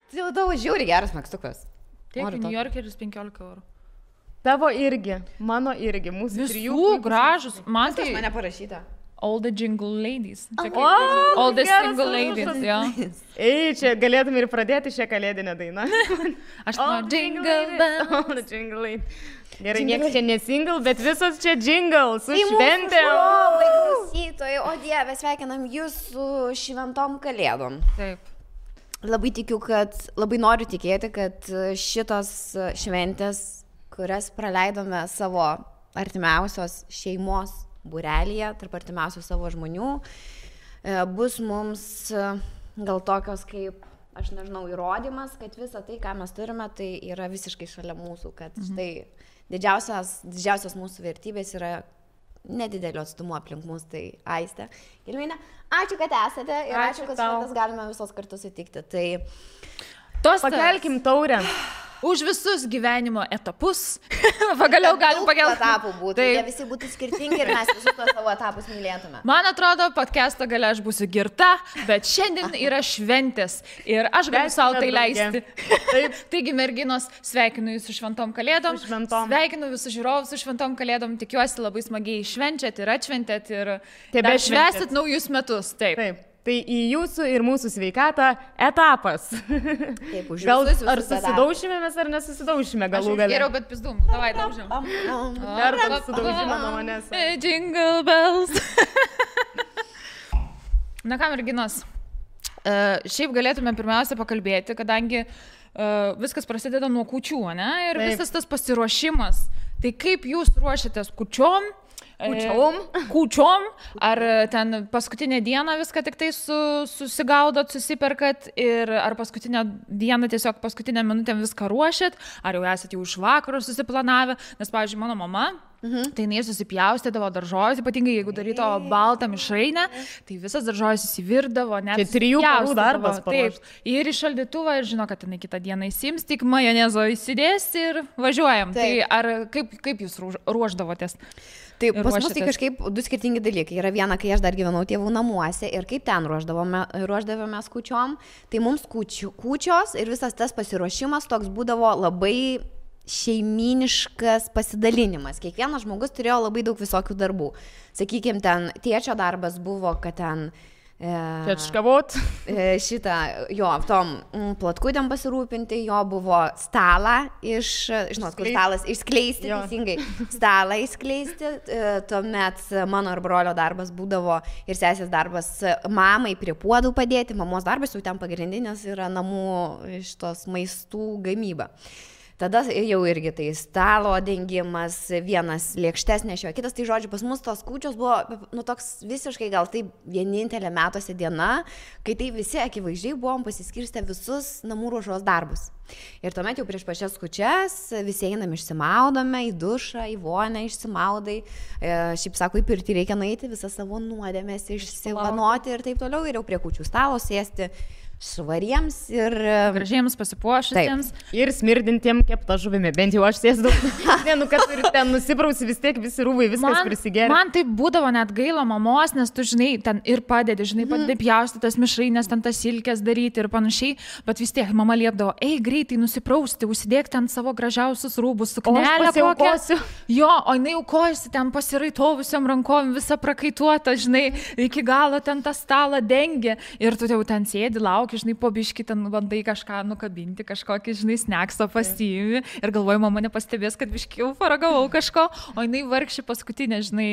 Tai tavo žiauriai geras megztukas. Tiek New Yorkeris 15 €. Tavo irgi, mano irgi, mūsų Visų gražus. Man Tai tai mane parašyta. all the jingle ladies. Čia kaip- O, all the geras single užrašas. ladies, jo. Ei, čia galėtum ir pradėti šią kalėdinę dainą. Aš noriu jingle bells. Oh, the jingle lady. Gerai, niekas čia nesingle, bet visos čia jingle, su šventėm. Klausytojai, o Dieve, sveikinam jūs su šventom kalėdom. Taip. Labai tikiu, kad, labai noriu tikėti, kad šitos šventės, kurias praleidome savo artimiausios šeimos būrelyje, tarp artimiausių savo žmonių, bus mums gal tokios kaip, aš nežinau, įrodymas, kad visa tai, ką mes turime, tai yra visiškai šalia mūsų, kad štai didžiausios mūsų vertybės yra nedidelio atstumo aplink mus, tai Aistė. Gilminė, ačiū, kad esate ir ačiū, kad šventas galime visos kartu sutikti. Tai Pakelkim taurę. Už visus gyvenimo etapus. Pagaliau galim pakelti. Etapų būtų, jie visi būtų skirtingi ir mes visus tuos savo etapus mylėtume. Man atrodo, podcast'o gale aš būsiu girta, bet šiandien yra šventės ir aš galiu savo tai leisti. Taigi, merginos, sveikinu jūs su šventom kalėdom. Sveikinu visus žiūrovus su šventom kalėdom. Tikiuosi labai smagiai švenčiat ir atšventėt ir švęsit naujus metus. Taip. Tai į jūsų ir mūsų sveikatą etapas. Taip, už Gal visus ar susidaušime mes ar nesusidaušime galų gale? Geriau, bet pizdum. Davai, daužiam. Dar susidaužime nuo manęs. Jingle bells. Na ką, merginos, šiaip galėtume pirmiausia pakalbėti, kadangi viskas prasideda nuo kūčių, ne? Ir visas tas pasiruošimas. Tai kaip jūs ruošiatės kūčiom? Kūčiom, ar ten paskutinę dieną viską tik tai susigaudot, susiperkat ir ar paskutinę dieną tiesiog paskutinę minutę viską ruošit, ar jau esate jau iš vakaro susiplanavę, nes, pavyzdžiui, mano mama, tai jinai susipjaustydavo daržovės, ypatingai jeigu darydavo baltą mišrainę, tai visas daržovės įsivirdavo, net čia 3 parų darbas. Taip, ir į šaldytuvą ir žino, kad jinai kitą dieną įsims, tik majonezo įsidės ir važiuojam. Taip. Tai ar kaip jūs ruošdavotės? Taip, pas mus tai kažkaip du skirtingi dalykai. Yra viena, kai aš dar gyvenau tėvų namuose ir kaip ten ruoždavomės kūčiom, tai mums kūčios ir visas tas pasiruošimas toks būdavo labai šeiminiškas pasidalinimas. Kiekvienas žmogus turėjo labai daug visokių darbų. Sakykime, ten tėčio darbas buvo, kad ten Čečkavot. Jo, tom platkutėm pasirūpinti, jo buvo stalą žinot, kur stalas išskleisti, teisingai, stalą išskleisti, tuomet mano ir brolio darbas būdavo ir sesės darbas mamai prie puodų padėti, mamos darbas jau ten pagrindinis yra namų iš tos maistų gamyba. Tada jau irgi tai stalo dengimas, vienas lėkštes nešiojo, kitas, tai žodžiu, pas mus tos kūčios buvo toks visiškai gal tai vienintelė metuose diena, kai tai visi akivaizdžiai buvom pasiskirstę visus namų ruošos darbus. Ir tuomet jau prieš pačias kūčias visi einam išsimaudome, į dušą, į vonę išsimaudai, šiaip sako, į pirtį reikia nueiti, visą savo nuodėmės išsivanoti ir taip toliau, ir jau prie kūčių stalo sėsti švariems ir gražiems pasipuošusiems. Ir smirdintiem keptą žuvimi. Bent jau aš sėsdau. Kad turi ten nusiprausi vis tiek visi rūbai, viskas prisigeria. Man tai būdavo net gaila mamos, nes tu, žinai, ten ir padedi, padedi pjausti tas mišrainės, ten tas silkės daryti ir panašiai, bet vis tiek mama liepdavo, greitai nusiprausti, užsidėk ten savo gražiausius rūbus, suknelę kokią. Jo, o jinai aukojasi ten pasiraitovusiam rankom, visą prakaituotą, žinai, iki galo ten tą stalą dengia ir tu jau ten sėdi, lauki, žinai, po biškį ten bandai kažką nukabinti, kažkokį, žinai, snekso pasiimi ir galvoju, mama nepastebės, kad biškį jau paragavau kažko, o jinai vargši paskutinė, žinai,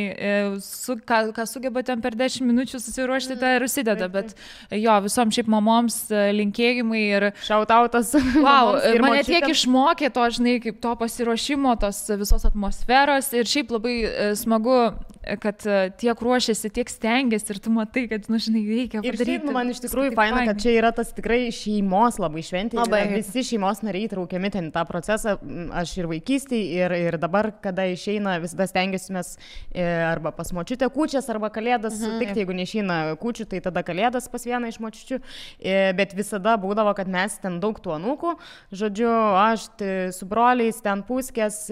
ką sugeba ten per 10 minučių susiruošti, tai ir užsideda, bet jo, visom šiaip mamoms linkėjimai ir šautautas. Wow, mane tiek išmokė to, žinai, kaip to pasiruošimo, tos visos atmosferos ir šiaip labai smagu, kad tiek ruošiasi, tiek stengiasi ir tu matai, kad, žinai, reikia padaryti. Ir šiaip man iš tikrųjų faina, kad čia yra tas tikrai šeimos labai šventė. Visi šeimos nariai traukiami ten tą procesą. Aš ir vaikystėje, ir dabar, kada išeina, visada stengiasimės arba pas močiutę kūčias, arba kalėdas. Tik jeigu neišeina kūčių, tai tada kalėdas pas vieną iš močiučių. Bet visada būdavo, kad mes ten daug tų anūkų. Žodžiu, aš su broliais ten puskės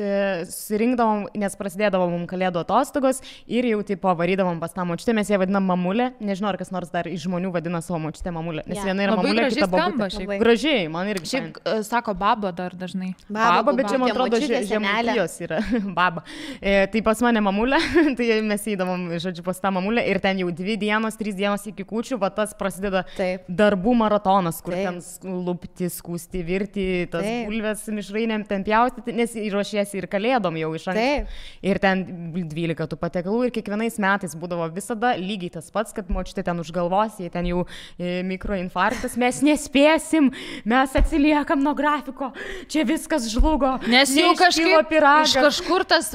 susirinkdavom, nes prasidėdavo mums kalėdų atostogos. ir jau tipo varydavom pas tą močiutę, mes ją vadinam mamulė, nežinau, ar kas nors dar iš žmonių vadina savo močiutę mamulė, nes viena yra mamulė, kita babutė. Gražiai, man irgi. Šiaip sako baba dar dažnai. Baba, bet čia man atrodo žemaitijos yra baba. Tai pas mane mamulė, tai mes įdavom, žodžiu, pas tą mamulę ir ten jau 2 dienos, 3 dienos iki kūčių, va tas prasideda darbų maratonas, kur ten lupti, skūsti, virti, tas bulves mišrainėm ten pjaustyti, nes ruošiesi ir kalėdom jau iš anksto. Ir ten 12 tų patiekalų ir kiekvienais metais būdavo visada lygiai tas pats, kad močiutė ten už galvos, jei ten jau mikroinfarktas, mes nespėsim, mes atsiliekam nuo grafiko, čia viskas žlugo. Nes jau iš kažkur tas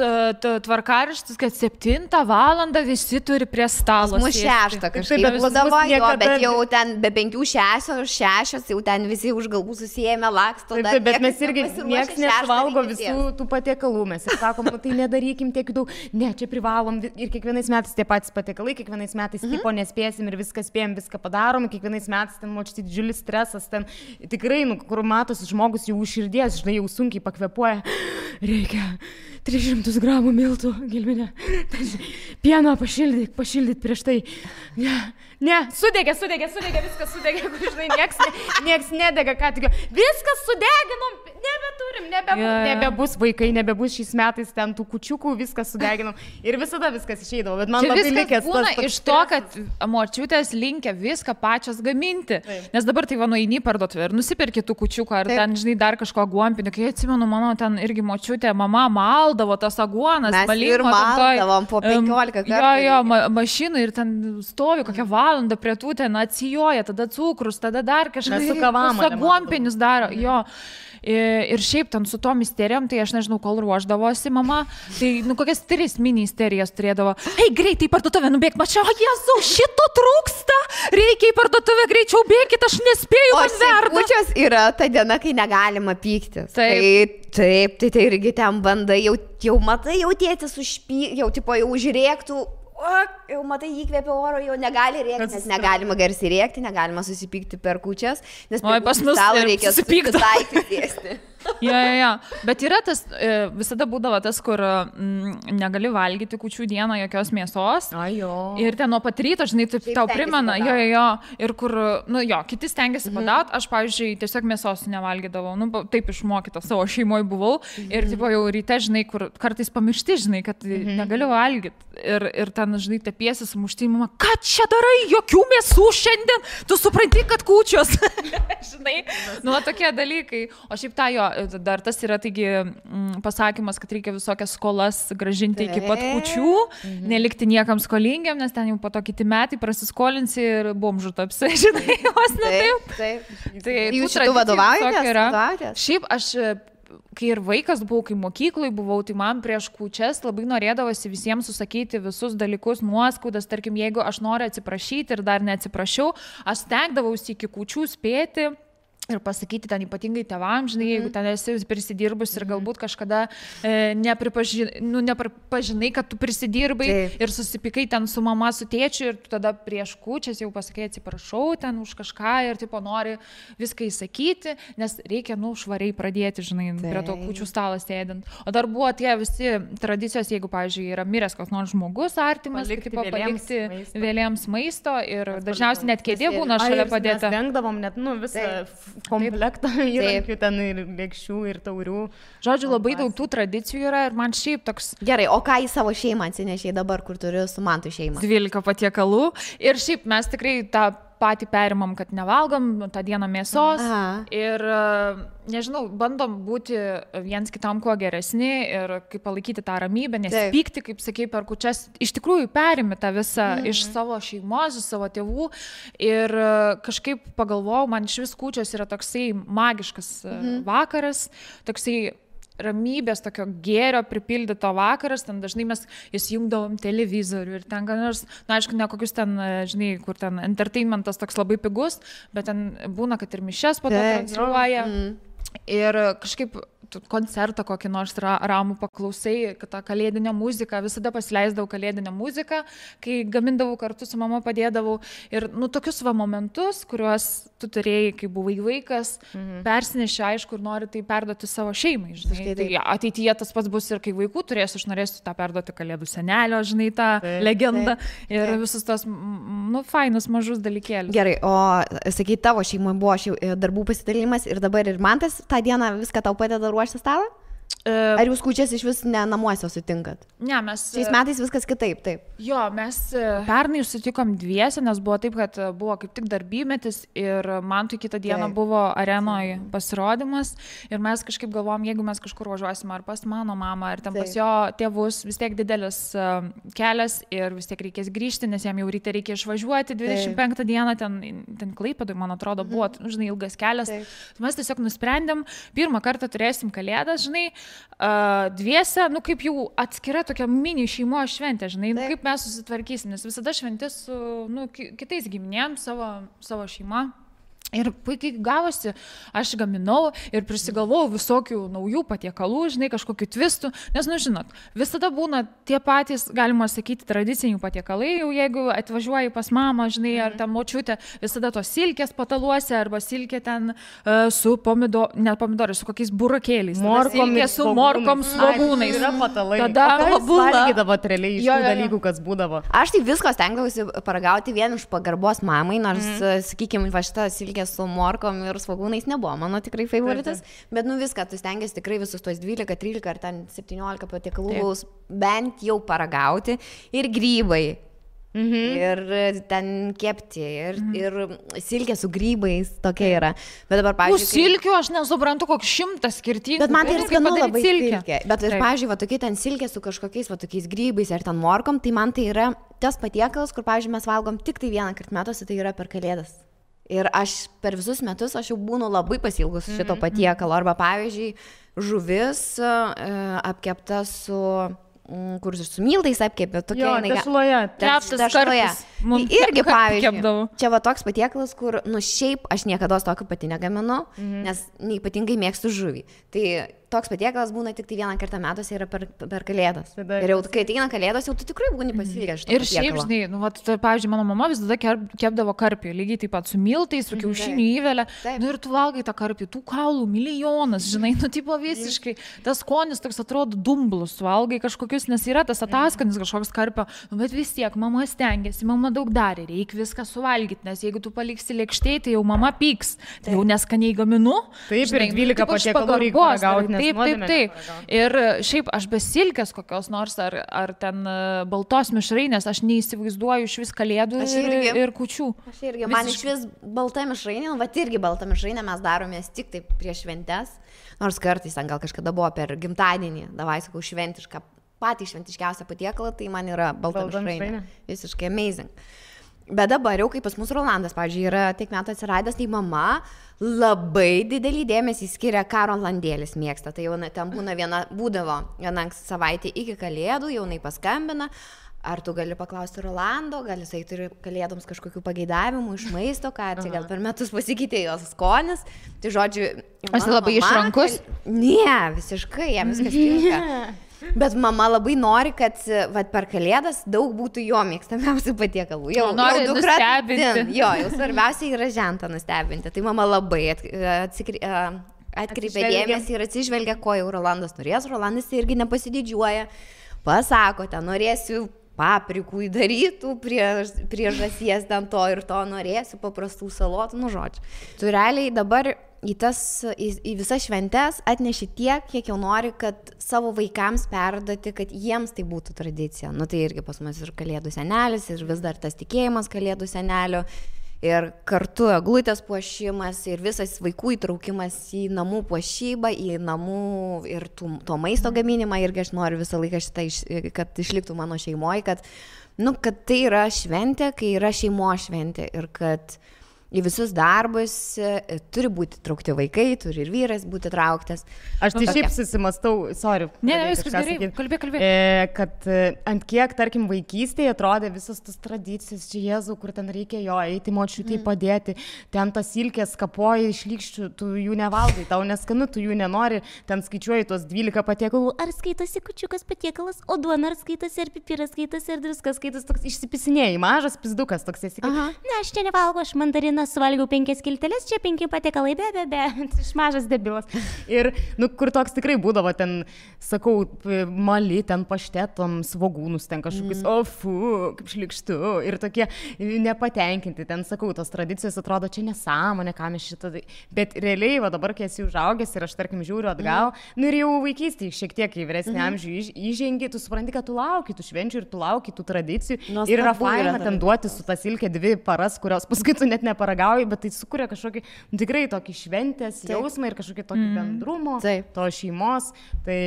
tvarkaraštis, kad 7 valandą visi turi prie stalo. Mūsų 6 kažkaip būdavo, bet jau ten be 5-6, jau ten visi už galvų susijėmė laksto. Bet mes irgi nieks nevalgo visų tų patiekalų, mes ir sakom, tai nedarykim tiek daug, ne, čia privalom ir kiekvienais metais tie patys patiekalai, kiekvienais metais tipo nespėsim ir viską spėjom, viską padarom, kiekvienais metais ten močiutė didžiulis stresas, ten tikrai, kur matosi žmogus jau už širdies, žinai, jau sunkiai pakvepuoja, reikia 300 gramų miltų, Gilvinė, pieno pašildyt prieš tai, ne, sudegė, viskas sudegė, žinai, nieks nedega, ką tik, viskas sudeginom, nebeturim, nebebus vaikai, nebebus šiais metais ten tų kučiukų, viskas sudeginom ir visada viskas išeidavo, bet man labai likęs tas būna iš to, kad močiutės linkia viską pačios gaminti, nes dabar tai va nueini parduotuvę ir nusipirki tų kučiukų ar ten, žinai, dar kažko aguonpinio, kai atsimenu, mano ten irgi močiutė, mama maldavo tas aguonas, mes ir maldavom po 15 kartų. Jo, mašinai ir ten stovi kokią valandą prie tų ten atsijoja, tada cukrus, tada dar kažkas aguonpinius daro, jo. Ir šiaip ten su tom isterijom, tai aš nežinau, kol ruoždavosi mama, tai kokias 3 mini isterijas turėdavo. Ei, greitai į parduotuvę nubėk, mačiau, Jėzau, šito trūksta, reikia į parduotuvę, greičiau bėkit, aš nespėju, man verda. O kūčios yra ta diena, kai negalima pyktis. Taip, tai irgi ten bandai, jau matai, jau tėtis jau tipo jau užrėktų. Jau matai, įkvėpia oro, jau negali rėkti, nes negalima garsiai rėkti, negalima susipykti per kūčias, nes per stalo reikia susipykti. Ja. Bet yra tas, visada būdavo tas, kur negali valgyti kūčių dieną jokios mėsos. Ir ten nuo pat ryto, žinai, taip tau primena, ir kur, kiti stengiasi padaut, aš, pavyzdžiui, tiesiog mėsos nevalgydavau, taip išmokyta, savo šeimoje buvau ir tipo jau ryte, žinai, kur kartais pamiršti, žinai, kad negaliu valgyti. Ir ten, žinai, tepiesi sumušti, mama, ką čia darai, jokių mėsų šiandien, tu supranti, kad kūčios. Žinai, tokie dalykai. O šiaip dar tas yra, taigi, pasakymas, kad reikia visokias skolas grąžinti iki pat kūčių, nelikti niekam skolingiam, nes ten jau po to kiti metai prasiskolinsi ir bomžų tapsi, žinai, vos ne taip. Tai jūs šitų vadovaujatės? Šiaip aš, kai ir vaikas buvau, kai mokyklai buvau, tai man prieš kūčias labai norėdavosi visiems susakyti visus dalykus, nuoskaudas, tarkim, jeigu aš noriu atsiprašyti ir dar neatsiprašiau, aš stengdavausi iki kūčių spėti ir pasakyti ten ypatingai tėvams, žinai, jeigu ten esi prisidirbus ir galbūt kažkada nepripažinai, kad tu prisidirbai ir susipykai ten su mama, su tėčiu ir tu tada prieš kūčias jau pasakai atsiprašau ten už kažką ir tipo nori viską įsakyti, nes reikia, švariai pradėti, žinai, prie to kūčių stalo sėdint. O dar buvo tie visi tradicijos, jeigu, pavyzdžiui, yra miręs koks nors žmogus artimas, palikti vėlėms maisto ir dažniausiai net kėdė būna šalia padėta. Mes dengdavom net, visą komplektą įrankių ten ir lėkščių ir taurių. Žodžiu, labai daug tų tradicijų yra ir man šiaip toks... Gerai, o ką į savo šeimą atsinešiai dabar, kur turiu su Mantu šeimą? 12 patiekalų ir šiaip mes tikrai tą patį perimam, kad nevalgom tą dieną mėsos ir, nežinau, bandom būti viens kitam kuo geresni ir kaip palaikyti tą ramybę, nes pykti, kaip sakei, per kūčias, iš tikrųjų perimi tą visą iš savo šeimos, iš savo tėvų ir kažkaip pagalvojau, man iš vis kūčios yra toksai magiškas vakaras, toksai ramybės, tokio gėrio pripildyto vakaras, ten dažnai mes įsijungdavom televizorių ir ten, aišku, ne kokius ten, žinai, kur ten entertainmentas toks labai pigus, bet ten būna, kad ir mišias po to transliuoja. Ir kažkaip koncertą kokį nors ramų paklausai, kad tą kalėdinę muziką, visada pasileisdavau kalėdinę muziką, kai gamindavau kartu su mama, padėdavau. Ir tokius momentus, kuriuos tu turėjai, kai buvai vaikas, persineši, aišku, ir nori tai perduoti savo šeimai. Žinai. Tai ateityje tas pats bus ir kai vaikų turėsiu, aš norėsiu tą perduoti Kalėdų senelio, žinai, tą legendą ir visus tos, fainus mažus dalykėlius. Gerai, o sakai, tavo šeimoje buvo darbų pasidalimas ir dabar ir Mantas tą dieną viską tau padeda ruošti stalą? Ar jūs kūčias iš vis ne namuose sutinkat? Ne, mes... Šiais metais viskas kitaip, taip. Jo, mes pernai sutikom dviese, nes buvo taip, kad buvo kaip tik darbymetis ir man tai kitą dieną buvo arenoje pasirodymas ir mes kažkaip galvom, jeigu mes kažkur važiuosim ar pas mano mamą, ar ten pas jo tėvus, vis tiek didelis kelias ir vis tiek reikės grįžti, nes jam jau ryte reikia išvažiuoti 25 dieną, ten Klaipėdoj, man atrodo, buvo, žinai, ilgas kelias. Mes tiesiog nusprendėm, pirmą kartą turėsim Kalėdas, žinai, dviese, kaip jau atskira tokia mini šeimos šventė, žinai, kaip mes susitvarkysim, nes visada šventė su kitais giminėm, savo šeima. Ir puikiai gavosi, aš gaminau ir prisigalvojau visokių naujų patiekalų, žinai, kažkokių twistų, nes, žinot, visada būna tie patys, galima sakyti, tradiciniai patiekalai, jau jeigu atvažiuoji pas mamą, žinai, ar ten močiutė, visada tos silkės pataluose, arba silkė ten su pomidorai, su kokiais burakėliais. Silkė su morkom, svogūnais. Yra patalai. Tada valgydavo realiai iš tų dalykų, kas būdavo. Aš tai visko stengdavausi paragauti vien iš pagarbos mamai, nors, sakykime, va šitą silkę su morkom ir svogūnais nebuvo mano tikrai favoritas, bet viską, tu stengiasi tikrai visus tos 12, 13 ar ten 17 patiekalų bent jau paragauti ir grybai. Ir ten kepti, ir silkė su grybais, tokia yra. Bet dabar, pavyzdžiui... Silkių aš nesuprantu, koks 100 skirtingų. Bet man tai yra skanu labai silkė. Bet, pavyzdžiui, va tokie ten silkė su kažkokiais va tokiais grybais ar ten morkom, tai man tai yra tas patiekalas, kur, pavyzdžiui, mes valgom tik tai vieną kartą metuose, tai yra per Kalėdas. Ir aš per visus metus aš jau būnu labai pasilgus šito patiekalo. Arba, pavyzdžiui, žuvis apkepta su... kur su miltais apkepė, tokia tešloje. Tešloje. Irgi, pavyzdžiui, čia va toks patiekalas, kur, šiaip aš niekada tokio pati negaminu, nes neypatingai mėgstu žuvį. Tai toks patiekalas būna tik tai vieną kartą metuose yra per Kalėdas. Ir jau, kai ateina Kalėdos, jau tu tikrai būni pasilgęs šito patiekalo. Ir šiaip, žinai, pavyzdžiui, mano mama visada kepdavo karpį, lygiai taip pat su miltais, su kiaušinių įvelė. Ir tu valgai tą karpį, tų kaulų milijonas, žinai, tipo visiškai. Tas skonis toks atrodo dumblus, valgai kažkokius, nes yra tas ataskanis kažkoks karpio, bet vis tiek mama stengiasi, mama daug darė, reikia viską suvalgyti, nes jeigu tu paliksi lėkštėj, tai jau mama pyks, tai jau neskaniai gaminu. Taip, ir 12 patiekalų reikia paragauti. Taip. Ir šiaip aš be silkės kokios nors, ar ten baltos mišrainės, aš neįsivaizduoju iš vis Kalėdų ir kūčių. Aš irgi, man iš vis balta mišrainė, bet irgi balta mišrainė mes daromės tik taip prieš šventes, nors kartais ten gal kažkada buvo per gimtadienį, davai sakau šventišką, patį šventiškiausią patiekalą, tai man yra balta mišrainė. Visiškai amazing. Bet dabar jau, kai pas mus Rolandas, pavyzdžiui, yra tiek metų atsiradęs, tai mama labai didelį dėmesį skiria, ką Rolandėlis mėgsta. Tai jau ten būdavo viena savaitė iki Kalėdų, jau jinai paskambina, ar tu gali paklausti Rolando, gal jisai turi Kalėdoms kažkokių pageidavimų iš maisto, ką čia gal per metus pasikeitė jos skonis. Tai žodžiu, aš labai išrankus? Ne, visiškai, jam viskas tinka. Bet mama labai nori, kad per Kalėdas daug būtų jo mėgstamiausių patiekalų. Jau nori nustebinti. Jo, jau svarbiausia yra žentą nustebinti. Tai mama labai atkreipia dėmesį ir atsižvelgia, ko jau Rolandas norės. Rolandas irgi nepasididžiuoja. Pasako, ten norėsiu paprikų įdarytų prie žąsies ten to ir to, norėsiu paprastų salotų, žodžiu. Tu realiai dabar į visas šventes atneši tiek, kiek jau nori, kad savo vaikams perduoti, kad jiems tai būtų tradicija. Tai irgi pas mus ir Kalėdų senelis, ir vis dar tas tikėjimas Kalėdų senelio, ir kartu eglutės puošimas, ir visas vaikų įtraukimas į namų puošybą, į namų ir to maisto gaminimą. Irgi aš noriu visą laiką šitą, kad išliktų mano šeimoje, kad tai yra šventė, kai yra šeimos šventė ir kad į visus darbus turi būti traukti vaikai, turi ir vyras būti trauktas. Aš tai šiaip susimastau, sorry. Ne, viskas gerai, kalbėk. Kad ant kiek, tarkim, vaikystėje atrodė visos tas tradicijas, čia Jėzau, kur ten reikia jo eiti, močiutei padėti, ten tas silkės kapoja iš lykščių, tu jų nevalgai, tau neskanu, tu jų nenori, ten skaičiuoji tuos 12 patiekalų, ar skaitasi kučiukas patiekalas, o duona ar skaitasi, ar pipiras skaitasi, ar druskas skaitasi, toks išsipisinėjai, mažas pizdukas toks esi. Ne, aš čia nevalgo, aš mandariną suvalgiau 5 skilteles, čia 5 patiekalai, be, iš mažas debilas. Ir, kur toks tikrai būdavo ten, sakau, mali, ten paštetom, svogūnus, ten kažkokius, kaip šlikštu, ir tokie nepatenkinti, ten, sakau, tos tradicijos atrodo, čia nesąmonė, ką mes šitą, bet realiai, va dabar, kai esi užaugęs ir aš, tarkim, žiūriu atgal, ir jau vaikystėje šiek tiek į vyresnį amžių įžengi, tu supranti, kad tu lauki tų švenčių ir tu lauki tų tradicijų, ir yra faina ten duoti su tas ilkė 2 paras, kurios paskui tu net neparagauji, bet tai sukuria kažkokį tikrai tokį šventės jausmą ir kažkokį tokį bendrumo, to šeimos. Tai,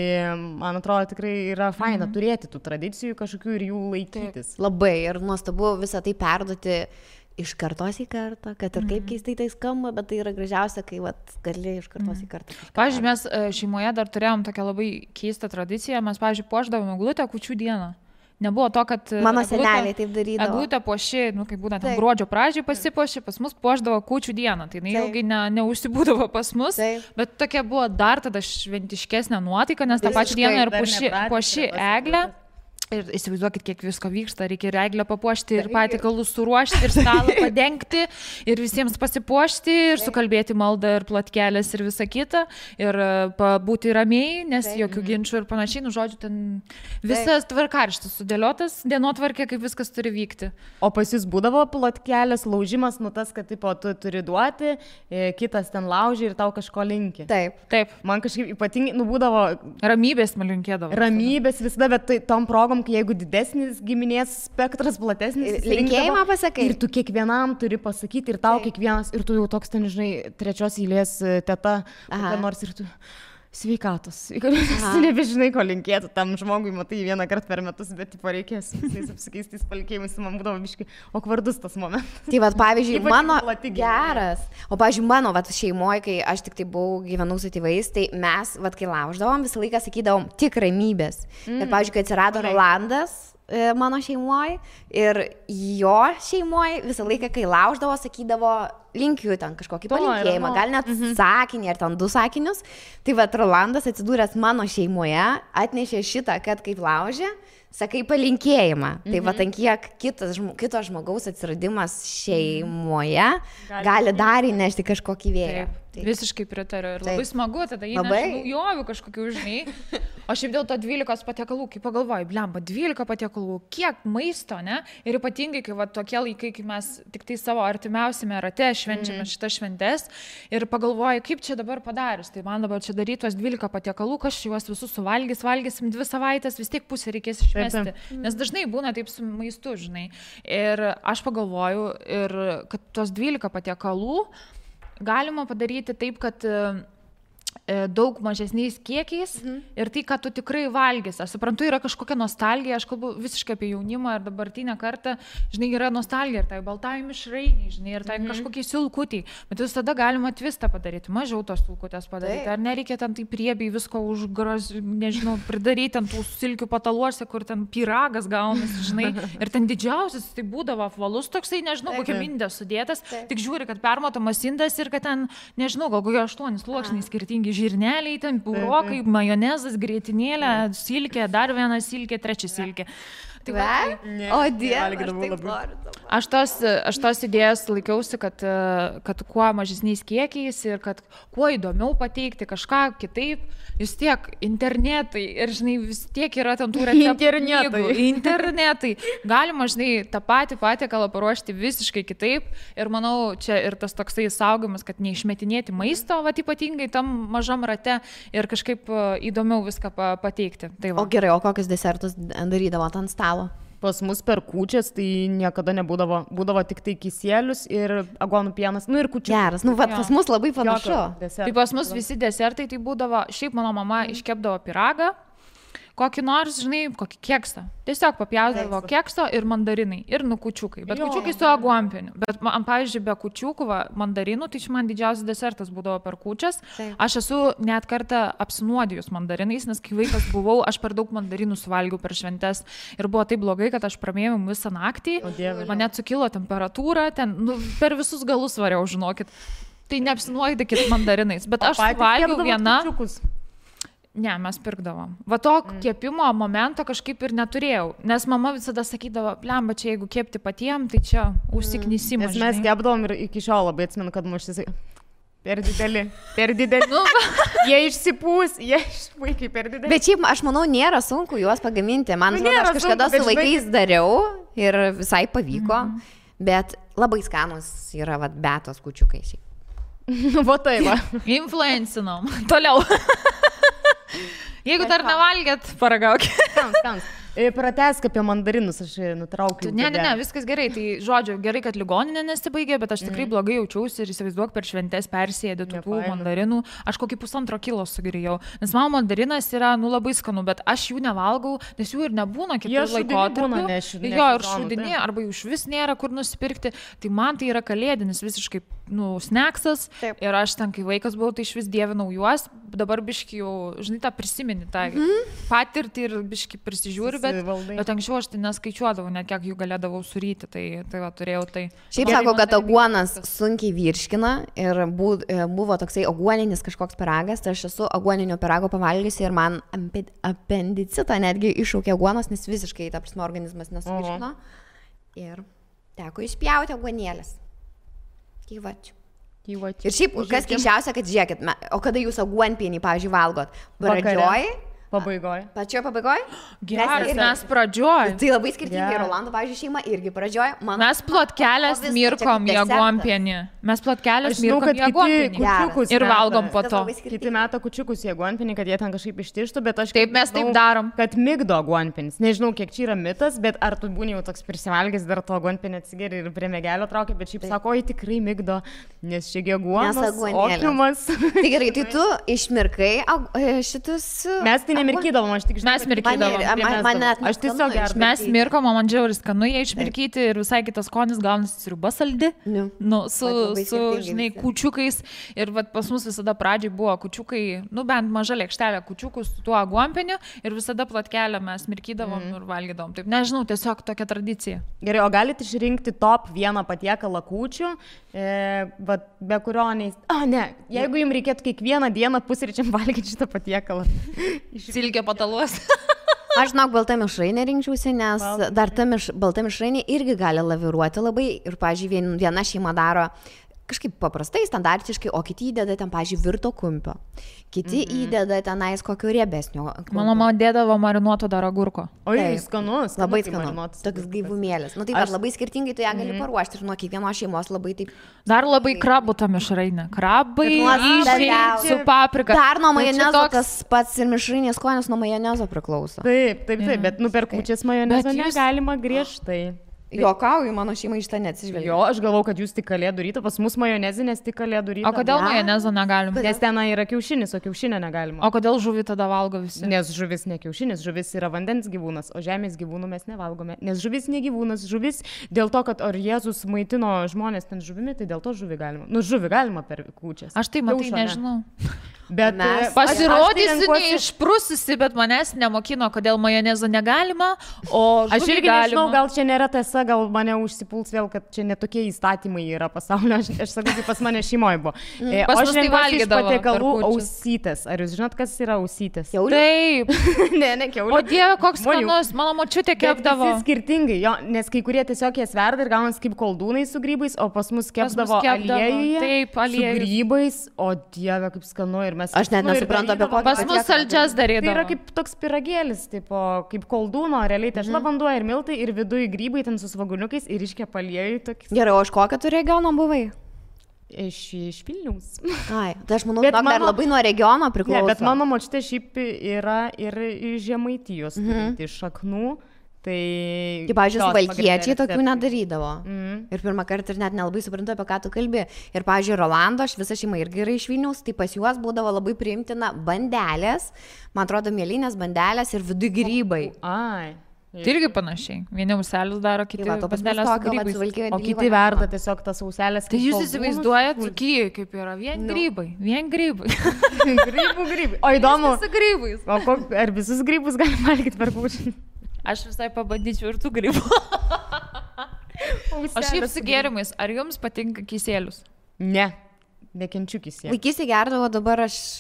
man atrodo, tikrai yra faina turėti tų tradicijų kažkokių ir jų laikytis. Labai ir nuostabu visą tai perduoti iš kartos į kartą, kad ir kaip keistai tai skamba, bet tai yra gražiausia, kai gali iš kartos į kartą. Pavyzdžiui, mes šeimoje dar turėjom tokią labai keistą tradiciją, mes, pavyzdžiui, puošdavome eglutę kūčių dieną. Nebuvo to, kad mano seneliai taip darydavo. Eglutę puoši, kaip būna, ten gruodžio pradžioj pasipuoši, pas mus puošdavo kūčių dieną. Tai ilgai neužsibūdavo pas mus, bet tokia buvo dar tada šventiškesnė nuotaika, nes tą pačią dieną ir puoši eglę. Ir įsivaizduokit, kiek visko vyksta, reikia ir eglę papuošti, ir patiekalus suruošti, ir stalą padengti, ir visiems pasipuošti, ir sukalbėti maldą, ir plotkelės, ir visa kita, ir būti ramiai, nes jokių ginčių ir panašiai, žodžiu, ten visas tvarkaraštis sudėliotas, dienotvarkė, kaip viskas turi vykti. O pas jūs būdavo plotkelės, laužimas, tas, kad tipo, tu turi duoti, kitas ten lauži ir tau kažko linki. Taip. Man kažkaip ypatingai, būdavo... Ramybės man linkėdavo. Ramybės visada, bet tom progom, jeigu didesnis giminės spektras, platesnis, linkėjimą pasakai. Ir tu kiekvienam turi pasakyti, ir tau kiekvienas, ir tu jau toks ten, žinai, 3 eilės teta, nors ir tu sveikatos. Nebežinai, ko linkėtų tam žmogui, matai, 1 kartą per metus, bet tipo reikės visais apsikeistais palinkėjimais, man būdavo biškai okvardus tas momentas. Tai pavyzdžiui, mano geras, o pavyzdžiui, mano šeimoje, kai aš tik tai gyvenau su tėvais, tai mes, kai lauždavom, visą laiką sakydavom tik ramybės. Ir pavyzdžiui, kai atsirado Rolandas mano šeimoje ir jo šeimoje, visą laiką, kai lauždavo, sakydavo linkiu ten kažkokį palinkėjimą, gal net sakinį ar ten 2 sakinius. Tai Rolandas atsidūręs mano šeimoje atnešė šitą, kad kaip laužė, sakai palinkėjimą. Tai ant kiek kito žmogaus atsiradimas šeimoje gali dar įnešti kažkokį vėją. Visiškai pritariu ir labai smagu, tada įneša naujovių kažkokių, žinai. O šiaip dėl to 12 patiekalų, kai pagalvoju, blemba, 12 patiekalų, kiek maisto, ne? Ir ypatingai, kai tokie laikai, kai mes tik tai savo artimiausiame rate švenčiame šitas šventes ir pagalvoju, kaip čia dabar padarius. Tai man dabar čia daryti tuos 12 patiekalų, kas juos visus valgysim 2 savaitės, vis tiek pusę reikės išmesti. Nes dažnai būna taip su maistu, žinai. Ir aš pagalvoju, kad tuos 12 patiekalų galima padaryti taip, kad daug mažesniais kiekiais ir tai, ką tu tikrai valgys. Aš suprantu, yra kažkokia nostalgija, aš kalbu visiškai apie jaunimą ir dabartinę kartą, žinai, yra nostalgija ir tai baltai mišrainiai, žinai, ir tai kažkokie silkutiai, bet visada galima tvistą padaryti, mažiau tos silkutės padaryti, ar nereikia ten tai priebiai visko nežinau, pridaryti ant tų silkių pataluose, kur ten pyragas gaunasi, žinai, ir ten didžiausias tai būdavo apvalus toksai, nežinau, kokia mindė sudėtas, tik žiūri, kad permatomas indas ir kad ten, nežinau, gal kokie 8 sluoksniai skirtingi žirneliai, ten purokai, majonezas, grietinėlė, silkė, dar 1 silkė, 3 silkė. O Dieve, aš tos idėjos laikiausi, kad kuo mažesniais kiekiais ir kad kuo įdomiau pateikti kažką kitaip, vis tiek internetai ir, žinai, vis tiek yra ten tų receptų. Internetai. Galima, žinai, tą patį patiekalą paruošti visiškai kitaip ir manau, čia ir tas toksai saugomas, kad neišmetinėti maisto, ypatingai tam mažam rate ir kažkaip įdomiau viską pateikti. Tai o gerai, o kokius desertus darydavo ant stalo? Pas mus per kūčias tai niekada būdavo tik tai kisielius ir aguonų pienas, ir kūčių. Geras, pas mus labai panašu. Tai pas mus visi desertai tai būdavo, šiaip mano mama iškepdavo pyragą, kokį nors, žinai, kokį keksą. Tiesiog papjaudavo kekso ir mandarinai, ir kučiukai. Bet kučiukai su aguonpieniu. Bet man, pavyzdžiui, be kučiukų, mandarinų, tai čia man didžiausias desertas būdavo per kūčias. Aš esu net kartą apsinuodijus mandarinais, nes kai vaikas buvau, aš per daug mandarinų suvalgiau per šventes. Ir buvo taip blogai, kad aš pramėjau visą naktį. Man net sukilo temperatūra, ten per visus galus variau, žinokit. Tai neapsinuodykit mandarinais. Bet aš suvalgiau vieną. Ne, mes pirkdavom. Va to kepimo momento kažkaip ir neturėjau, nes mama visada sakydavo, blemba, čia jeigu kepti patiem, tai čia užsiknysimas. Nes mes kepdavom ir iki šiol labai atsimenu, kad muštis per dideli. Jie išsipūs, vaikai per dideli. Bet šiaip, aš manau, nėra sunku juos pagaminti. Man atrodo, aš kažkada su vaikais dariau ir visai pavyko, bet labai skanus yra betos kučiukai šiaip. Va tai va. Influencinom. Toliau. Jeigu dar nevalgėt, paragaukit. Skans. Pratęsk apie mandarinus, aš nutraukiu. Ne, viskas gerai. Tai, žodžiu, gerai, kad ligoninė nesibaigė, bet aš tikrai blogai jaučiausi ir įsivaizduok per šventes persėdė tų mandarinų. Aš kokį 1,5 kilo sugrįjau. Nes man mandarinas yra, labai skanu, bet aš jų nevalgau, nes jų ir nebūna kitų laikotarpių. Jo, ir šūdinė, arba jų iš vis nėra kur nusipirkti. Tai man tai yra kalėdinis visiškai, sneksas. Ir aš ten, kai vaikas buvau, tai iš vis dievinau juos. Dabar biški jau, žinai, tą prisimeni, tą patirtį ir biški prisižiūri. Bet anksčiau aš tai neskaičiuodavau, net kiek jų galėdavau suryti, tai va, turėjau tai. Šiaip sako, kad aguonas sunkiai virškina ir buvo toksai aguoninis kažkoks pyragas, tai aš esu aguoninio pyrago pavalgiusi ir man apendicitą netgi iššaukė aguonas, nes visiškai, ta prasme, organizmas nesuvirškino. Ir teko išpjauti aguonėlės. Kyvačiu. Ir šiaip, kas keiščiausia, kad žiūrėkit, o kada jūs aguonpienį, pavyzdžiui, valgot? Pradžioj? Pačioje pabaigoje? Geras, mes pradžioj. Tai labai skirtingai. Rolando, pavyzdžiui, šeima irgi pradžioj. Mes plotkelės mirkom į aguonpienį. Ir valgom po to. Kiti meta kučiukus į aguonpienį, kad jie ten kažkaip ištištų, bet aš... Taip, mes taip darom. Kad migdo aguonpienis. Nežinau, kiek čia yra mitas, bet ar tu būni jau toks prisivalgęs, dar to aguonpienį atsigeri ir prie mėgelio traukia, bet šiaip sako, oi tikrai migdo, nes čia aguonas, opiumas. Tai gerai, tai tu išmirkai šitus... Mes tai nemirkydavom, aš tik žinau. Mes mirkydavom. Aš tiesiog gerai. Mes mirkom, man džiauris skanu jie išmirkyti ir visai kitas skonis gaunasi sriuba saldi. Su žinai, kučiukais. Ir pas mus visada pradžiai buvo kučiukai, bent maža lėkštelė kučiukų su tuo aguonpieniu ir visada plotkelę mes mirkydavom ir valgydavom. Taip, nežinau, tiesiog tokia tradicija. Gerai, o galite išrinkti top vieną patiekalą kūčių, be kurio jeigu jums reikėtų kiekvieną dieną pusryčiam valgyti šitą patiekalą. Silkė pataluos. Aš žinok, balta mišrainė rinkčiausi, nes dar ta balta mišrainė irgi gali laviruoti labai. Ir, pavyzdžiui, viena šeima daro kažkaip paprastai, standartiškai, o kiti įdeda ten, pavyzdžiui, virto kumpio. Kiti įdeda tenais kokio riebesnio. Mano mama dėdavo marinuoto dar agurko. Oi, skanus. Labai skanus. Toks gaivumėlis. Tai labai skirtingai tu ją gali paruošti ir nuo kiekvienos šeimos labai taip. Dar labai krabų ta mišrainė. Krabai, su paprika. Dar nuo majonezo tas pats ir mišrainės skonis nuo majonezo priklauso. Taip, bet per kūčias majonezo negalima griežtai. Juokauju, mano šeima iš tą neatsižvelgia. Jo, aš galvau, kad jūs tik kalėdų rytą, pas mus majonezinės tik kalėdų rytą. O kodėl majonezo negalim? Nes ten yra kiaušinis, o kiaušinio negalima. O kodėl žuvį tada valgo visi? Nes žuvis ne kiaušinis, žuvis yra vandens gyvūnas, o žemės gyvūnų mes nevalgome. Nes žuvis ne gyvūnas, žuvis dėl to, kad ar Jėzus maitino žmonės ten žuvimi, tai dėl to žuvį galima. Žuvį galima per kūčias. Aš tai matai, nežinau. Bet pasirodysiu neišprususi, bet manęs nemokino, kodėl majonezo negalima, o aš irgi nežinau, gal čia nėra tiesa, gal mane užsipuls vėl, kad čia netokie įstatymai yra pasaulio, aš sakau, kaip pas mane šeimoje buvo. Aš tai valgydavau patiekalų ausytės. Ar jūs žinot, kas yra ausytės? Taip. Ne kiaulė. O Dieve, koks skanus, mano močiutė kepdavo. Visi skirtingai, nes kai kurie tiesiog jas verda ir gaunasi kaip koldūnai su grybais, o pas mus kepdavo aliejuje su grybais, o Dieve, kaip skanu. Aš net nesuprantu apie kokį. Pas mus saldžias darydavo. Tai yra kaip toks piragėlis, kaip koldūno, realiai tešla vanduo ir miltai ir viduje grybai ten su svaguniukais ir iškepa aliejų. Gerai, o iš kokio tu regiono buvai? Iš Vilniaus. Ai, tai aš manau, kad dar labai nuo regiono priklauso. Ne, bet mano močiutė šiaip yra ir iš Žemaitijos, iš šaknų. Tai... Kaip, pavyzdžiui, suvalkiečiai tokių nedarydavo. Ir pirmą kartą ir net nelabai suprantu, apie ką tu kalbi. Ir, pavyzdžiui, Rolando, aš visa šeima irgi yra iš Vilniaus, tai pas juos būdavo labai priimtina bandelės, man atrodo, mėlynės bandelės ir vidui grybai. Ai. Tai irgi panašiai. Vieni auselius daro, kiti bandelės su grybais. O kiti verda tiesiog tas auselės. Tai jūs įsivaizduojat, kaip yra vien grybai. Grybai. O įdomu. Su grybais. O ar visus grybus galima valgyti per kūčią? Aš visai pabandyčiau ir tų grybų. O šiaip su gėrimais, ar jums patinka kisielius? Ne. Nekenčiu kisielių. Vaikystė gerdavo, dabar aš...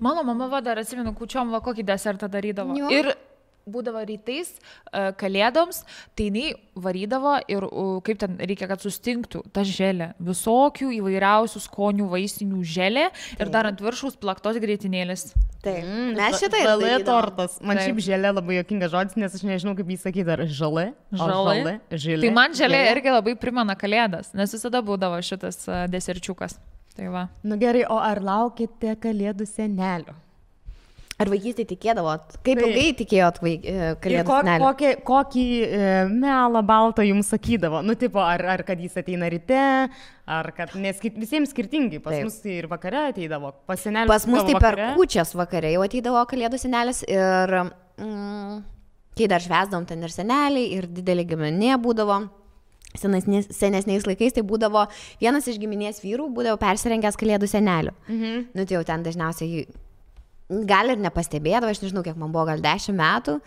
Mano mama dar atsimenu, kūčiom kokį desertą darydavo. Jo. Ir būdavo rytais kalėdoms, tai jinai varydavo ir kaip ten reikia, kad sustingtų ta želė. Visokių įvairiausių skonių vaistinių želė ir dar ant viršaus plaktos grietinėlės. Taip, mes šitai žalė tortas. Man šiaip želė labai juokingas žodis, nes aš nežinau, kaip jį sakyti, ar žalė. Tai man želė irgi labai primena kalėdas, nes visada būdavo šitas deserčiukas. Tai va. Nu gerai, o ar laukite kalėdų senelio? Ar vaikystėje tikėdavot? Kaip ilgai tikėjot kalėdų senelio? Kokį melą baltą jums sakydavo? Nu, tipo, ar kad jis ateina ryte, ar kad, nes visiems skirtingai, pas mus tai ir vakare ateidavo, pas senelį. Pas mus tai per kūčias vakare jau ateidavo kalėdų senelis ir kai dar švęsdavom ten ir seneliai, ir didelė giminė būdavo. Senesniais laikais tai būdavo vienas iš giminės vyrų būdavo persirengęs kalėdų seneliu. Nu, tai jau ten dažniausiai gal ir nepastebėdavo, aš nežinau, kiek man buvo, gal 10 metų.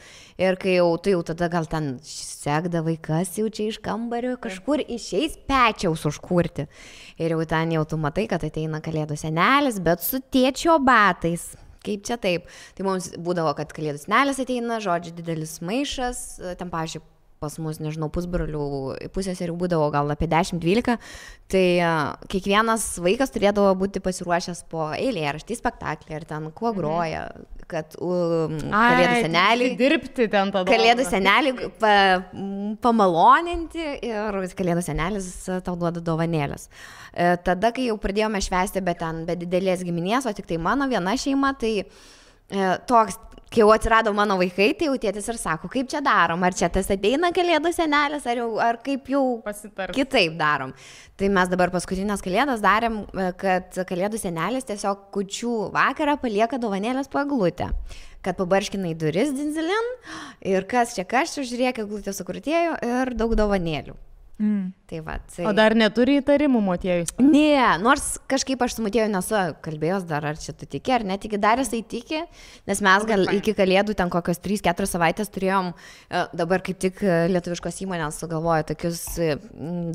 Ir kai jau, tai jau tada gal ten sekdavai, kas jau čia iš kambario, kažkur išeis pečiaus užkurti. Ir jau ten jau tu matai, kad ateina kalėdų senelis, bet su tėčio batais. Kaip čia taip? Tai mums būdavo, kad kalėdų senelis ateina, žodžiu, didelis maišas, ten, pavyzdžiui, pas mus, nežinau, pusbrolių pusėserių būdavo gal apie 10-12, tai kiekvienas vaikas turėdavo būti pasiruošęs po eilėraštį, spektaklį ir ten kuo groja, kad kalėdų senelį dirbti ten tada. Kalėdų senelį pamaloninti ir kalėdų senelis tau duoda dovanėlės. Tada, kai jau pradėjome švęsti, bet ten be didelės giminės, o tik tai mano viena šeima, tai toks, kai jau atsirado mano vaikai, tai jau tėtis ir sako, kaip čia darom, ar čia tas ateina kalėdų senelis, ar kaip jau kitaip darom. Tai mes dabar paskutinės kalėdas darėm, kad kalėdų senelis tiesiog kūčių vakarą palieka dovanėlės po eglutę, kad pabarškina į duris dinzilin ir kas čia žiūrėk, eglutė sukrutėjo ir daug dovanėlių. Tai va, tai... O dar neturi įtarimų motiejus? Ne, nors kažkaip aš su motieju nesu kalbėjęs dar, ar čia tu tiki, ar netiki, dar jisai tiki, nes mes gal iki kalėdų ten kokios 3-4 savaitės turėjom, dabar kaip tik lietuviškos įmonės sugalvojo tokius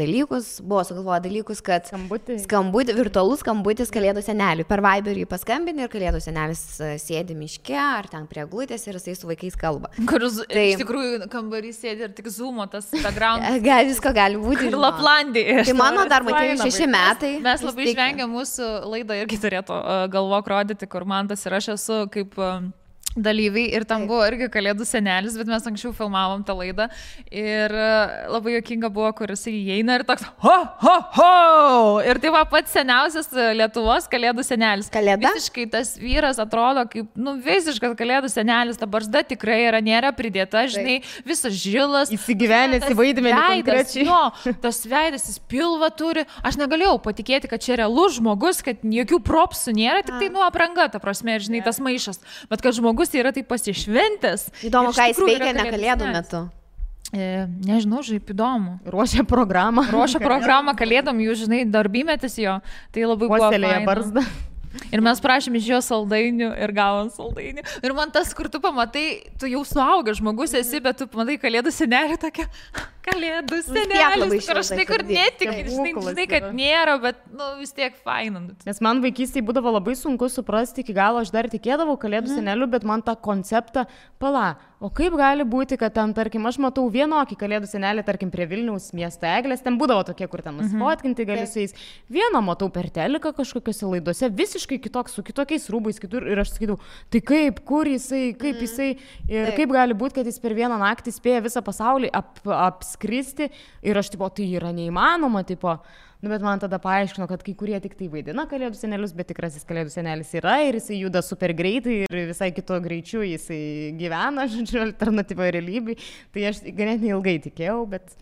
dalykus, buvo sugalvoję dalykus, kad virtualus skambutis kalėdų seneliui, per Viberį paskambini ir kalėdų senelis sėdi miške, ar ten prie eglutės ir jisai su vaikais kalba. Kur iš tikrųjų kambarys sėdi ir tik zoomo tas background. Visko gali būti. Ir Laplandija. Tai mano dar matėjau 6 metai. Mes labai išvengiam mūsų laidą irgi turėtų galvok rodyti, kur Mantas ir aš esu kaip dalyviai ir tam buvo irgi kalėdų senelis, bet mes anksčiau filmavom tą laidą ir labai juokinga buvo, kur jisai įeina ir toks ho, ho, ho! Ir tai va pats seniausias Lietuvos kalėdų senelis. Kalėda? Visiškai tas vyras atrodo kaip, visiškas kalėdų senelis, ta barzda tikrai nėra pridėta, žinai, visas žilas. Įsigyvenęs į vaidmenį konkrečiai. Jo, tas veidas, jis pilvą turi. Aš negalėjau patikėti, kad čia realus žmogus, kad jokių propsų nėra, tik tai apranga, ta prasme, žinai, tas maišas. Bet kad žmogus yra taip pasišventęs. Įdomu, ką jis veikia ne kalėdų metu. Nežinau, žaip įdomu. Ruošia programą kalėdom, jūs žinai, darbymetis jo. Tai labai buvo faina. Barzdą. Ir mes prašėm iš jo saldainių ir gavom saldainių. Ir man tas, kur tu pamatai, tu jau suaugęs žmogus esi, bet tu pamatai kalėdų senelį tokia, kalėdų senelis, kur aš kur netikiu, žinai, kad nėra, bet vis tiek faina. Nes man vaikystėje būdavo labai sunku suprasti iki galo, aš dar tikėdavau kalėdų senelių, bet man tą konceptą, o kaip gali būti, kad ten, tarkim, aš matau vienokį kalėdų senelį, tarkim, prie Vilniaus miesto eglės, ten būdavo tokie, kur ten nusifotkinti gali su jais. Vieną matau per teliką kažkokiose laidose, visiškai kitoks, su kitokiais rūbais kitur ir aš sakydavau, tai kaip, kur jisai, kaip jisai ir kaip gali būti, kad jis per vieną naktį spėja visą pasaulį apskristi ir aš, tipo, tai yra neįmanoma, tipo. Nu, bet man tada paaiškino, kad kai kurie tik tai vaidina kalėdų senelius, bet tikrasis kalėdų senelis yra ir jisai juda super greitai ir visai kito greičiu jisai gyvena, žodžiu, alternatyvoje realybėje. Tai aš ganėtinai ilgai tikėjau, bet...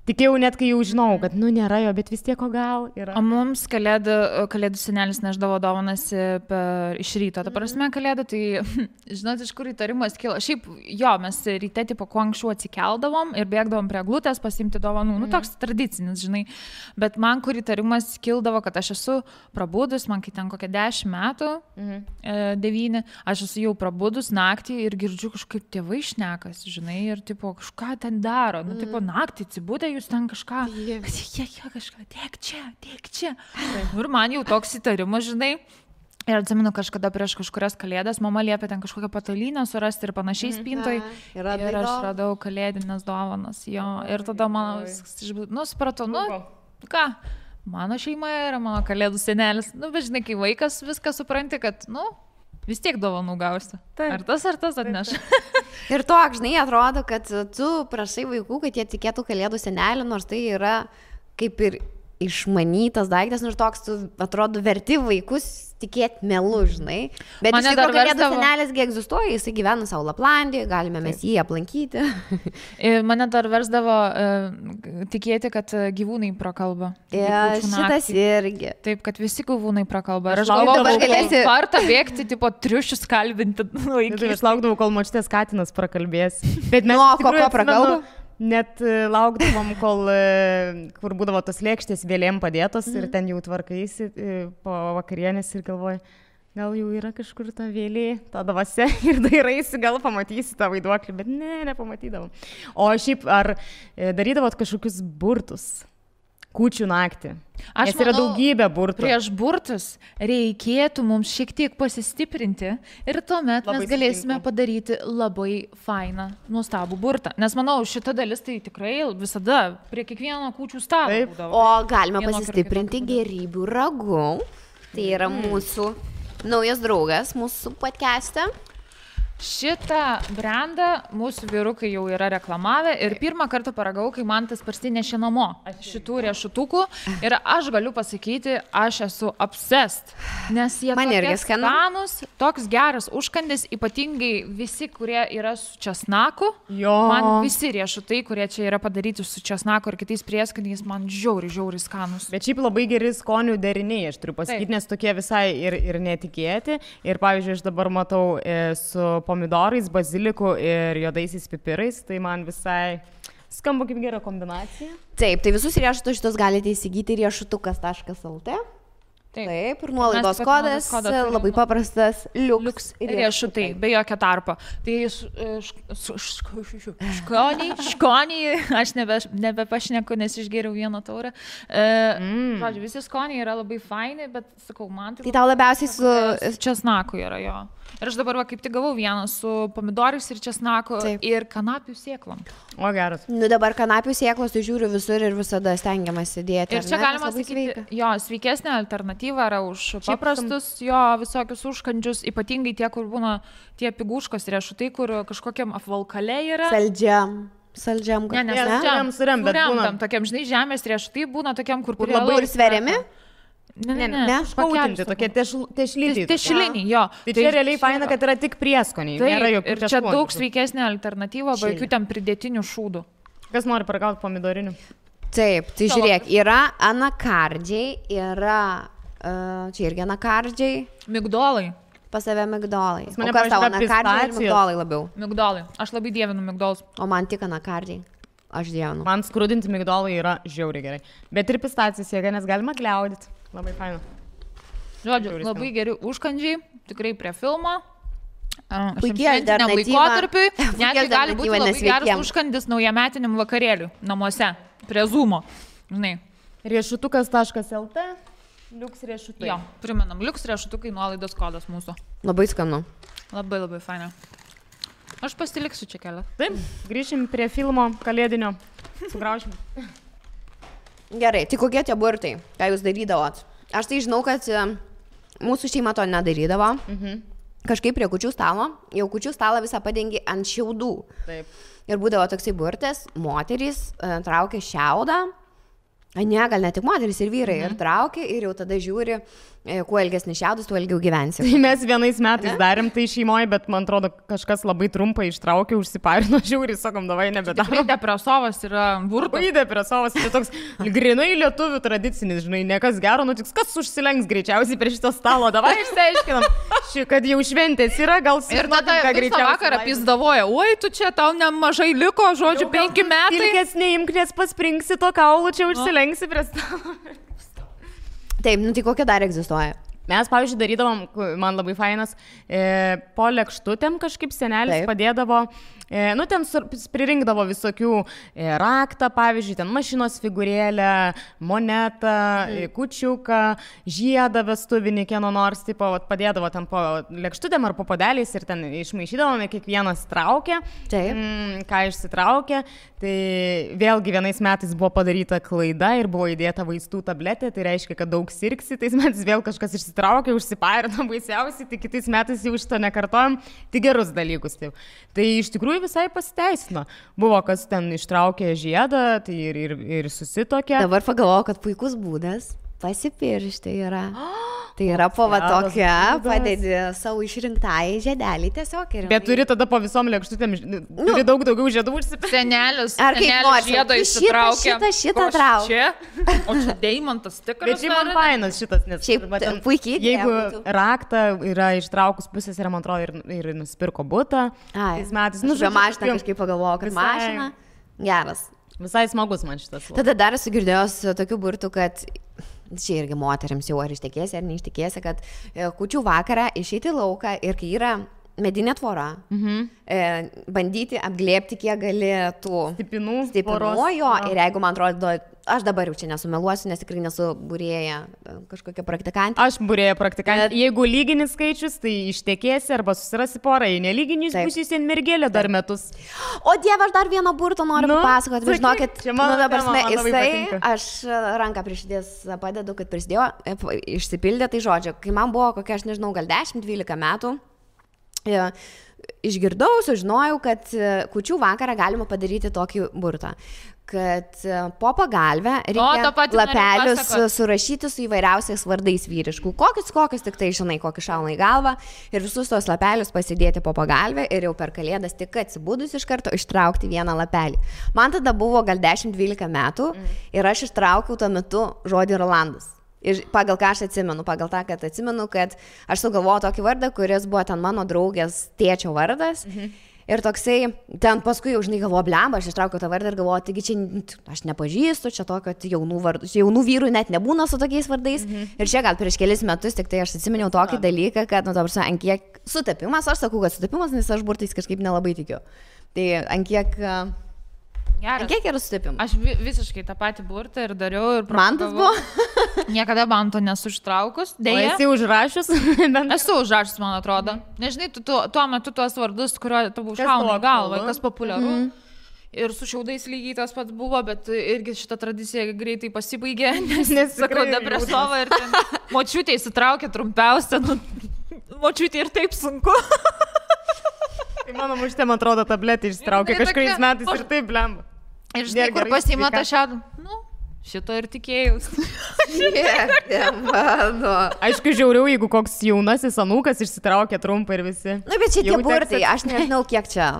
Tikėjau net, kai jau žinau, kad, nėra jo, bet vis tiek o gal yra. O mums kalėdų senelis neždavo dovanas iš ryto. Ta prasme, kalėdų, tai, žinot, iš kur įtarimas kilo. Šiaip, jo, mes ryte, tipo, kuo anksčiau atsikeldavom ir bėgdavom prie glutės pasimti dovanų. Nu, toks tradicinis, žinai. Bet man, kur įtarimas kildavo, kad aš esu prabudus, man kai ten kokie 10 metų, 9, aš esu jau prabudus naktį ir girdžiu kažkaip tėvai šnekas, žinai, ir, tipo, kažką ten daro. Nu, tipo, naktį atsibūdė, jūs ten kažką, kažką, tiek čia. Ir man jau toks įtarimas, žinai. Ir atsimenu, kažkada prieš kažkurias kalėdas mama liepė ten kažkokią patalynę surasti ir panašiai spintoj. Ir aš radau kalėdinės dovanas. Jo. Ir tada man, supratau, ką, mano šeima yra mano kalėdų senelis. Bet žinai, kai vaikas viską supranti, kad, vis tiek dovanų gausi. Ar tas atneš. Ir toks, žinai, atrodo, kad tu prašai vaikų, kad jie tikėtų kalėdų senelį, nors tai yra kaip ir išmanytas daiktas, nors toks, tu atrodo, verti vaikus tikėti melu, žinai. Bet iš tikrųjų kalėdų senelisgi egzistuoja, jisai gyvena savo Laplandijoje, galime mes jį aplankyti. Mane dar versdavo tikėti, kad gyvūnai prakalba. Šitas irgi. Taip, kad visi gyvūnai prakalba. Ir aš galvoju, vartą bėgti, tipo, triušius kalbinti. Aš laukdavau, kol močiutės katinas prakalbės. Bet mes ko prakalbam? Net laukdavom, kur būdavo tos lėkštės vėlėm padėtos ir ten jau tvarkaisi po vakarienės ir galvoju, gal jau yra kažkur ta vėlė, ta dvasia ir dairaisi, gal pamatysi tą vaiduoklį, bet nepamatydavom. O šiaip, ar darydavot kažkokius burtus? Kūčių naktį. Nes yra daugybė burtų. Prieš burtus reikėtų mums šiek tiek pasistiprinti ir tuomet mes galėsime padaryti labai fainą, nuostabų burtą. Nes manau, šita dalis tai tikrai visada prie kiekvieno kūčių stalo būdavo. O galime pasistiprinti gėrybių ragu. Tai yra mūsų naujas draugas mūsų podcast'e. Šitą brandą mūsų vyrukai jau yra reklamavę ir pirmą kartą paragau, kai man tas parsinešė namo šitų riešutukų ir aš galiu pasakyti, aš esu obsessed, nes jie tokie skanūs, toks geras užkandis, ypatingai visi, kurie yra su česnaku. Man visi riešutai, kurie čia yra padaryti su česnaku ir kitais prieskoniais, man žiauriai skanūs. Bet šiaip labai geri skonių deriniai, aš turiu pasakyti, nes tokie visai ir netikėti. Ir pavyzdžiui, aš dabar matau su pomidorais, baziliku ir juodaisiais pipirais, tai man visai skamba kaip gera kombinacija. Taip, tai visus riešutus šitus galite įsigyti riešutukas.lt. Taip, ir nuolaidos kodas labai paprastas, liuks riešutai, be jokio tarpo. Tai skoniai, aš nebepašneku, nes išgėriau vieną taurę. Žodžiu, visi skoniai yra labai faini, bet sakau, man tai tau labiausiai su česnaku yra jo. Ir aš dabar kaip tik gavau vieną su pomidorais ir česnaku ir kanapių sėklom. O geras. Dabar kanapių sėklos, tai žiūriu visur ir visada stengiamasi dėti. Ir čia galima sakyti, sveikesnė alternatyva yra už paprastus visokius užkandžius, ypatingai tie, kur būna tie piguškos riešutai, kur kažkokiam apvalkale yra. Saldžiam. Suremtam, tokiam, žinai, žemės riešutai būna tokiam, kur labai ir sveriami. Ne, špautinti, tokie tešliniai. Tešliniai, jo. Tai čia realiai faina, kad yra tik prieskoniai. Taip, ir čia daug sveikesnė alternatyva, be jokių ten pridėtinių šūdų. Kas nori paragauti pomidorinių? Taip, tai žiūrėk, yra anakardžiai, yra, čia irgi anakardžiai. Migdolai. Pas save migdolai. O kas tau, anakardžiai ir migdolai labiau? Migdolai. Aš labai dievinu migdolus. O man tik anakardžiai. Aš dievinu. Man skrudinti migdolai yra žiauriai gerai. Bet ir pistacijas jėga, nes galima gliaudyti. Labai faina. Žodžiu, labai geri užkandžiai, tikrai prie filmo. Puikiai alternatyva. Laikotarpiui, netgi gali būti labai geras užkandis naujametiniam vakarėliui namuose, prie Zoomo. Žinai. Riešutukas.lt, liuks riešutai. Jo, primenam, liuks riešutukai, nuolaidos kodas mūsų. Labai skanu. Labai faina. Aš pasiliksiu čia kelią. Taip, grįšim prie filmo kalėdinio. Sugraušim. Gerai, tai kokie tie burtai, ką jūs darydavot? Aš tai žinau, kad mūsų šeima to nedarydavo. Kažkaip prie kūčių stalo, jau kūčių stalą visą padengi ant šiaudų. Taip. Ir būdavo toksai burtas, moterys traukia šiaudą Ne, gal ne tik moteris ir vyrai. Ir traukia ir jau tada žiūri, kuo ilgesnis šiaudus, tuo ilgiau gyvensi. Tai mes vienais metais darėm tai šeimoje, bet man atrodo, kažkas labai trumpai ištraukė, užsiparino, žiūri, sakom, davai nebedarom. Tikrai depresovas yra burtas. Labai depresovas, tai toks grinai lietuvių tradicinis, žinai, nekas gero nutiks, kas užsilenks greičiausiai prie šito stalo, davai išsiaiškinam, kad jau šventės yra, gal ir tada visą vakarą pizdavoja, oi, tu čia tau nemažai liko, žodžiu, 5 metai. Ilgės neimk, nes paspringsi to kaulų, čia užsilenksi prie stalo. Taip, nu tai kokie dar egzistuoja? Mes, pavyzdžiui, darydavom, man labai fainas, po lėkštutėm kažkaip senelis padėdavo, nu ten pririnkdavo visokių raktą, pavyzdžiui, ten mašinos figūrėlę, monetą, kučiuką, žiedą vestuvinį, kieno nors, tipo, padėdavo ten po lėkštutėm ar po podeliais ir ten išmaišydavome, kiekvienas traukė, ką išsitraukė. Tai vėlgi vienais metais buvo padaryta klaida ir buvo įdėta vaistų tabletė, tai reiškia, kad daug sirgsi, tais metais vėl kažkas išsitraukė, užsiparino baisiausiai, tai kitais metais jau šito nekartojom, tik gerus dalykus. Taip. Tai iš tikrųjų visai pasiteisino. Buvo, kas ten ištraukė žiedą, tai ir susitokė. Dabar pagalvojau, kad puikus būdas pasipiršti yra. Tai yra po va tokia, padedi savo išrinktai žiedelį tiesiog. Bet turi tada po visom lėkštutėm, turi daug daugiau žiedų užsipirkti. Senelis, ar kaip nors žiedą išsitraukia. Šitą trauk. O čia deimantas tikras. Bet šiaip man fainas šitas, nes šiaip puikiai. Jeigu raktą yra ištraukus pusės ir man atrodo ir nusipirko butą. Tais metais. Nu, žinoma, mašiną kažkaip pagalvojau, kad mašina. Geras. Visai smagus man šitas. Tada dar esu girdėjęs tokių burtų, kad čia irgi moteriams jau ar ištekėsi ar neištekėsi, kad kūčių vakarą išeiti į lauką ir kai yra medinė tvora, bandyti apglėbti, kiek gali tų stipinų jo, ir jeigu man atrodo, aš dabar jau čia nesumeluosiu, nes tikrai nesu būrėja kažkokia praktikantė. Aš būrėja praktikantė. Jeigu lyginis skaičius, tai ištekėsi arba susirasi porą, jei nelyginis būsiu sen mergelė dar metus. O Dieve, aš dar vieną burtą noriu papasakoti, bet žinokit, aš ranką prie širdies padedu, kad prisidėjo, išsipildė, tai žodžiu, kai man buvo kokia, aš nežinau, gal 10-12 metų, išgirdau, sužinojau, kad kūčių vakarą galima padaryti tokį burtą, kad po pagalbę reikia lapelius surašyti su įvairiausiais vardais vyriškų. Kokius tik tai žinai, kokį šauna į galvą ir visus tos lapelius pasidėti po pagalbę ir jau per kalėdas tik atsibudus iš karto ištraukti vieną lapelį. Man tada buvo gal 10-12 metų ir aš ištraukiau tuo metu žodį Rolandas. Ir pagal ką aš atsimenu, pagal tą, kad atsimenu, kad aš sugalvojau tokį vardą, kuris buvo ten mano draugės tėčio vardas. Ir toksai, ten paskui jau žinai galvoju, blemba, aš ištraukiau tą vardą ir galvoju, taigi čia aš nepažįstu, čia tokio jaunų vyrų net nebūna su tokiais vardais. Ir čia gal prieš kelis metus tik tai aš atsiminiau tokį dalyką, kad, nu, dabar ant kiek sutapimas, aš sakau, kad sutapimas, nes aš burtais kažkaip nelabai tikiu. Tai ant kiek... Geras. Kiek yra sutapimas? Aš visiškai tą patį burtą ir dariau ir mantas buvo? Niekada manto nesu ištraukus. Deja. O esi užrašius? Esu užrašius, man atrodo. Nežinai, tuo metu tuos vardus, kurio tavo šauna galva, kas populiaru. Ir su šiaudais lygiai tas pats buvo, bet irgi šita tradicija greitai pasibaigė, nes sakau, depresova ir ten močiutė įsitraukė trumpiausia, močiutė ir taip sunku. Tai mano muštė, man atrodo, tabletį išsitraukė kažkuriais metais ir taip blemba. Ir žinai, kur pasiima tą šiaudą? Nu, šito ir tikėjus. Aišku, žiauriau, jeigu koks jaunasis anūkas išsitraukė trumpą ir visi. Na, bet šitie burtai, aš nežinau, kiek čia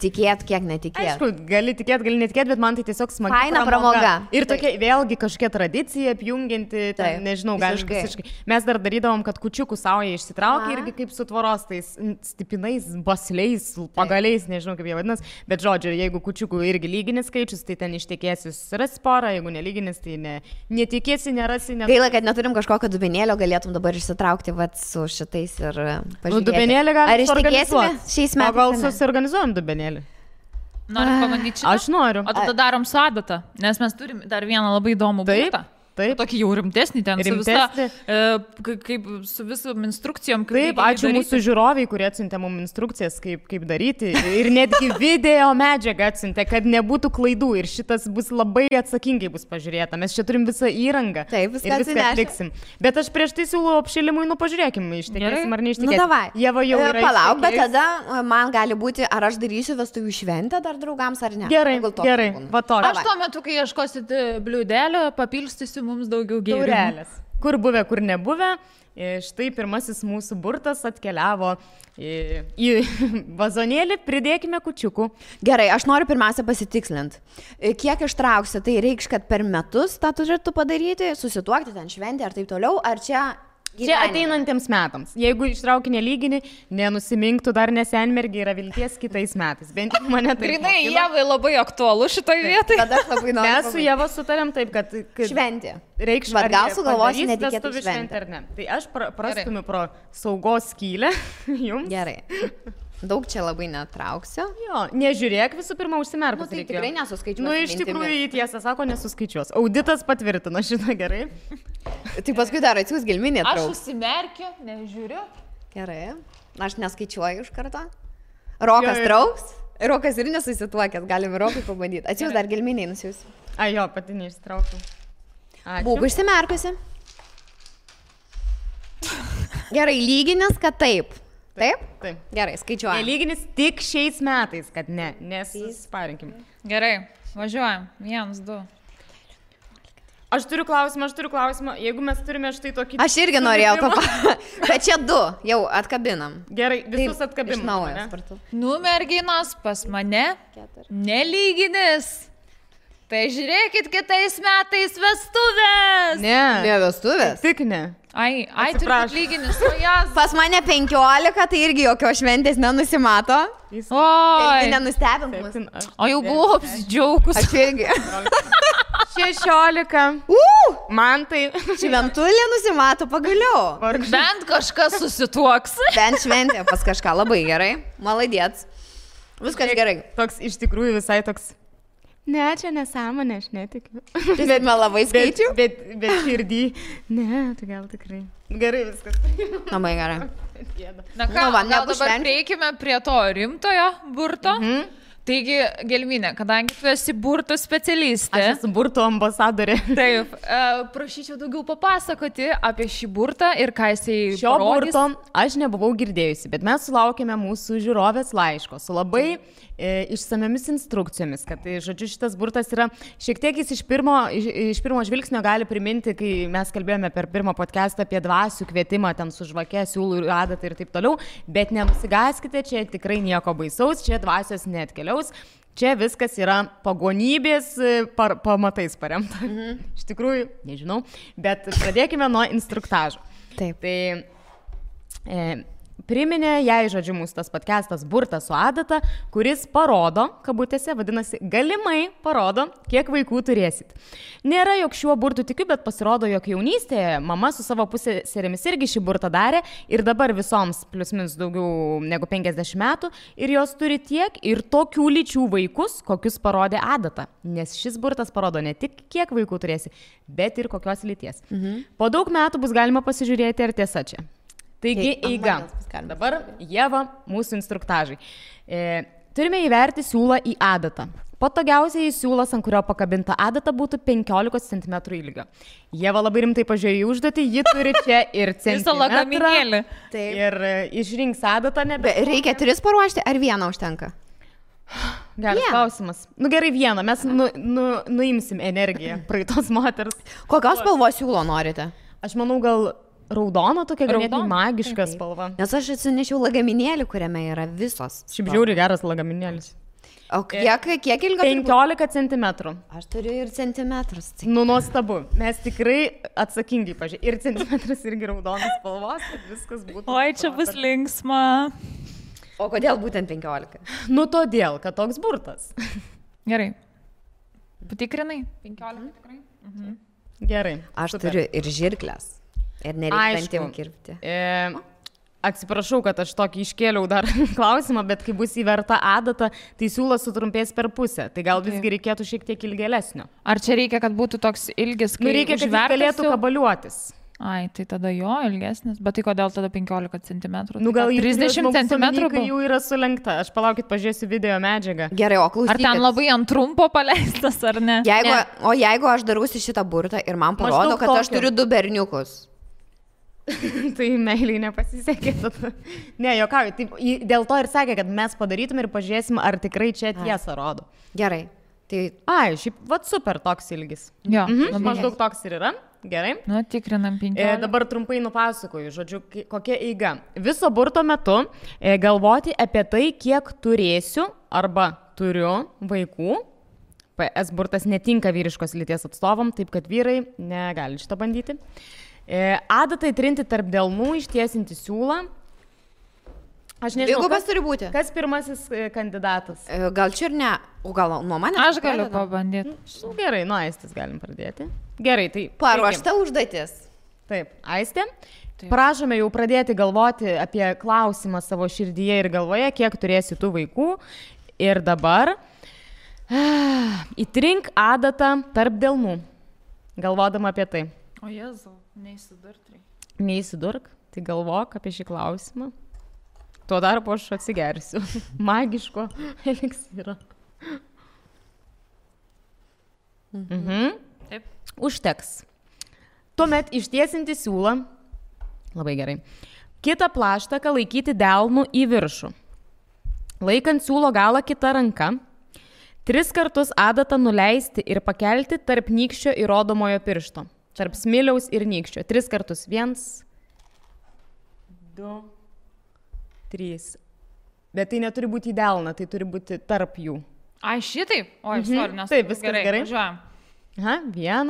tikėt, kiek netikėt. Aišku, gali tikėt, gali netikėt, bet man tai tiesiog smagi faina pramoga. Ir tokia vėlgi kažkokia tradicija apjungianti, ten, nežinau, gali visiškai. Mes dar darydavom, kad kučiukų sauja išsitraukė irgi kaip su tvoros tais stipinais, basliais, pagaliais, nežinau kaip jie vadinas, bet žodžiu, jeigu kučiukų irgi lyginis skaičius, tai ten ištekėsi susirasti porą, jeigu nelyginis, tai netikėsi, nerasi. Gaila, kad neturim kažkokio dubenėlio, galėtum dabar išsitraukti vat, su šitais ir pažiūrėti. Dubenėlį galime suorganizuoti šiais metais. O gal susiorganizuojam dubenėlį? Noriu pabandyti šitą? Aš noriu. O tada darom su adata, nes mes turim dar vieną labai įdomų būtą. Taip. Tokį jau rimtesnį ten su visa, kaip su visom instrukcijom. Taip, ačiū mūsų žiūroviai, kurie atsiuntė mums instrukcijas, kaip daryti. Ir netgi video medžiagą atsiuntė, kad nebūtų klaidų. Ir šitas bus labai atsakingai bus pažiūrėta. Mes čia turim visą įrangą. Taip, viską atliksim. Bet aš prieš tai siūlau apšilimui, pažiūrėkim, ištekėsim ar neištekėsim. Davai. Ieva jau yra. Palauk, bet tada man gali būti, ar aš darysiu vestuvių šventę dar draugams ar ne. Gerai, va to. Aš tuo metu, kai ieškosit bliūdelio, papilstysiu mums daugiau gėrimų. Taurelės. Kur buvę, kur nebuvę. Štai pirmasis mūsų burtas atkeliavo į vazonėlį, pridėkime kučiukų. Gerai, aš noriu pirmiausia pasitikslinti. Kiek ištrauksi, tai reikš, kad per metus tą turėtų padaryti, susituokti ten šventę ar taip toliau, ar čia... Čia ateinantiems metams. Jeigu ištrauki nelygini, nenusimink, dar nesenmergi, yra vilties kitais metais. Bent mane tai... Grinai, Ievai labai aktualu šitoj vietoj. Tada aš labai noriu. Mes su Ieva sutarėm taip, kad šventė. Reikš, bet gal sugalvosi netikėtų šventę ar ne. Tai aš prastumiu pro saugos skylę jums. Gerai. Daug čia labai netrauksiu. Jo, nežiūrėk visų pirma užsimerkus. Tai tikrai nesuskaičiuosiu. Iš tikrųjų, tiesą sako, nesuskaičiuos. Auditas patvirtino šitą gerai. Tai paskui dar atsiūs gelminė trauks. Aš užsimerkiu, nežiūriu. Gerai. Aš neskaičiuoju iš karto. Rokas trauks. Rokas ir nesusituokęs. Galim Rokai pabandyti. Atsiūs dar gelminiai nusiųsiu. Jo, pati neištraukiu. Būk užsimerkusi. Gerai, lyginis, kad taip. Taip? Taip. Gerai, skaičiuojam. Lyginis tik šiais metais, kad ne, nesparinkim. Gerai, važiuojam. 1, 2. Aš turiu klausimą. Jeigu mes turime štai tokį... Aš irgi norėjau to bet čia 2, jau atkabinam. Gerai, visus atkabinam. Iš naujo spartu. Merginos, pas mane nelyginis. Tai žiūrėkit kitais metais vestuvės. Ne vestuvės. Tik ne. Ai, turbūt lyginis, o jas. Pas mane 15, tai irgi jokios šventės nenusimato. Oi. Nenustebint mus. O jau buvau apsidžiaugus. Aš irgi. 16. Man tai... Šventulė nusimato pagaliau. Bent kažkas susituoks. Bent šventė pas kažką. Labai gerai. Maladėts. Viskas gerai. Toks iš tikrųjų visai toks... Ne, čia nesąmonė, aš netikiu. Bet melavai skaičiu? Bet širdį. Ne, tai gal tikrai. Gerai viskas. Labai gerai. Na ką, gal dabar prieikime prie to rimtojo burto. Taigi, Gelminė, kadangi tu esi burtų specialistė. Aš esu burtų ambasadorė. Taip, prašyčiau daugiau papasakoti apie šį burtą ir ką jisai Šio parodys. Burto aš nebuvau girdėjusi, bet mes sulaukėme mūsų žiūrovės laiško su labai išsamiamis instrukcijomis, kad, žodžiu, šitas burtas yra šiek tiek jis iš pirmo žvilgsnio gali priminti, kai mes kalbėjome per pirmą podcastą apie dvasių kvietimą, ten su žvake, siūlų ir adatą ir taip toliau, bet nenusigaskite, čia tikrai nieko baisaus, čia dvasios neatkeliaus. Čia viskas yra pagonybės pamatais paremta. Iš tikrųjų, nežinau, bet pradėkime nuo instruktažo. Taip. Tai priminė jai, žodžiu, mūsų tas podcastas burtas su adata, kuris parodo, kabutėse, vadinasi, galimai parodo, kiek vaikų turėsit. Nėra, jog šiuo burtu tikiu, bet pasirodo, jog jaunystėje mama su savo pusėserėmis irgi šį burtą darė ir dabar visoms plius minus daugiau negu 50 metų ir jos turi tiek ir tokių lyčių vaikus, kokius parodė adata. Nes šis burtas parodo ne tik kiek vaikų turėsi, bet ir kokios lyties. Po daug metų bus galima pasižiūrėti, ar tiesa čia. Taigi, eiga. Dabar Ieva, mūsų instruktažai. Turime įverti siūlą į adatą. Patogiausiai siūlas, ant kurio pakabinta adata, būtų 15 cm ilgio. Ieva labai rimtai pažiūrėjo į užduotį, ji turi čia ir centimetrą. Visą lagaminėlį. Ir išrinks adatą nebe. Reikia 3 paruošti, ar 1 užtenka? Geras klausimas. Gerai, 1, mes nuimsim energiją praeitos moters. Kokios spalvos siūlo norite? Aš manau, gal... Raudono, tokia ganėtinai magiška spalva. Nes aš atsinešiau lagaminėlį, kuriame yra visos. Šiaip žiauri geras lagaminėlis. O kiek ilgo? 15 cm. Aš turiu ir centimetrus. Nuostabu. Mes tikrai atsakingai pažiūrėjome. Ir centimetras irgi raudonas spalvos, kad viskas būtų. Oi, čia bus linksma. O kodėl būtent 15? Todėl, kad toks burtas. Gerai. Patikrinai? 15 tikrai? Gerai. Aš turiu ir žirklės. Ir nereikia dantim kirpti. Atsiprašau, kad aš tokį iškėliau dar klausimą, bet kai bus įverta adata, tai siūlas sutrumpės per pusę. Tai gal visgi reikėtų šiek tiek ilgėlesnio. Ar čia reikia, kad būtų toks ilgis, kai reikia, kad jis galėtų kabaliuotis? Ai, tai tada jo ilgesnis. Bet tai kodėl tada 15 cm? Gal 30 cm? Kai jau yra sulenkta. Aš palaukit, pažiūrėsiu video medžiagą. Gerai, o klausykit. Ar ten labai ant trumpo paleistas, ar ne? O jeigu aš darausi šitą burtą ir man parodo, kad aš turiu 2 berniukus. Tai meiliai nepasisekė. Ne, jokauju. Tai dėl to ir sakė, kad mes padarytum ir pažiūrėsim, ar tikrai čia tiesa rodo. Gerai. Tai... Šiaip, super toks ilgis. Jo. Maždaug toks ir yra. Gerai. Nu, tikrinam 15. Dabar trumpai nupasakoju, žodžiu, kokia eiga. Viso burto metu galvoti apie tai, kiek turėsiu arba turiu vaikų. PS burtas netinka vyriškos lyties atstovam, taip kad vyrai negali šitą bandyti. Adatai trinti tarp delnų, ištiesinti siūlą. Aš nežinau, kas turi būti. Kas pirmasis kandidatas? Gal čia ir ne, o gal nuo manęs? Aš galiu pabandyti. Gerai, nuo Aistės galim pradėti. Gerai, tai... Paruošta užduotis. Taip, Aistė. Prašome jau pradėti galvoti apie klausimą savo širdyje ir galvoje, kiek turėsi tų vaikų. Ir dabar įtrink adatą tarp delnų, galvodama apie tai. O Jėzau, neįsidurk. Neįsidurk, tai galvok apie šį klausimą. Tuo darbu aš atsigersiu. Magiško eliksiro. Taip. Užteks. Tuomet ištiesinti siūlą. Labai gerai. Kitą plaštaką laikyti delnu į viršų. Laikant siūlo galą kitą ranką. 3 kartus adatą nuleisti ir pakelti tarp nykščio ir rodomojo piršto. Tarp smiliaus ir nykščio. 3 kartus. 1, 2, 3. Bet tai neturi būti į delną, tai turi būti tarp jų. Ai, šitaip? Oi, sorry, nes... Taip, viskas gerai. Važiuojam. 1,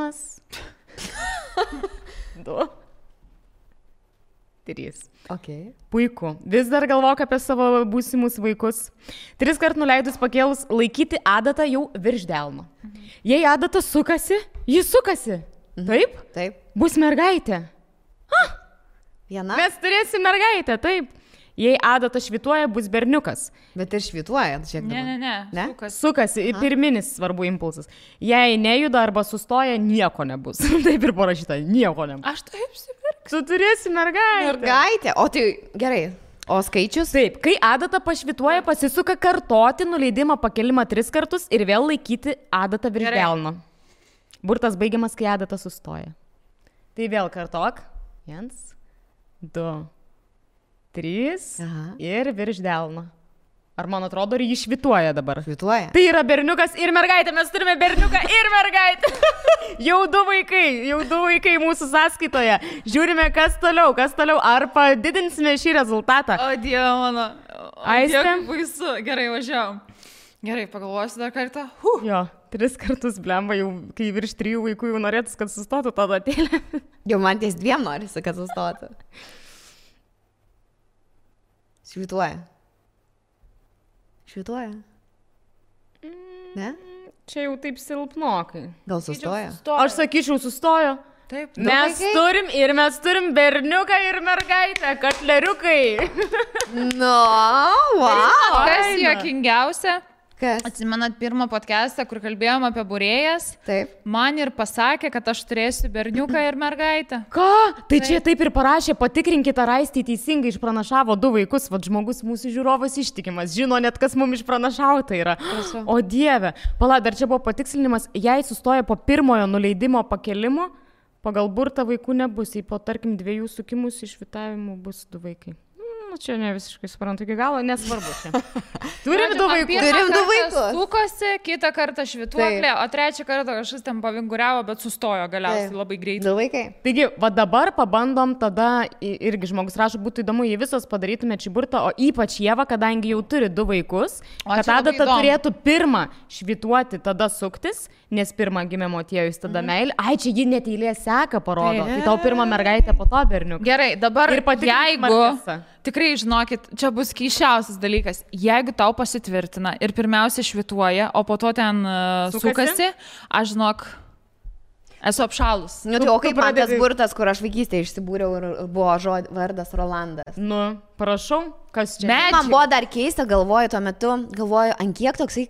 2, 3. Okay. Puiku. Vis dar galvok apie savo būsimus vaikus. 3 kart nuleidus pakėlus, laikyti adatą jau virš delno. Jei adata sukasi, jis sukasi. Taip? Taip. Bus mergaitė. Viena? Mes turėsim mergaitę, taip. Jei adata švituoja, bus berniukas. Bet ir švituoja, šiek tiek. Ne? Sukasi, pirminis svarbu impulsas. Jei nejuda arba sustoja, nieko nebus. Taip ir parašyta, nieko nebus. Aš taip sipirksiu. Tu turėsi mergaitę. Mergaitė, o tai gerai. O skaičius? Taip, kai adata pašvituoja, pasisuka kartoti nuleidimą pakelimą 3 kartus ir vėl laikyti adatą virš delno. Burtas baigiamas, kai adata sustoja. Tai vėl kartok. 1, 2, 3 ir virš delno. Ar man atrodo, ar jį švituoja dabar? Švituoja. Tai yra berniukas ir mergaitė. Mes turime berniuką ir mergaitę. Jau 2 vaikai mūsų sąskaitoje. Žiūrime, kas toliau. Ar padidinsime šį rezultatą? O Dieve mano. Aistė? Baisu. Gerai, važiavam. Gerai, pagalvosiu dar kartą. Jo, 3 kartus blemba, jau kai virš 3 vaikų jau norėtus, kad sustotų tą datėlę. Jau man ties 2 norisi, kad sustotų. Švituoja. Ne? Čia jau taip silpnokai. Gal sustoja? Aš sakyčiau, sustojo. Taip. Mes turim berniuką ir mergaitę, katleriukai. Wow. Kas juokingiausia? Kas? Atsimenat pirmą podcastą, kur kalbėjom apie būrėjas? Taip. Man ir pasakė, kad aš turėsiu berniuką ir mergaitę. Ką? Tai čia taip ir parašė, patikrinkite, ar Aistė teisingai išpranašavo 2 vaikus. Vat žmogus mūsų žiūrovas ištikimas, žino net, kas mums išpranašauta yra. Prašau. O Dieve, pala, dar čia buvo patikslinimas, jei sustoja po pirmojo nuleidimo pakelimo, pagal burtą vaikų nebus, jei po tarkim 2 sukimus išvitavimų bus 2 vaikai. Čia ne visiškai suprantu iki galo, nesvarbu čia. Turim 2 vaikus. Turim 2 vaikus. Sukosi, kitą kartą švituoklė, o trečią kartą kažkas ten pavinguriavo, bet sustojo galiausiai labai greitai. 2 vaikai. Taigi, va dabar pabandom tada, irgi žmogus rašo, būtų įdomu, jei visos padarytume šį burtą, o ypač Ieva, kadangi jau turi 2 vaikus, kad tada turėtų pirmą švituoti, tada suktis, nes pirmą gimė motiejus, tada meilė. Ai, čia ji net eilė seka parodo. Tai tau pirmą mergaitę, po to berniuką. Gerai, dabar jeigu... Markesa. Tikrai, žinokit, čia bus keisčiausias dalykas. Jeigu tau pasitvirtina ir pirmiausia švituoja, o po to ten sukasi, aš žinok... Esu apšalus. Nu, tai o kaip man tas burtas, kur aš vaikystėje išsibūriau ir buvo vardas Rolandas. Nu, prašau, kas čia? Man buvo dar keista, galvoju, tuo metu, ant kiek toksai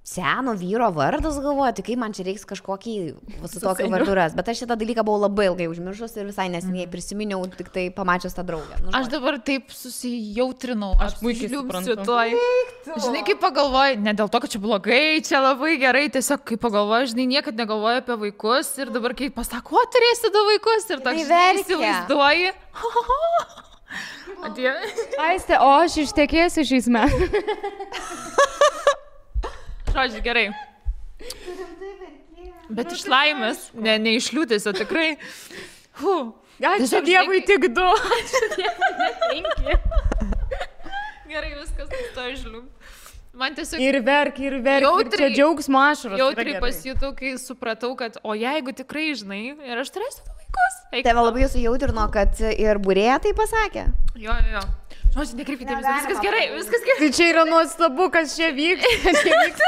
seno vyro vardas, galvoju, tai kaip man čia reiks kažkokį su tokiu varduras. Bet aš šitą dalyką buvau labai ilgai užmiršus ir visai neseniai prisiminiau, tik tai pamačius tą draugę. Nu, aš dabar taip susijautrinau, aš puikiai suprantu. Žinai, kaip pagalvoju, ne dėl to, kad čia blogai, čia labai gerai, tiesiog kaip pagalvoju, žinai, niekad negalvoju apie vaikus ir dabar kaip pasako, o turėsi du vaikus ir toks įsivaizduoji. Aiste, o aš ištekėsiu šiais metais. Žodžiu, gerai. Bet iš laimės, ne iš liūdesio, tikrai. Ačiū Dievui tik 2. Gerai, viskas nustojo žlium. Man tiesiog... Ir verk, ir čia džiaugsmo ašaros. Jautriai pasijutau, kai supratau, kad o jeigu tikrai, žinai, ir aš turėsiu du vaikus. Tave labai sujautrino, kad ir būrėja tai pasakė. Jo. Žodžiu, nekreipkite dėmesio, viskas gerai. Tai čia yra nuostabu, kas čia vyksta. Čia vyksta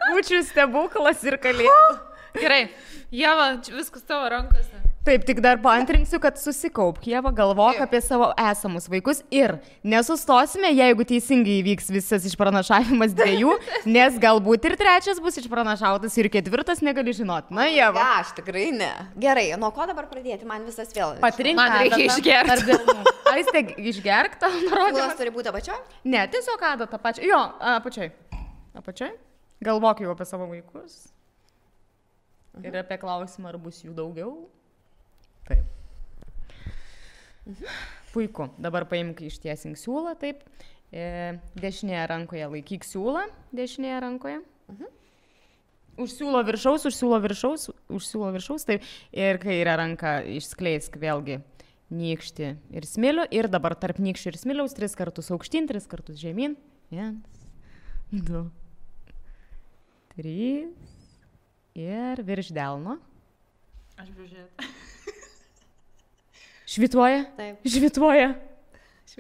kūčių stebuklas ir kalėdų. Gerai, Ieva, viskas tavo rankose. Taip, tik dar paantrinsiu, kad susikaupk, Ieva, galvok apie savo esamus vaikus ir nesustosime, jeigu teisingai įvyks visas išpranašavimas 2, nes galbūt ir 3 bus išpranašautas ir 4 negali žinoti. Na, Ieva. Ne, aš tikrai ne. Gerai, nuo ko dabar pradėti? Man visas vėl. Man reikia išgerti. Aiste, išgerk tą nurodymą. Kulas turi būti apačioj? Ne, tiesiog adatą pačią. Jo, apačioj. Galvok jau apie savo vaikus. Ir apie klausimą, ar bus jų daugiau. Taip. Puiku. Dabar paimk ištiesink siūlą, taip. Dešinėje rankoje laikyk siūlą, dešinėje rankoje. Už siūlo viršaus, taip. Ir kairę ranką išskleisk vėlgi nykštį ir smilių. Ir dabar tarp nykščių ir smiliaus 3 kartus aukštyn, 3 kartus žemyn. 1, 2, 3. Ir virš delno. Aš bižiūrėt. Švituoja? Taip.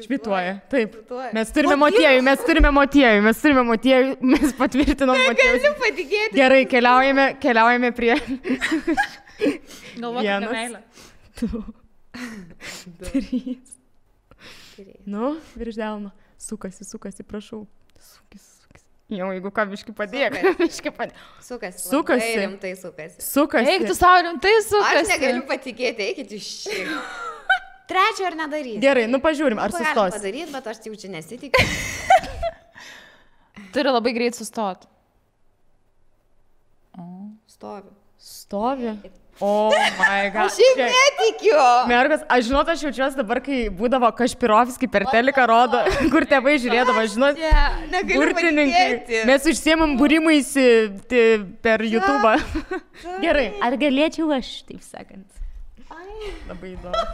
Švituoja, taip. Mes turime motiejų, mes patvirtinom motiejų. Negaliu patikėti. Gerai, keliaujame prie... Galvok apie meilę. 2, 3. Nu, virš delno. Sukasi, prašau. Sukasi. Jau, jeigu ką, biški padėk. Sukasi. Rimtai sukasi. Eik, tu savo rimtai sukasi. Aš negaliu patikėti, eikit iš šį. 3 ar nedaryti. Gerai, nu pažiūrim, ar sustos. Galim padaryti, bet aš jau čia nesitikiu. Turi labai greit sustot. Stovi. Oh my god. Aš šiaip netikiu. Mergas, aš žinot, aš jaučiuosi dabar, kai būdavo Kašpirovskį per teliką rodo, kur tėvai žiūrėdavo, žinot, burtininkai. Mes užsiemam būrimuisi per YouTube. Gerai, ar galėčiau aš, taip sakant? Labai įdomu.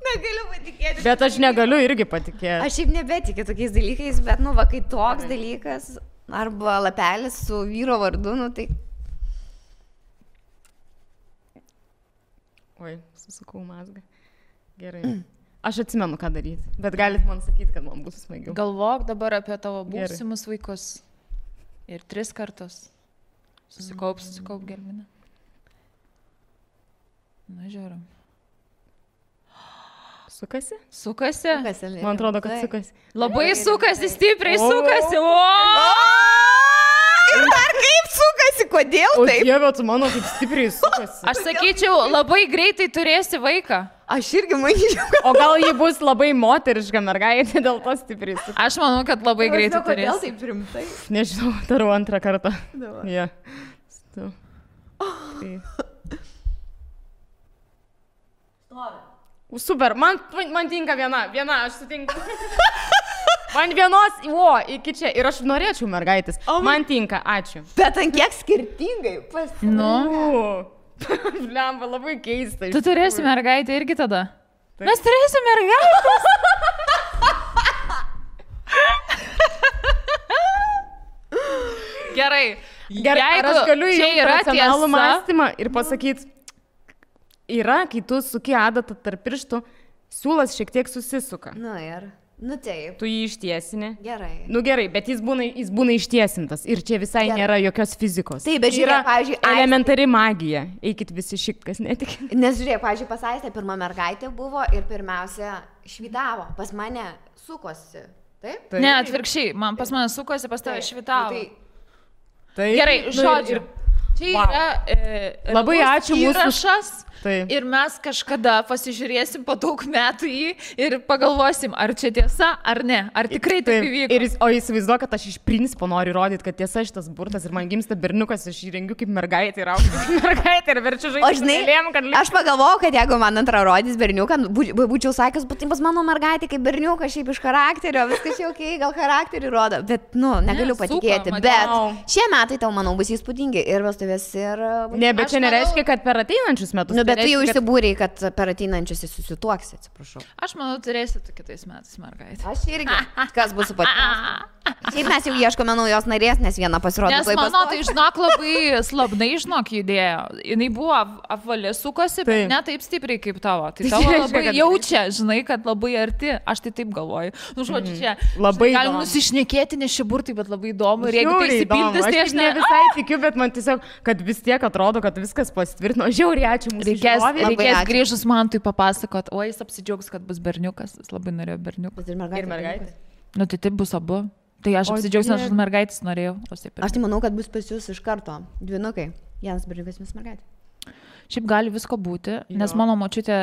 Negaliu patikėti. Bet aš negaliu irgi patikėti. Aš šiaip nebetikiu tokiais dalykais, bet, nu, va, kai toks dalykas, arba lapelis su vyro vardu, nu, tai... Oi, susukau mazgą. Gerai. Aš atsimenu, ką daryti, bet galit man sakyti, kad man bus smagiau. Galvok dabar apie tavo būsimus vaikus. Ir 3 kartus. Susikaup, gelminę. Na, žiūrim. Sukasi? Sukasi? Man atrodo, kad sukasi. Labai sukasi, stipriai sukasi. Ir dar kaip sukasi, kodėl taip? O Dieve, tu mano kaip stipriai sukasi. Aš sakyčiau, labai greitai turėsi vaiką. Aš irgi manyčiau. O gal ji bus labai moteriška mergaitė, dėl to stipriai sukasi. Aš manau, kad labai greitai turėsi. Kodėl taip rimtai? Nežinau, darau 2 kartą. Ja. Super, man tinka viena, aš sutinku. Man vienos, iki čia, ir aš norėčiau mergaitės. Man tinka, ačiū. Bet ant kiek skirtingai pasirinkai? Nu. Blemba, labai keista. Tu turėsi mergaitę irgi tada? Taip. Mes turėsim mergaitės. Gerai. Ar aš galiu įjungti racionalų mąstymą ir pasakyti, yra, kai tu suki adatą tarp pirštų, siūlas šiek tiek susisuka. Na ir. Nu taip. Tu jį ištiesini. Gerai. Nu gerai, bet jis būna ištiesintas ir čia visai nėra jokios fizikos. Taip, bet žiūrėk, pavyzdžiui, elementari magija. Eikit visi šikt, kas netik. Nes žiūrėk, pavyzdžiui, pas Aistę pirma mergaitė buvo ir pirmiausia švydavo, pas mane sukosi. Taip? Ne, atvirkščiai, pas mane sukosi, pas tave švitavo. Tai gerai, žodžiu. Čia yra labai ačiū įrašas. Ir mes kažkada pasižiūrėsim po daug metų jį ir pagalvosim, ar čia tiesa, ar ne, ar tikrai taip įvyko. O įsivaizduoju, kad aš iš principo noriu įrodyti, kad tiesa šitas burtas ir man gimsta berniukas, aš jį rengiu kaip mergaitė ir augsiu kaip mergaitė ir verčiu žaisti. O žinai, aš pagalvojau, kad jeigu man antrą rodys berniuką, būčiau sakęs, būtų pas mano mergaitė kaip berniukas, šiaip iš charakterio, viskas jau okay, gal charakterį rodo, bet, negaliu patikėti. Bet šie metai tau, manau, bus įspūdingi ir vestuvės ir... Ne, bet čia nereiškia, kad per ateinančius metus. Bet tu jau išsibūrei, kad per ateinančius susituoksi, atsiprašau. Aš manau, turėsi tu kitais metais mergaitę. Aš irgi. Kas bus su pačiu? Šiaip mes jau ieškome naujos narės, nes viena pasirodė. Nes mano, tai žinok, labai slabnai, judėjo. Jis buvo apvalė, sukosi, bet ne taip stipriai kaip tavo. Tai tavo labai jaučia, žinai, kad labai arti. Aš tai taip galvoju. Nu, žodžiu, čia labai galim nusišnekėti, nes šie burtai, bet labai įdomu. Ir jeigu tai įsipildys, tai aš ne visai tikiu, bet man tiesiog, kad vis tiek atrodo, kad viskas pasitvirtino. Žiauriai ačiū mūsų. Reikės grįžus man tai papasakot, o jis apsidžiaugs, kad bus berniukas. Jis labai norėjo berniukas. Ir mergaitė. Nu, tai taip bus abu. Tai aš apsidžiaugs, nes aš mergaitės norėjau. Aš tai manau, kad bus pas jūs iš karto dvynukai. Vienas berniukas, vienas mergaitė. Šiaip gali visko būti, nes mano močiutė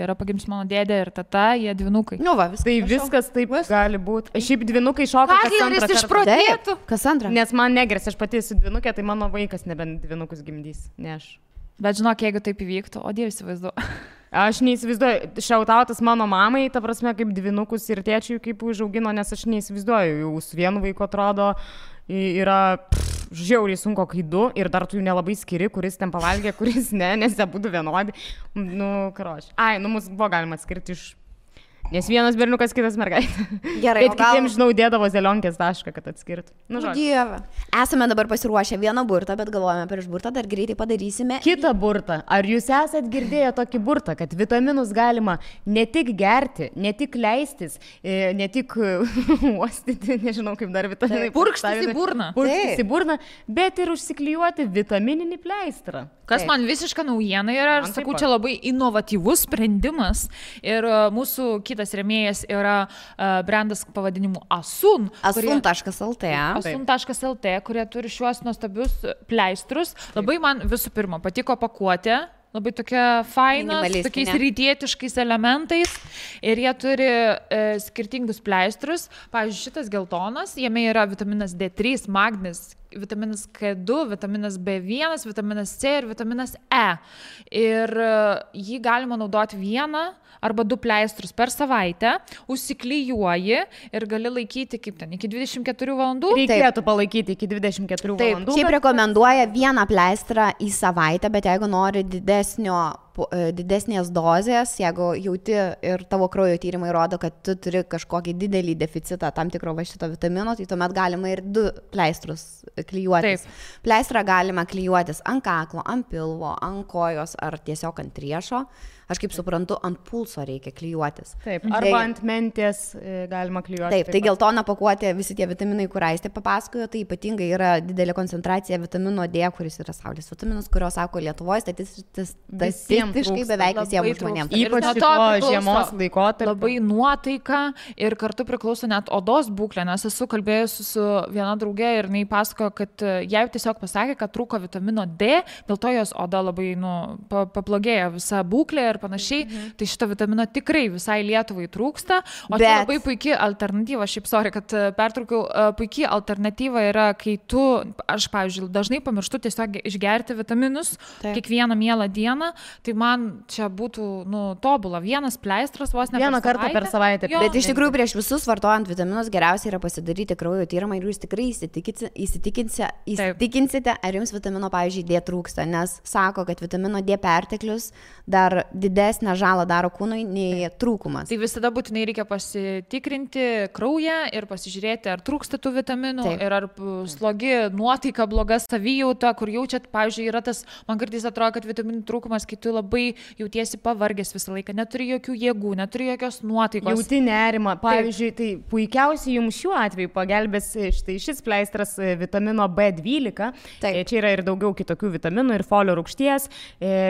yra pagimdžius mano dėdė ir tata, jie dvynukai. Nu va, tai viskas taip gali būti. Šiaip dvynukai šoka kas antrą išprotėtų. Kas antrą? Nes man negres, aš pati esu dvynukė, tai mano vaikas nebent dvynukus gimdys, ne aš. Bet žinok, jeigu taip įvyktų, o Dievas įsivaizduoju. Aš neįsivaizduoju, šiautautas mano mamai, ta prasme, kaip dvynukus ir tėčiui kaip užaugino, nes aš neįsivaizduoju, jau su vienu vaiku atrodo yra žiauriai sunku, kai du ir dar tu jų nelabai skiri, kuris ten pavalgė, kuris ne, nes jie būtų vienodi. Nu, karoči. Mus buvo galima atskirti iš... Nes vienas berniukas, kitas mergaitė. Gerai, bet kitiems, žinau, dėdavo zelionkės tašką, kad atskirtų. Nu, Dieve. Esame dabar pasiruošę vieną burtą, bet galvojame prieš burtą, dar greitai padarysime. Kitą burtą. Ar jūs esat girdėję tokį burtą, kad vitaminus galima ne tik gerti, ne tik leistis, ne tik uostyti, nežinau kaip dar vitaminai. Purkštis į burną. Purkštis į burną, bet ir užsiklijuoti vitamininį pleistrą. Kas man visiška naujiena yra, aš sakau, čia labai inovatyvus sprendimas ir mūsų kitas rėmėjas yra brandas pavadinimu Asun. Asun.lt. Asun.lt, kurie turi šiuos nuostabius pleistrus. Labai man visų pirma patiko pakuotė. Labai tokia faina, su tokiais rytietiškais elementais ir jie turi skirtingus pleistrus. Pavyzdžiui, šitas geltonas, jame yra vitaminas D3, magnis, vitaminas K2, vitaminas B1, vitaminas C ir vitaminas E. Ir jį galima naudoti vieną arba 2 pleistrus per savaitę, užsiklijuoji ir gali laikyti kaip ten, iki 24 valandų. Reikėtų palaikyti iki 24 valandų. Šiaip rekomenduoja vieną pleistrą į savaitę, bet jeigu nori didesnės dozės, jeigu jauti ir tavo kraujo tyrimai rodo, kad tu turi kažkokį didelį deficitą tam tikro va šito vitamino, tai tuomet galima ir 2 pleistrus klijuotis. Pleistrą galima klijuotis ant kaklo, ant pilvo, ant kojos ar tiesiog ant riešo. Aš kaip suprantu, ant pulso reikia klijuotis. Taip, arba ant mentės galima klijuoti. Taip, tai geltona pakuotė, visi tie vitaminai, kur Aistė papasakojo, tai ypatingai yra didelė koncentracija vitamino D, kuris yra saulės vitaminas, kurio sako Lietuvoje statistiškai beveik visiems žmonėms. Ypač šito žiemos laikotarpiu. Labai nuotaika ir kartu priklauso net odos būklė, nes esu kalbėjusi su viena draugė ir jinai pasakojo, kad jai tiesiog pasakė, kad trūko vitamino D, dėl to jos oda labai pablogėjo visa būklė ir panašiai, tai šito vitamino tikrai visai Lietuvai trūksta, o tai labai puikia alternatyva, šiaip sorry, kad pertraukiau, puikia alternatyva yra, kai tu, aš, pavyzdžiui, dažnai pamirštu tiesiog išgerti vitaminus kiekvieną mielą dieną, tai man čia būtų, tobula, vienas pleistras vos ne vieną kartą per savaitę. Bet iš tikrųjų prieš visus vartojant vitaminus geriausia yra pasidaryti kraujo tyrimą ir jūs tikrai įsitikinsite, ar jums vitamino, pavyzdžiui, D trūksta, nes sako, kad vitamino D perteklius dar didesnę žalą daro kūnui nei trūkumas. Tai visada būtinai reikia pasitikrinti kraują ir pasižiūrėti, ar trūksta tų vitaminų. Taip. Ir ar slogi nuotaika, bloga savijauta, kur jaučiat, pavyzdžiui, yra tas, man kartais atrodo, kad vitaminų trūkumas, kai tu labai jautiesi pavargęs visą laiką, neturi jokių jėgų, neturi jokios nuotaikos. Jauti nerimą. Pavyzdžiui, tai puikiausiai jums šiuo atveju pagelbės šis pleistras vitamino B12. Taip. Čia yra ir daugiau kitokių vitaminų ir folio rūgšties,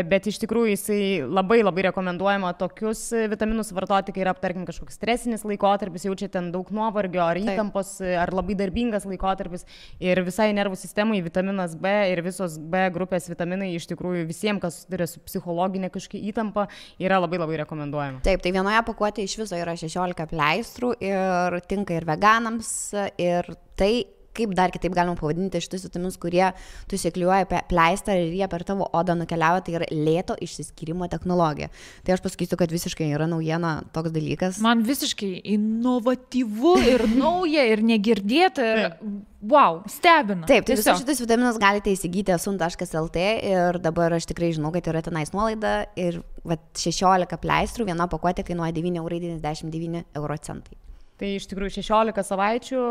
bet iš tikrųjų jisai labai rekomenduojama tokius vitaminus vartoti, kai yra, tarkim, kažkoks stresinis laikotarpis, jaučia ten daug nuovargio ar įtampos, ar labai darbingas laikotarpis ir visai nervų sistemai vitaminas B ir visos B grupės vitaminai iš tikrųjų visiems, kas turi su psichologinė kažkokia įtampa, yra labai rekomenduojama. Taip, tai vienoje pakuotėje iš viso yra 16 pleistrų ir tinka ir veganams ir tai kaip dar kitaip galima pavadinti šitus vitaminus, kurie tu įsiklijuoji pleistrą ir jie per tavo odą nukeliauja, tai yra lėto išsiskyrimo technologija. Tai aš pasakysiu, kad visiškai yra naujiena toks dalykas. Man visiškai inovatyvu ir nauja ir negirdėta ir wow, stebina. Taip, tai visus šitus vitaminus galite įsigyti asun.lt ir dabar aš tikrai žinau, kad yra tenais nuolaida ir 16 pleistrų, viena pakuotė kainuoja 9,99 €. Tai iš tikrųjų 16 savaičių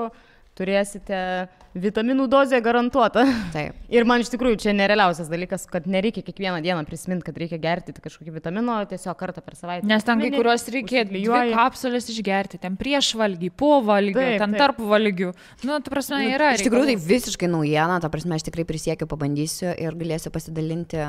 turėsite vitaminų dozę garantuotą. Taip. Ir man iš tikrųjų čia nerealiausias dalykas, kad nereikia kiekvieną dieną prisiminti, kad reikia gerti kažkokį vitamino, tiesiog kartą per savaitę. Nes ten kai kuriuos reikia 2 kapsulės išgerti, ten prieš valgį, po valgių, ten tarp valgių. Nu, ta prasme, yra. Iš tikrųjų tai visiškai naujiena, ta prasme, aš tikrai prisiekiu, pabandysiu ir galėsiu pasidalinti.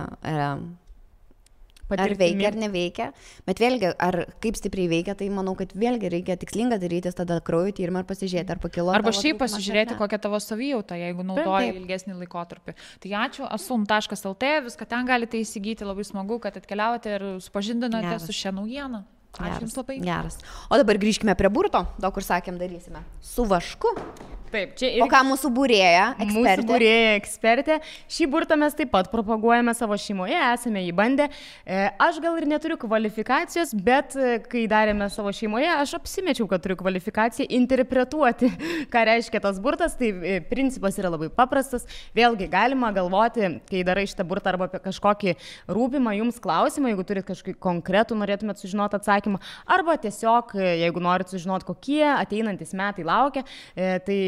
Ar veikia, ar neveikia, bet vėlgi, ar kaip stipriai veikia, tai manau, kad vėlgi reikia tikslinga darytis tada kraujo tyrimą ir pasižiūrėti, ar pakilo. Arba šiaip pasižiūrėti, kokia tavo savijauta, jeigu naudoji ilgesnį laikotarpį. Tai ačiū, asun.lt, viską ten galite įsigyti, labai smagu, kad atkeliavote ir supažindinote su šią naujieną. Ačiū Jums labai. Geras. O dabar grįžkime prie burto, daug kur sakėm darysime. Su vašku. Taip, čia ir... O ką mūsų būrėja ekspertė? Mūsų būrėja ekspertė. Šį burtą mes taip pat propaguojame savo šeimoje, esame jį bandę. Aš gal ir neturiu kvalifikacijos, bet kai darėme savo šeimoje, aš apsimečiau, kad turiu kvalifikaciją interpretuoti, ką reiškia tas burtas. Tai principas yra labai paprastas. Vėlgi galima galvoti, kai darai šitą burtą arba apie kažkokį rūpimą jums klausimą, jeigu turit kažkokį konkretų, norėtumėt sužinoti atsakymą, arba tiesiog, jeigu norit sužinoti, kokie ateinantis metai laukia, tai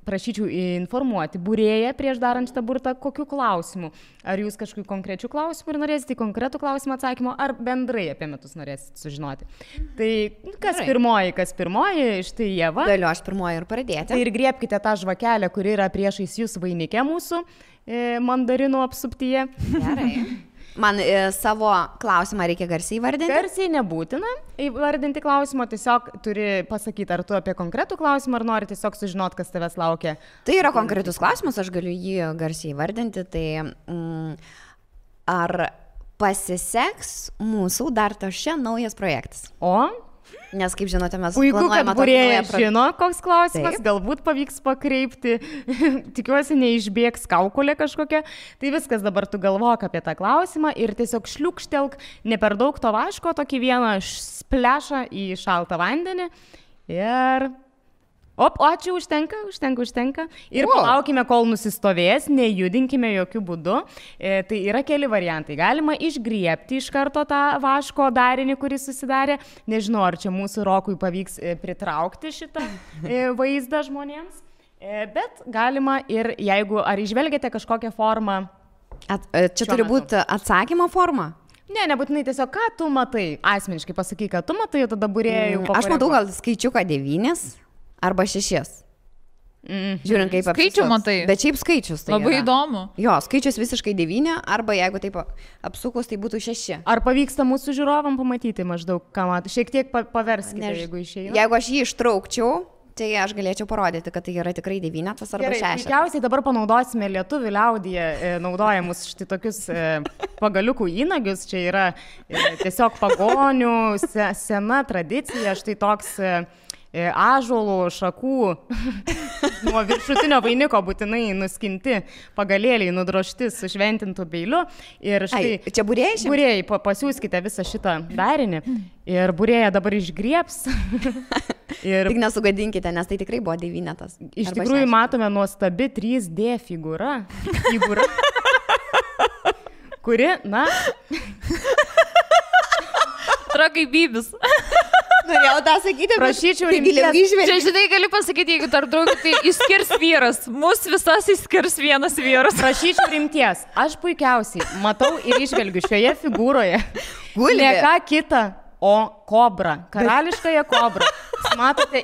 prašyčiau informuoti būrėją prieš darant šitą burtą, kokiu klausimu. Ar jūs kažkokiu konkrečiu klausimu ir norėsite konkretų klausimą atsakymo, ar bendrai apie metus norėsite sužinoti. Tai kas pirmoji, štai Ieva. Galiu aš pirmoji ir pradėti. Tai ir griebkite tą žvakelę, kuri yra priešais jūs vainike mūsų mandarinų apsuptyje. Gerai. Man savo klausimą reikia garsiai įvardinti? Garsiai nebūtina įvardinti klausimą, tiesiog turi pasakyti, ar tu apie konkretų klausimą, ar nori tiesiog sužinoti, kas tavęs laukia. Tai yra konkretus klausimas, aš galiu jį garsiai įvardinti. Tai ar pasiseks mūsų dar tašia naujas projektas? Nes, kaip žinote, mes planuojame tokį naują projektą. Žino, koks klausimas, taip. Galbūt pavyks pakreipti, tikiuosi neišbėgs kaukolė kažkokia. Tai viskas, dabar tu galvok apie tą klausimą ir tiesiog šliukštelk ne per daug to vaško, tokį vieną splešą į šaltą vandenį ir... Ačiū, užtenka. Ir palaukime, kol nusistovės, nejudinkime jokių būdų. Tai yra keli variantai. Galima išgriebti iš karto tą vaško darinį, kuris susidarė. Nežinau, ar čia mūsų Rokui pavyks pritraukti šitą vaizdą žmonėms. Bet galima ir jeigu, ar išvelgiate kažkokią formą. Čia turi būti atsakymo forma? Ne, nebūtinai tiesiog, ką tu matai. Asmeniškai pasakyk, ką tu matai, tada būrėjau. Aš matau gal skaičiuką 9. Arba 6. Žiūrint, kaip skaičių matai. Bet šiaip skaičius tai labai yra. Įdomu. Jo, skaičius visiškai 9, arba jeigu taip apsukus, tai būtų 6. Ar pavyksta mūsų žiūrovam pamatyti maždaug, ką matai? Šiek tiek paverskite, jeigu išeina. Jeigu aš jį ištraukčiau, tai aš galėčiau parodyti, kad tai yra tikrai 9 arba 6. Tikriausiai dabar panaudosime lietuvių liaudyje naudojamus štai tokius pagaliukų įnagius. Čia yra tiesiog pagonių sena tradicija, štai toks... ąžuolų šakų nuo viršutinio vainiko būtinai nuskinti pagalėliai, nudrožti su šventintu peiliu. Ir štai, čia būrėjai? Būrėjai, pasiūskite visą šitą darinį ir būrėja dabar išgriebs. Tik nesugadinkite, nes tai tikrai buvo 9. Iš tikrųjų matome nuostabi 3D figūra, kuri, na... yra kaip bybis. Norėjau tą sakyti, prašyčiau rimties. Čia, žinai, gali pasakyti, jeigu tarp draugų, tai išskirs vyras. Mūsų visas išskirs vienas vyras. Prašyčiau rimties. Aš puikiausiai matau ir išvelgiu šioje figūroje. Gulbė. Ne ką kitą, o kobrą. Karališkąją kobrą. Matote,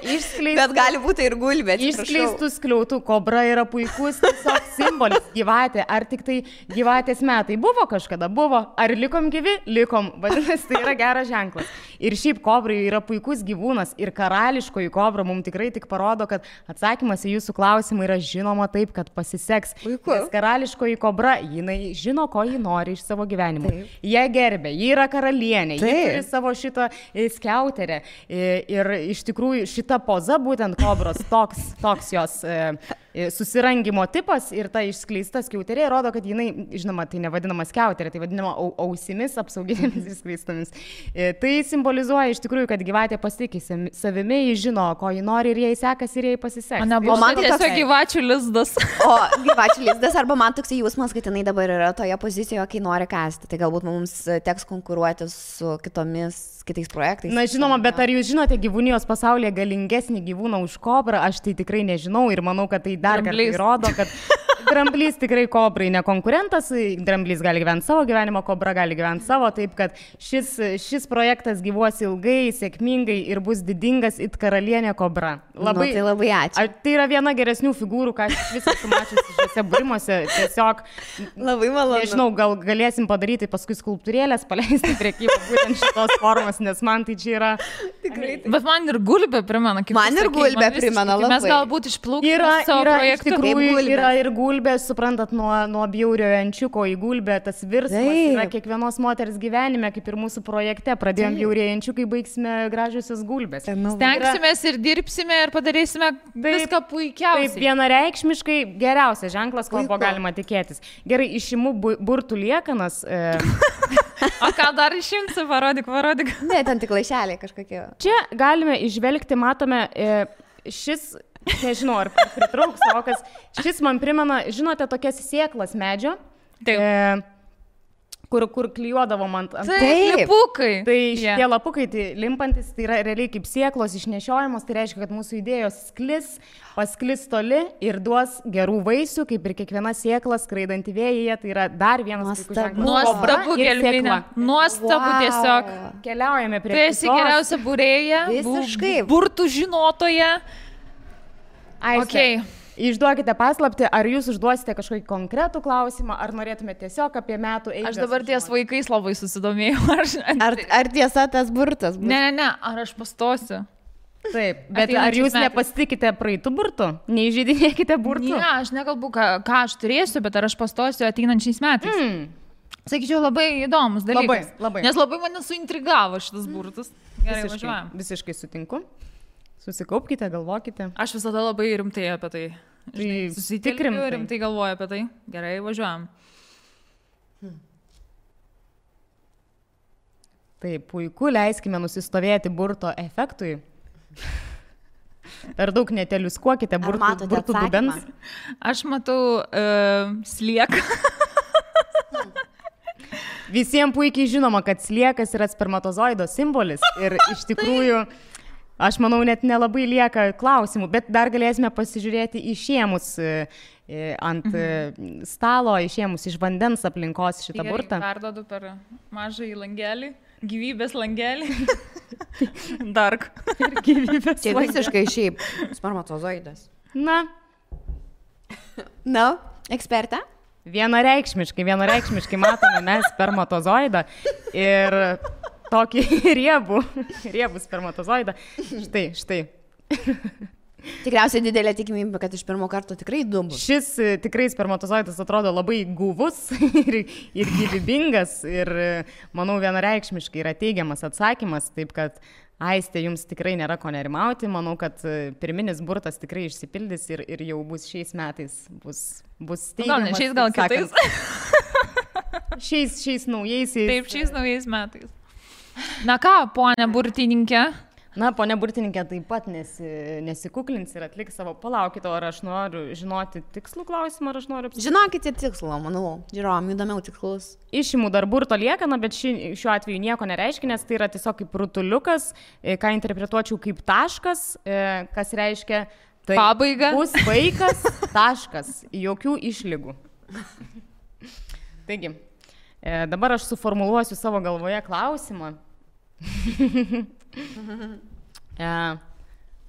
Bet gali būti ir gulbė. Išskleistų skliautų. Kobra yra puikus tiesiog simbolis. Gyvatė. Ar tik tai gyvatės metai buvo kažkada? Buvo. Ar likom gyvi? Likom. Vadinasi, tai yra geras ženklas. Ir šiaip kobrai yra puikus gyvūnas. Ir karališkoji kobra mums tikrai tik parodo, kad atsakymas į jūsų klausimą yra žinoma taip, kad pasiseks. Puiku. Nes karališkoji kobra, jinai žino, ko ji nori iš savo gyvenimo. Jie gerbė. Ji yra karalienė. Ji turi savo šitą skiauterę. Ir iš tikrųjų šita poza būtent kobros, toks jos susirangimo tipas ir ta išskleista skiauterė rodo, kad jinai, žinoma, tai nevadinama skiauterė, tai vadinama ausimis apsauginėmis išskleistomis. Tai simbolizuoja iš tikrųjų, kad gyvatė pasitikė savimi, ji žino, ko ji nori ir jai sekasi ir jai pasiseks. O man tiesiog gyvačių lizdas. O gyvačių lizdas, arba man toks jausmas, kad jinai dabar yra toje pozicijoje, kai nori kasti. Tai galbūt mums teks konkuruoti su kitais projektais. Na, žinoma, bet ar jūs žinote gyvūnijos pasaulyje galingesnį gyvūną už kobrą? Aš tai tikrai nežinau ir manau, kad tai dar kartą įrodo, kad dramblys tikrai kobrai ne konkurentas, dramblys gali gyventi savo gyvenimą, kobra gali gyventi savo, taip kad šis projektas gyvuos ilgai, sėkmingai ir bus didingas it karalienė kobra. Labai, tai labai ačiū. Tai yra viena geresnių figūrų, ką aš visą sumačiusi šiuose būrimuose. Tiesiog, labai malonu. Nežinau, gal galėsim padaryti paskui skulptūrėlės, paleisti prekybą būtent šitos formos, nes man tai čia yra... Tikrai. Bet man ir gulbė primena, kaip man ir gulbė primena labai. Mes galbūt išplaukime savo projektų. Yra ir gulbė, suprantat, nuo bjauriojo ančiuko į gulbę, tas virsmas yra kiekvienos moters gyvenime, kaip ir mūsų projekte. Pradėjom bjaurieji ančiukai, baigsime gražiusios gulbės. Stengsimės ir dirbsime ir padarysime viską puikiausiai. Taip, vienareikšmiškai geriausias ženklas, ko buvo galima tikėtis. Gerai, išimu burtų liekanas. O ką dar išimsi, parodyk. Ne, ten tik laišeliai kažkokie. Čia galime išvelgti, matome, šis, nežinau, ar pritrauks vokas, šis man primena, žinote, tokias sėklas medžio, kur klijuodavom ant... Taip, lapukai. Tai šitie lapukai, tai limpantis, tai yra realiai kaip sėklos išnešiojamos, tai reiškia, kad mūsų idėjos pasklis toli ir duos gerų vaisių, kaip ir kiekviena sėkla skraidanti vėjyje, tai yra dar vienas puikus ženklas. Nuostabu, Gelminė. Nuostabu tiesiog. Keliaujame prie kitos. Tu esi geriausia būrėja, burtų žinotoja. Aiste, išduokite paslaptį, ar jūs užduosite kažkokį konkretų klausimą, ar norėtumėte tiesiog apie metų eigą. Aš dabar ties vaikais labai susidomėjau. Ar tiesa tas burtas? Ne, ar aš pastosiu. Taip, bet ar jūs nepasitikite praeitų burtų? Neįžeidinėkite burtų? Ne, aš nekalbu, ką aš turėsiu, bet ar aš pastosiu ateinančiais metais. Sakyčiau, labai įdomus dalykas. Labai. Nes labai mane suintrigavo šitas burtas. Gerai, važiuojam. Visiškai sutinku. Susikaupkite, galvokite. Aš visada labai rimtai apie tai. Susitikrinti rimtai galvoju apie tai. Gerai, važiuojam. Taip, puiku, leiskime nusistovėti burto efektui. Per daug neteliuskuokite burtų dubens. Aš matau slieką. Visiems puikiai žinoma, kad sliekas yra spermatozoido simbolis ir iš tikrųjų, aš manau, net nelabai lieka klausimų, bet dar galėsime pasižiūrėti išėmus ant stalo, išėmus iš vandens aplinkos šitą burtą. Perdodu per mažą į langelį. Gyvybės langelį. Dark. Ir gyvybės langelį. Tai visiškai šiaip spermatozoidas. Na, ekspertą? Vienareikšmiškai matome mes spermatozoidą ir tokį riebų spermatozoidą. Štai. Tikriausiai didelė tikimybė, kad iš pirmo karto tikrai dubus. Šis tikrai spermatozoidas atrodo labai guvus ir gyvybingas ir manau vienareikšmiškai yra teigiamas atsakymas, taip kad Aiste, jums tikrai nėra ko nerimauti, manau, kad pirminis burtas tikrai išsipildys ir jau bus šiais metais, bus teigiamas. Gal ne šiais, gal kitais. Šiais naujaisiais. Taip, šiais naujais metais. Na ką, ponia burtininkė? Na, ponia burtininkė taip pat nesikuklins ir atliks savo, palaukite, ar aš noriu žinoti tikslų klausimą, ar aš noriu... Žinokite tikslų, manau, žiūrom, įdomiau tikslus. Išimu dar burto liekaną, bet šiuo atveju nieko nereiškia, nes tai yra tiesiog kaip rutuliukas, ką interpretuočiau kaip taškas, kas reiškia... Tai pabaiga. Bus vaikas, taškas, jokių išlygų. Taigi, dabar aš suformuluosiu savo galvoje klausimą.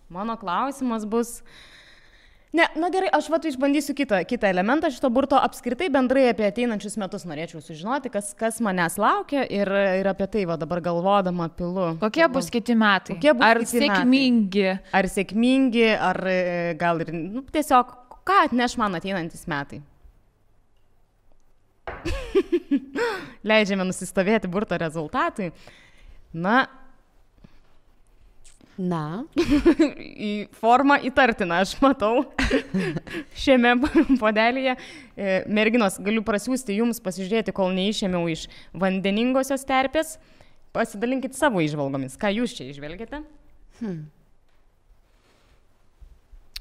Mano klausimas bus... Ne, na gerai, aš išbandysiu kitą elementą šito burto. Apskritai bendrai apie ateinančius metus norėčiau sužinoti, kas manęs laukia ir apie tai dabar galvodama pilu. Kokie bus kiti metai? Ar sėkmingi? Ar sėkmingi, ar gal ir tiesiog, ką atneš man ateinantis metai? Leidžiame nusistovėti burto rezultatui. Na. Į formą įtartiną, aš matau šiame podelyje. Merginos, galiu prasiųsti jums pasižiūrėti, kol neišėmiau iš vandeningosios terpės. Pasidalinkit savo įžvalgomis. Ką jūs čia įžvelgiate?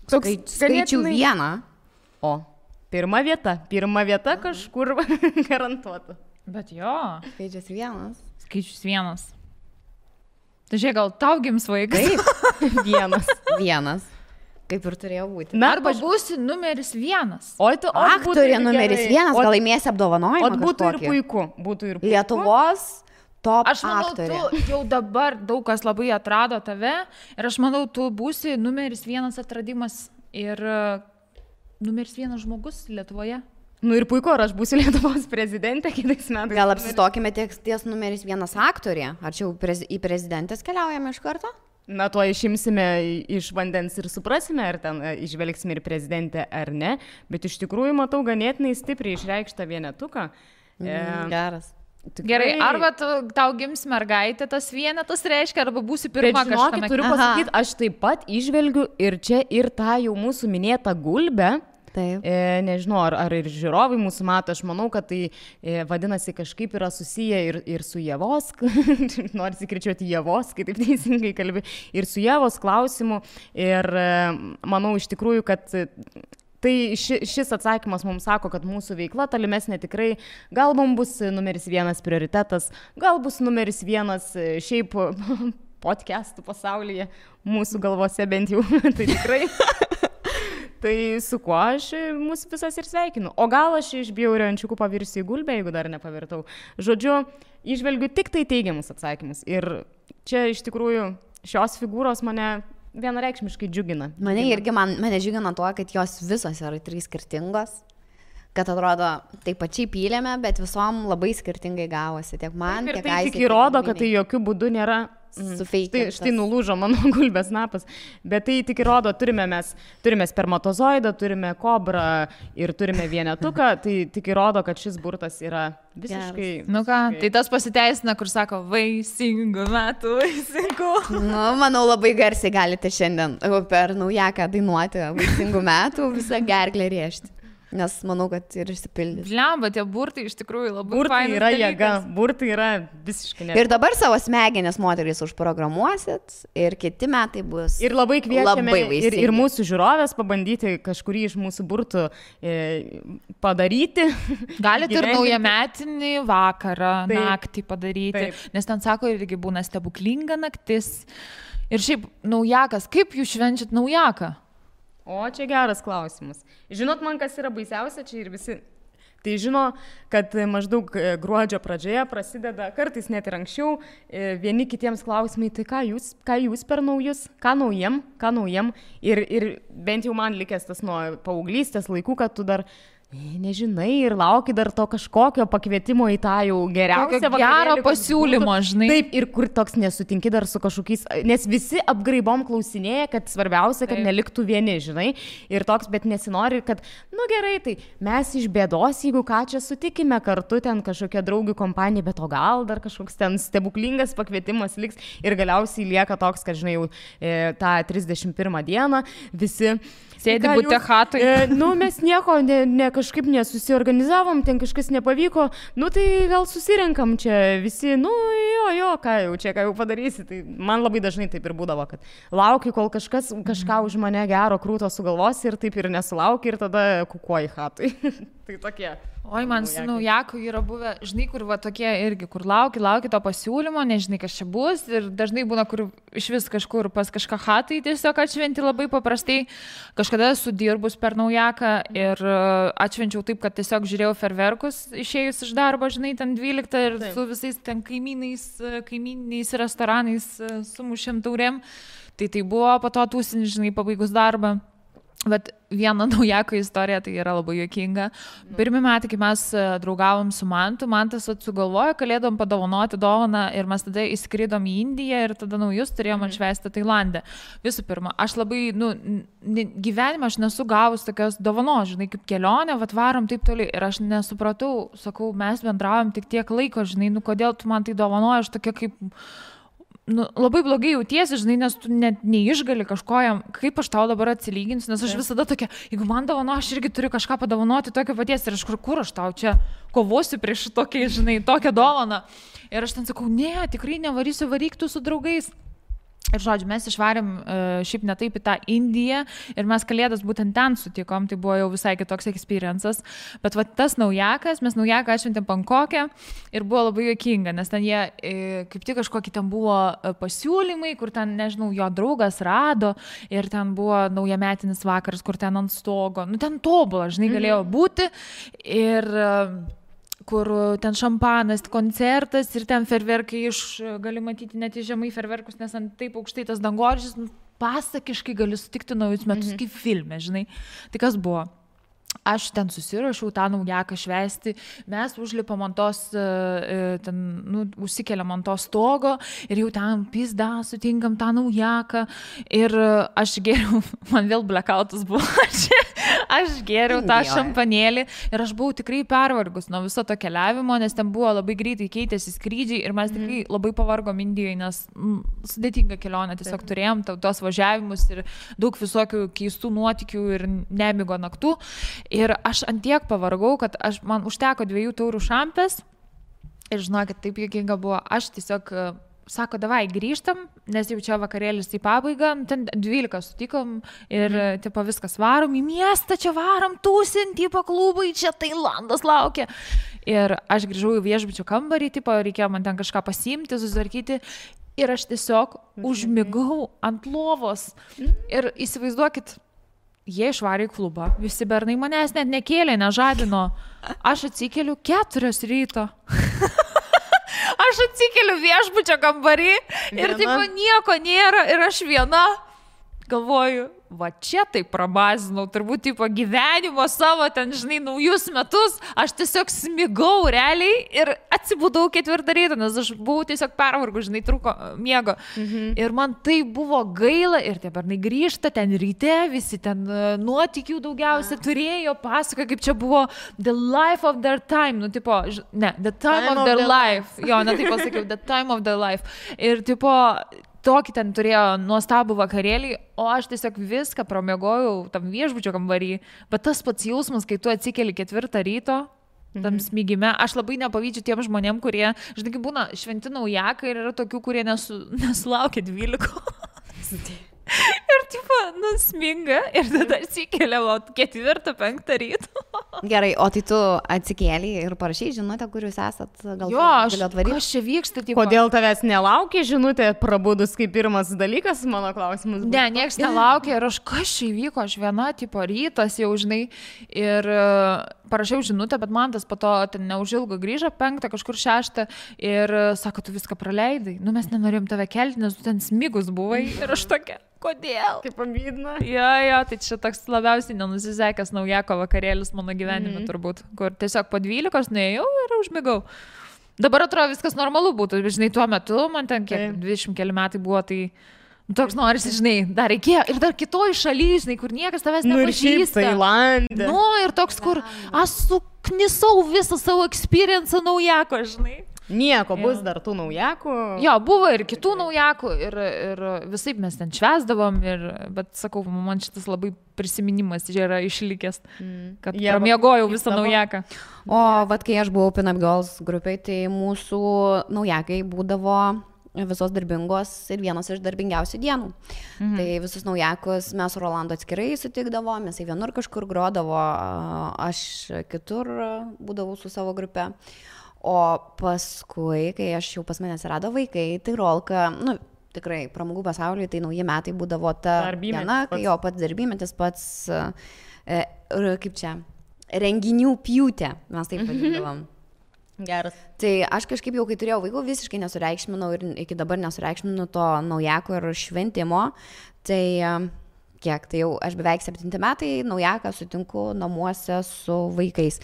Skaičių vieną. O, pirma vieta kažkur garantuota. Bet jo. Skaičius vienas. Tai žiūrėk, gal tau gims vaikas? Taip, vienas. Kaip ir turėjo būti. Arba būsi numeris 1. Aktorė numeris 1, gal laimėsi apdovanojimą. O būtų ir puiku. Lietuvos top aktorė. Aš manau, tu jau dabar daug kas labai atrado tave ir aš manau, tu būsi numeris 1 atradimas ir numeris 1 žmogus Lietuvoje. Ir puiku, ar aš būsiu Lietuvos prezidentė kitais metais. Gal apsistokime ties numeris 1 aktorė? Ar čia jau į prezidentės keliaujame iš karto? Na, tuo išimsime iš vandens ir suprasime, ar ten išvelgsime ir prezidentę ar ne. Bet iš tikrųjų matau ganėtinai stipriai išreikštą vienetuką. Geras. Tikrai... Gerai, arba tau gims mergaitė, tas vienetas reiškia, arba būsi pirma kažkame. Turiu pasakyti, aš taip pat išvelgiu ir čia ir tą jau mūsų minėtą gulbę. Taip. Nežinau, ar ir žiūrovai mūsų mato, aš manau, kad tai vadinasi kažkaip yra susiję ir su Ievos, nors įkričiuoti Ievos, kai taip teisingai kalbi, ir su Ievos klausimu. Ir manau iš tikrųjų, kad tai šis atsakymas mums sako, kad mūsų veikla tolimesnė tikrai, gal mums bus numeris 1 prioritetas, gal bus numeris 1 šiaip podcastų pasaulyje, mūsų galvose bent jau, tai tikrai... Tai su kuo aš mūsų visas ir sveikinu. O gal aš iš bjaurių ančiukų pavirsiu į gulbę, jeigu dar nepavirtau. Žodžiu, išvelgiu tik tai teigiamus atsakymus. Ir čia iš tikrųjų šios figūros mane vienareikšmiškai džiugina. Mane džiugina tuo, kad jos visos yra 3 skirtingos. Kad atrodo, taip pačiai pylėme, bet visom labai skirtingai gavosi. Tiek man, tiek tai tik įrodo, kad tai jokių būdų nėra... Štai nulūžo mano gulbės snapas, bet tai tik įrodo, turime spermatozoidą, turime kobrą ir turime vienetuką, tai tik įrodo, kad šis burtas yra visiškai... Nu ką, tai tas pasiteisina, kur sako, vaisingų metų, vaisingų. Manau, labai garsiai galite šiandien per naujaką dainuoti vaisingų metų, visą gerklę rėžti. Nes manau, kad ir išsipildys. Blemba, tie burtai iš tikrųjų labai burtai yra jėga, burtai yra visiškai ne. Ir dabar savo smegenis moterys užprogramuosit ir kiti metai bus. Ir labai kviečiame ir mūsų žiūrovės pabandyti kažkurį iš mūsų burtų padaryti. Galite ir naujametinį vakarą, naktį padaryti. Taip. Nes ten sako, irgi būna stebuklinga naktis. Ir šiaip naujakas, kaip jūs švenčiat naujaką? O, čia geras klausimas. Žinot, man kas yra baisiausia, čia ir visi. Tai žino, kad maždaug gruodžio pradžioje prasideda, kartais net ir anksčiau, vieni kitiems klausimai, tai ką jūs per naujus, ką naujiem. Ir bent jau man likęs tas nuo paauglystės laikų, kad tu dar... Nežinai ir lauki dar to kažkokio pakvietimo į tą jau geriausią gerą pasiūlymą, žinai. Taip, ir kur toks nesutinki dar su kažkokiais, nes visi apgraibom klausinėja, kad svarbiausia, kad neliktų vieni, žinai. Ir toks, bet nesinori, kad, gerai, tai mes iš bėdos, jeigu ką čia sutikime kartu, ten kažkokia draugių kompanija, bet o gal dar kažkoks ten stebuklingas pakvietimas liks ir galiausiai lieka toks, kad, žinai, jau tą 31 dieną visi... Sėdi bute chatui. Mes nieko, ne kažkaip nesusiorganizavom, ten kažkas nepavyko, nu tai gal susirenkam čia visi, nu jo, ką jau padarysi. Tai man labai dažnai taip ir būdavo, kad lauki, kol kažką už mane gero krūto sugalvos ir taip ir nesulauki ir tada kukuoji chatui. Tai tokie. Oi, man su naujaku yra buvę, žinai, kur va tokie irgi, kur lauki to pasiūlymo, nežinai, kas čia bus ir dažnai būna, kur iš vis kažkur pas kažką chatai tiesiog atšventi labai paprastai. Kažkada esu dirbus per naujaką ir atšvenčiau taip, kad tiesiog žiūrėjau ferverkus išėjus iš darbo, žinai, ten 12 ir su visais ten kaimyniniais restoranais sumušėm taurėm. Tai buvo po to tūsinį, žinai, pabaigus darbą. Bet viena naujako istorija, tai yra labai juokinga. Pirmi metai, kai mes draugavom su Mantu, Mantas sugalvojo, kalėdom padovanoti dovaną ir mes tada įskridom į Indiją ir tada naujus turėjom atšvęsti Tailande. Visų pirma, aš labai, gyvenime aš nesu gavus tokios dovanos, žinai, kaip kelionė, varom taip toli ir aš nesupratau, sakau, mes bendravom tik tiek laiko, žinai, kodėl tu man tai dovanoji, aš tokia kaip... labai blogai jautiesi, žinai, nes tu net neišgali kažkojam, kaip aš tau dabar atsilyginsiu, nes aš visada tokia, jeigu man dovano, aš irgi turiu kažką padovanoti tokio paties ir aš kur aš tau čia kovosiu prieš tokį, žinai, tokią dovaną. Ir aš ten sakau, ne, tikrai nevarysiu, varyk tu su draugais. Ir žodžiu, mes išvarėm šiaip ne taip į tą Indiją ir mes kalėdas būtent ten sutikom, tai buvo jau visai kitoks experiences, bet va tas naujakas, mes naujaką atšventėm Bankoke ir buvo labai juokinga, nes ten jie kaip tik kažkokie ten buvo pasiūlymai, kur ten, nežinau, jo draugas rado ir ten buvo naujametinis vakaras, kur ten ant stogo, ten tobula, žinai, galėjo būti ir... kur ten šampanas, koncertas ir ten ferverkai gali matyti net į žemai ferverkus, nes ant taip aukštai tas dangoraižis, pasakiškai gali sutikti naujus metus kaip filme, žinai. Tai kas buvo? Aš ten susirašiau tą naujaką švęsti, mes užlipam ant tos, užsikeliam ant to stogo ir jau ten pizda, sutinkam tą naujaką ir aš geriau, man vėl blackoutas buvo, aš geriau tą šampanėlį ir aš buvau tikrai pervargus nuo viso to keliavimo, nes ten buvo labai greitai keitėsi skrydžiai ir mes tikrai labai pavargom Indijoje, nes sudėtinga kelionė, tiesiog turėjom tos važiavimus ir daug visokių keistų nuotykių ir nemigo naktų. Ir aš antiek pavargau, kad man užteko 2 taurių šampės ir žinokit, taip juokinga buvo, aš tiesiog, sako, davai grįžtam, nes jau čia vakarėlis į pabaigą, ten 12 sutikom ir tipo viskas varom į miestą, čia varom tūsint, tipo klubai, čia Tailandas laukia. Ir aš grįžau į viešbučio kambarį, tipo reikėjo man ten kažką pasiimti, susitvarkyti. Ir aš tiesiog užmigau ant lovos. Ir įsivaizduokit, jie išvarė į klubą, visi bernai manęs net nekėlė, nežadino. Aš atsikeliu 4 ryto. Aš atsikeliu viešbučio kambarį ir tipo nieko nėra ir aš viena galvoju, va čia tai prabazinau, turbūt tipo gyvenimo savo ten, žinai, naujus metus, aš tiesiog smigau realiai ir atsibudau 4 ryto, nes aš buvau tiesiog pervargus, žinai, trūko miego. Ir man tai buvo gaila ir tie bernai grįžta ten ryte, visi ten nuotykių daugiausia turėjo, pasakoja, kaip čia buvo the life of their time, tipo, the time of their life. Jo, taip pasakiau, the time of their life. Ir tipo, tokį ten turėjo nuostabų vakarėlį, o aš tiesiog viską pramiegojau tam viešbučio kambarį. Bet tas pats jausmas, kai tu atsikeli 4 ryto, tam smigime, aš labai nepavydžiu tiem žmonėm, kurie, žinai, kaip būna šventi naujakai ir yra tokių, kurie nesulaukia 12. Ir tipo, sminga ir tada atsikeliavo 4-5 ryto. Gerai, o tai tu atsikėlė ir parašai žinutę, kur jūs esat, gal galėt varyti? Kas čia vyksta? Tipo... Kodėl tavęs nelaukia žinutė prabudus kaip pirmas dalykas, mano klausimas buvo. Ne, nieks nelaukia ir aš kas čia įvyko, aš viena, tipo, rytas jau, žinai, ir parašiau žinutę, bet man tas po to ten neužilgo grįžo 5, kažkur 6 ir sako, tu viską praleidai, mes nenorėjom tave kelti, nes tu ten smigus buvai ir aš tokia. Kodėl? Kaip pamydina. Jo, tai čia toks labiausiai nenusisekęs naujako vakarėlis mano gyvenime turbūt, kur tiesiog po 12 nuėjau ir užmigau. Dabar atrodo viskas normalu būtų, žinai, tuo metu, man ten kiek 20 keli metai buvo, tai toks norisi, žinai, dar reikėjo ir dar kitoj šalyje, žinai, kur niekas tavęs nepažįsta. Tailande. Ir toks, kur aš suknisau visą savo experience naujako, žinai. Nieko, bus dar tų naujakų. Jo, buvo ir kitų naujakų ir visaip mes ten švęsdavom, bet sakau, man šitas labai prisiminimas yra išlikęs, kad pramiegojau visą naujaką. O vat kai aš buvau Pin Up Girls grupiai, tai mūsų naujakai būdavo visos darbingos ir vienos iš darbingiausių dienų. Tai visus naujakus mes su Rolandu atskirai sutikdavom, mes vienur kažkur grodavo, aš kitur būdavau su savo grupe. O paskui, kai aš jau pas mane atsirado vaikai, tai Rolka, tikrai pramogų pasaulyje, tai nauji metai būdavo ta diena, kai jo pats darbymetis, pats, kaip čia, renginių pjūtė, mes taip vadindavom. Geras. Tai aš kažkaip jau, kai turėjau vaikų, visiškai nesureikšminau ir iki dabar nesureikšminu to naujako ir šventimo. Tai kiek, tai jau aš beveik 7 metai naujaką sutinku namuose su vaikais.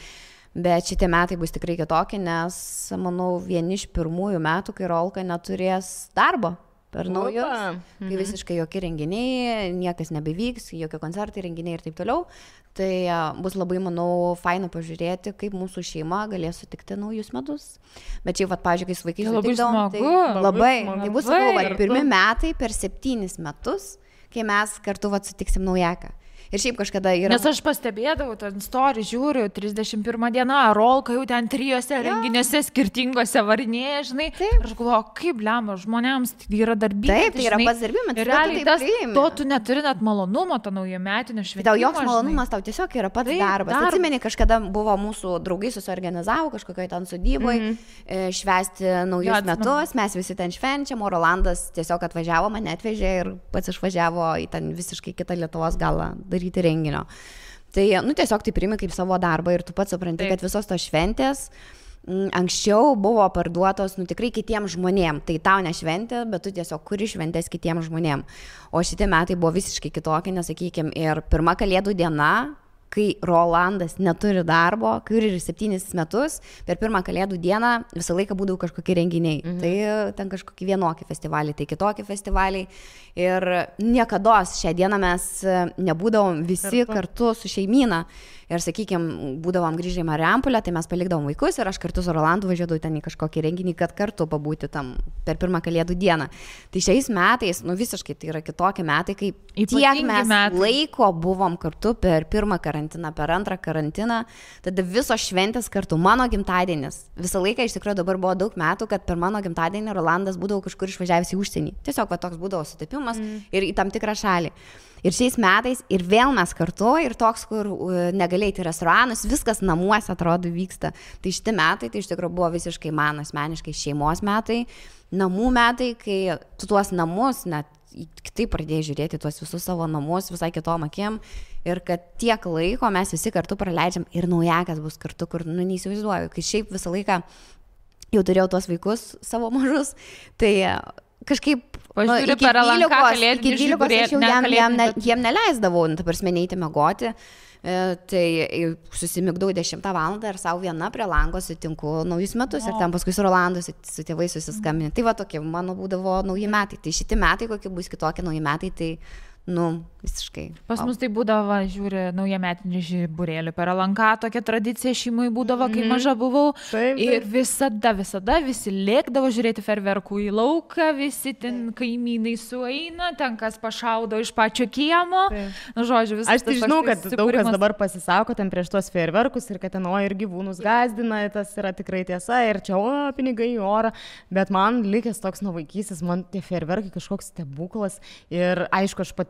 Bet šitie metai bus tikrai kitokie, nes, manau, vieni iš pirmųjų metų, kai Rolka neturės darbo per naujus, kai visiškai jokie renginiai, niekas nebevyks, jokie koncertai, renginiai ir taip toliau. Tai bus labai, manau, faina pažiūrėti, kaip mūsų šeima galės sutikti naujus metus. Bet čia, pavyzdžiui, kai su vaikais sutikdavom, tai labai, tai bus, sakau, pirmi metai per 7 metus, kai mes kartu sutiksim naujaką. Ir šiaip kažkada yra... Nes aš pastebėdavau, ten story žiūriu, 31 diena, Rolka jau ten 3 renginiuose skirtingose varinėje, žinai. Taip. Ir aš galvoju, kaip lemba, žmonėms tai yra darbymetis. Taip, tai yra pats darbymetis. Ir realiai tas, to tu neturi net malonumo, to naujametinio šventimo. Tau joks malonumas, tau tiesiog yra pats darbas. Atsimeni, kažkada buvo mūsų draugai susiorganizavo kažkokioje ten sodyboje, švęsti naujus metus, mes visi ten švenčiam, o Rolandas tiesiog atvažiavo, mane atvežė ir pats išvažiavo į ten visiškai kitą Lietuvos galą daryti renginio. Tai, tiesiog tai priimi kaip savo darbą ir tu pats supranti, kad visos tos šventės anksčiau buvo parduotos, tikrai kitiems žmonėms. Tai tau ne šventė, bet tu tiesiog kuri šventės kitiems žmonėms. O šitie metai buvo visiškai kitokie, nesakykime, ir pirma Kalėdų diena, kai Rolandas neturi darbo, kai ir 7 metus, per pirmą Kalėdų dieną visą laiką būdavo kažkokie renginiai. Tai ten kažkokie vienokie festivaliai, tai kitokie festivaliai. Ir niekados šią dieną mes nebūdavom visi kartu su šeimyna. Ir, sakykime, būdavom grįžę į Marijampolę, tai mes palikdavom vaikus ir aš kartu su Rolandu važiuodavau ten į kažkokį renginį, kad kartu pabūti tam per pirmą Kalėdų dieną. Tai šiais metais, visiškai tai yra kitokie metai, kai tiek mes laiko buvom kartu per pirmą karantiną, per antrą karantiną, tada visos šventės kartu, mano gimtadienis. Visą laiką iš tikrųjų dabar buvo daug metų, kad per mano gimtadienį Rolandas būdavo kažkur išvažiavęs į užsienį. Tiesiog toks būdavo sutapimas ir į tam tikrą šalį. Ir šiais metais ir vėl mes kartu ir toks, kur negalėjai į restoranus, viskas namuose atrodo vyksta. Tai šitie metai, tai iš tikrųjų buvo visiškai man asmeniškai šeimos metai, namų metai, kai tu tuos namus net kitaip pradėjai žiūrėti tuos visus savo namus visai kitom akim ir kad tiek laiko mes visi kartu praleidžiam ir naujakas bus kartu, kur neįsivaizduoju, kai šiaip visą laiką jau turėjau tuos vaikus savo mažus, tai kažkaip iki 12 aš jau jiem neleisdavau, ta prasme, neiti miegoti, tai susimigdau 10 valandą ir savo viena prie lango sutinku naujus metus ir ten paskui su Rolandu, su tėvais susiskambinti. Tai va tokie mano būdavo nauji metai. Tai šitie metai, kokie bus kitokie nauji metai, tai visiškai. Pas mus tai būdavo, žiūri, naujametinį žiburėlį per LNK, tokia tradicija šeimai būdavo, kai maža buvau. Ir visada visi lėkdavo žiūrėti ferverkų į lauką, visi ten kaimynai sueina, ten kas pašaudo iš pačio kiemo. Žodžiu, visas. Aš tai žinau, kad daug kas dabar pasisako ten prieš tuos ferverkus ir kad ten ir gyvūnus gazdina, tas yra tikrai tiesa ir čia pinigai į orą, bet man likęs toks nuo vaikystės, man tie ferverkai kažkoks stebuklas ir aišku, aš pati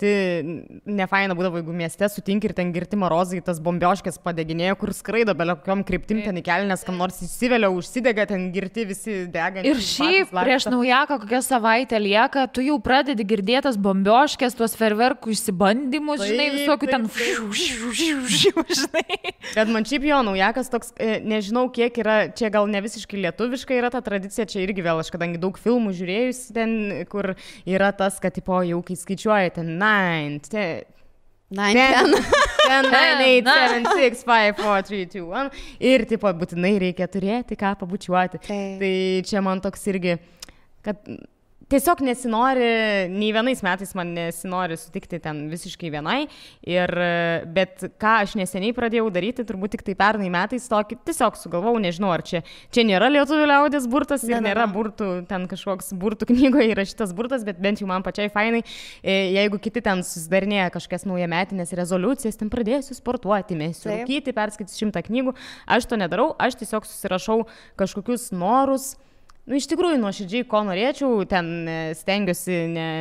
nefaina būdavo, jeigu mieste sutinki ir ten girti marozai, tas bombioškės padeginėjo, kur skraido belio kokiom kryptim ten į kelnes, kam nors įsivelia, užsidega, ten girti visi dega. Ir šiaip prieš naujaką kokią savaitę lieka, tu jau pradedi girdėtas bombioškės, tuos ferverkų išsibandymus, žinai, visokių ten žinai. Bet man šiaip jo naujakas toks, nežinau kiek yra, čia gal ne visiškai lietuviška yra ta tradicija, čia irgi vėl aš kadangi daug filmų žiūrėjus ten, kur yra tas, kad tipo jau kai skaičiuoja ten 9, 10, 9, 8, 7, 6, 5, 4, 3, 2, 1 ir tipo būtinai reikia turėti ką pabučiuoti. Tai čia man toks irgi, kad tiesiog nesinori, nei vienais metais man nesinori sutikti ten visiškai vienai, bet ką aš neseniai pradėjau daryti, turbūt tik tai pernai metais tokį, tiesiog sugalvau, nežinau, ar čia nėra lietuvių liaudės burtas ir nėra burtų, ten kažkoks burtų knygoje įrašytas burtas, bet bent jau man pačiai fainai, jeigu kiti ten susidarinėja kažkokias naujametinės rezoliucijas, ten pradėsiu sportuoti, mėsiu rūkyti, perskaitysiu 100 knygų, aš to nedarau, aš tiesiog susirašau kažkokius norus. Iš tikrųjų, nuoširdžiai, ko norėčiau, ten stengiuosi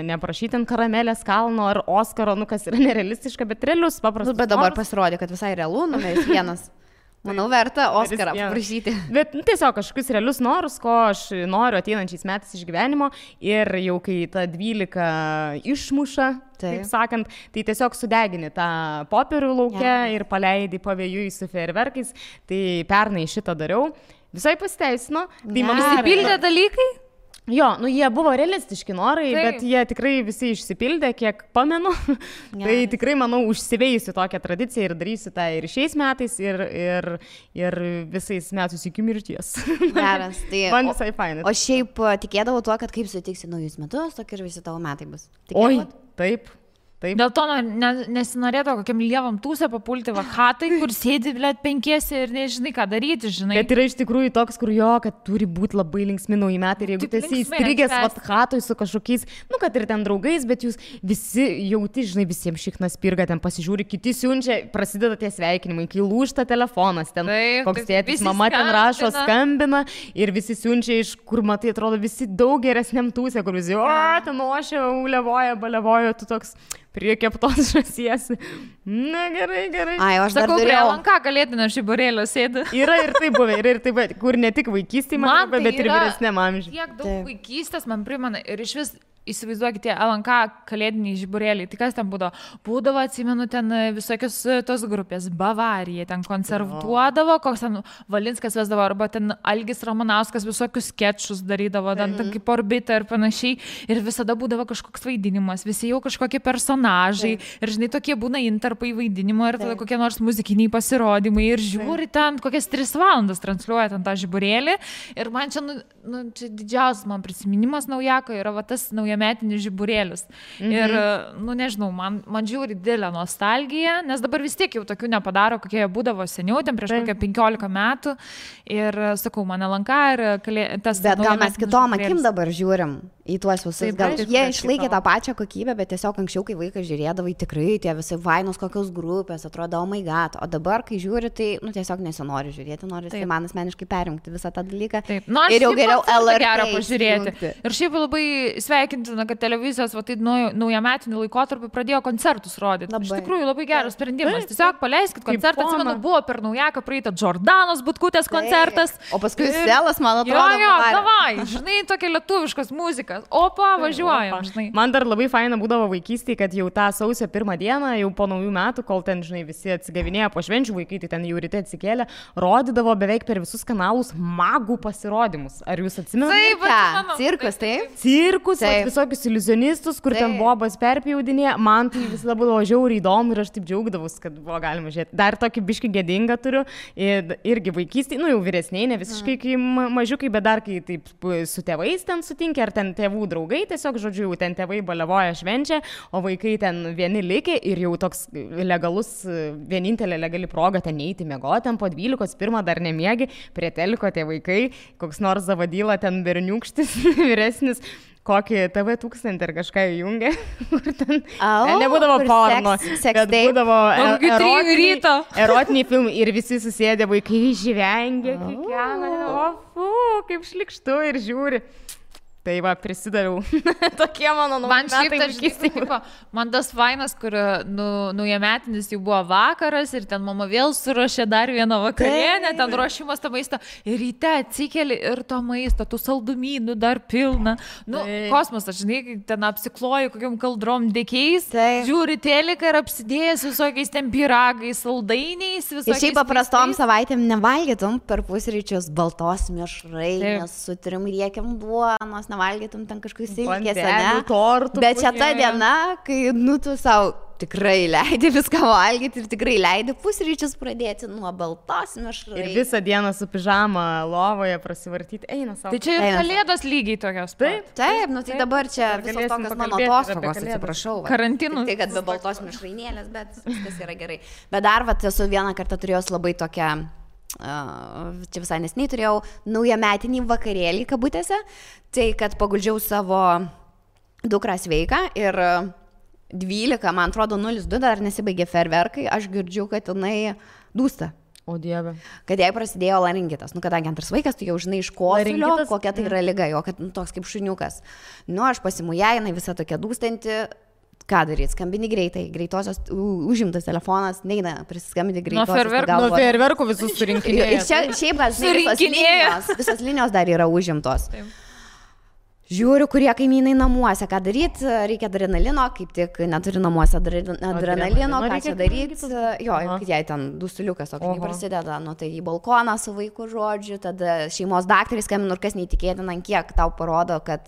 neprašyti ant karamelės kalno ar Oskaro, kas yra nerealistiška, bet realius paprastus. Bet dabar pasirodė, kad visai realu, numeris 1. Manau, verta Oskarą paprašyti. Bet tiesiog kažkokius realius norus, ko aš noriu ateinančiais metais iš gyvenimo ir jau kai ta 12 išmuša, taip sakant, tai tiesiog sudegini tą popierių lauke ir paleidi pavėjui su fejerverkais. Tai pernai šitą dariau. Visai pasiteisino. Tai man išsipildė dalykai? Jo, jie buvo realistiški norai, bet jie tikrai visi išsipildė, kiek pamenu. Tai tikrai, manau, užsiveisiu tokią tradiciją ir darysiu tą ir šiais metais, ir visais metus iki mirties. Geras. Tai, man visai fainai. O šiaip tikėdavau tuo, kad kaip sutiksi naujus metus, tokie ir visi tavo metai bus. Oi, taip. Taip. Dėl to nesinorėtų kokiam lievam tūsę papulti vakatai, kur sėdi, blėt, 5 ir nežinai, ką daryti, žinai. Bet yra iš tikrųjų toks, kur kad turi būti labai linksmi nauji metai ir jeigu tu esi įstrigęs vakatoj su kažkokiais, kad ir ten draugais, bet jūs visi jauti, žinai, visiems šiknas pirga, ten pasižiūri, kiti siunčia, prasideda tie sveikinimai, kai lūžta telefonas, ten koks tėtis, mama ten rašo, skambina ir visi siunčia iš, kur matai, atrodo, visi daug geresniam tūsė, kur visi, ten ošia, ulevoja, balevoja, tu toks prie keptos žąsies. Na, gerai. Ai, aš sakau, prie LNK kalėdinio žiburėlio sėdi. Yra ir tai buvę, kur ne tik vaikystėje, bet ir vyresniam amžiui. Tiek daug vaikystės man primena ir iš vis įsivaizduokite LNK kalėdiniai žiburėliai. Tai kas ten būdavo? Būdavo, atsimenu, ten visokios tos grupės. Bavarija ten koncertuodavo, koks ten Valinskas vesdavo, arba ten Algis Ramanauskas visokius skečus darydavo, ten kaip Orbita ir panašiai. Ir visada būdavo kažkoks vaidinimas, visi jau kažkokie personažai. Ir žinai, tokie būna intarpai vaidinimo ir tada kokie nors muzikiniai pasirodymai. Ir žiūri ten, kokias 3 valandas transliuoja ten tą žiburėlį. Ir man čia, čia didžiausias man prisiminimas naujako yra va tas naujametinis žiburėlis. Ir, nežinau, man žiūri didelę nostalgiją, nes dabar vis tiek jau tokių nepadaro, kokie jie būdavo seniau, ten prieš kokią 15 metų. Ir sakau, man LNK ir tas... Bet gal mes kitom akim dabar žiūrim į tuos visus. Gal jie išlaikė tą pačią kokybę, bet tiesiog anksčiau, kai vaikas žiūrėdavai, tikrai tie visi vainos kokios grupės, atrodo, oh my god. O dabar, kai žiūri, tai tiesiog nesinori žiūrėti, nori tai man asmeniškai perjungti visą tą dalyką. Ir jau geriau LRT pažiūrėti. Ir šiaip labai sveikintina, kad televizijos tai naujametiniu laikotarpiu pradėjo koncertus rodyti. Iš tikrųjų, labai geras sprendimas. Tiesiog paleiskit koncertą. Atsimenu, buvo per naujaką praeitą Džordanos Butkutės koncertas. O paskui Selas, man atrodo. Jo, davai, žinai, tokia lietuviškas muzikas. Opa, važiuojam, žinai. Man dar labai faina būdavo vaikystėje, kad jau tą sausio 1 dieną, jau po naujų metų, kol ten, žinai, visi atsigavinėjo po švenčių, vaikai tai ten jau ryte atsikėlė, rodydavo beveik per visus kanalus magų pasirodymus. Ar jūs atsimenate? Taip, cirkus, taip? Cirkus, visokius iliuzionistus, kur ten bobas perpjaudinė. Man tai visada būdavo žiauriai įdomu ir aš taip džiaugdavus, kad buvo galima žiūrėti. Dar tokį biškį gėdingą turiu, irgi vaikystėje, jau vyresniai, ne visiškai kai mažiukai, bet dar kai taip su tėvais ten sutinkia, ar ten tėvų draugai, tiesiog, žodžiu, jau ten tėvai balevoja švenčia, o vaikai ten vieni likė ir jau toks legalus, vienintelė legali proga ten neiti miegoti, ten po 12, dar nemiegi, prie teliko tie vaikai, koks nors Zavadyla ten berniukštis, vyresnis, kokį TV1000 ir kažką įjungė, kur ten nebūdavo porno, bet būdavo erotiniai filmai ir visi susėdė, vaikai žvengė, kaip šlikštu ir žiūri. Tai va, prisidaviau. Tokie mano naujametai vaikystėje. Man tas fainas, kur naujametinis jau buvo vakaras ir ten mama vėl suruošė dar vieną vakarienę, ten ruošimas to maisto. Ir ryte atsikeli ir to maisto, tų saldumynų dar pilna. Kosmosas, žinai, ten apsikloji kokiam kaldrom dėkiais, žiūri teliką ir apsidėjęs visokiais ten pyragais, saldainiais, visokiais. Ir šiaip paprastom savaitėm nevalgytum per pusryčius baltos mišrainės su 3 riekiam duonos, nevalgytum ten kažkokius silkės, ne? Bet čia ta diena, kai, tu savo tikrai leidai viską valgyti ir tikrai leidai pusryčius pradėti nuo baltos mišrai. Ir visą dieną su pižama lovoje prasivartyti, eina savo. Tai čia ir kalėdos lygiai tokios. Taip, nu tai dabar čia visos tokios mano atostogos, atsiprašau. Karantinų. Tai, kad be baltos mišrainėlės, bet viskas yra gerai. Bet dar, esu vieną kartą turėjus labai tokią, čia visai nesiniai turėjau naujametinį vakarėlį kabutėse, tai kad paguldžiau savo dukrą sveiką ir 12, man atrodo, 02 dar nesibaigė ferverkai, aš girdžiu, kad jinai dūsta. O Dieve. Kad jai prasidėjo laringitas. Kadangi antras vaikas, tu jau žinai iš kosulio, kokia tai yra liga, jo, kad toks kaip šuniukas. Aš pasimu ją, jinai visa tokia dūstanti. Ką daryti? Skambini greitai. Greitosios užimtas telefonas, neina prisiskambinti greitosios. Nuo ferverkų visus surinkinėjo. Ir čia šiaip, visos linijos dar yra užimtos. Taip. Žiūriu, kurie kaimynai namuose, ką daryti, reikia adrenalino, kaip tik neturi namuose adrenalino, ką čia daryti, kad jai ten dusuliukas, o kai prasideda, tai į balkoną su vaiku žodžiu, tada šeimos daktarai skambina ir kas neįtikėtina, kiek tau parodo, kad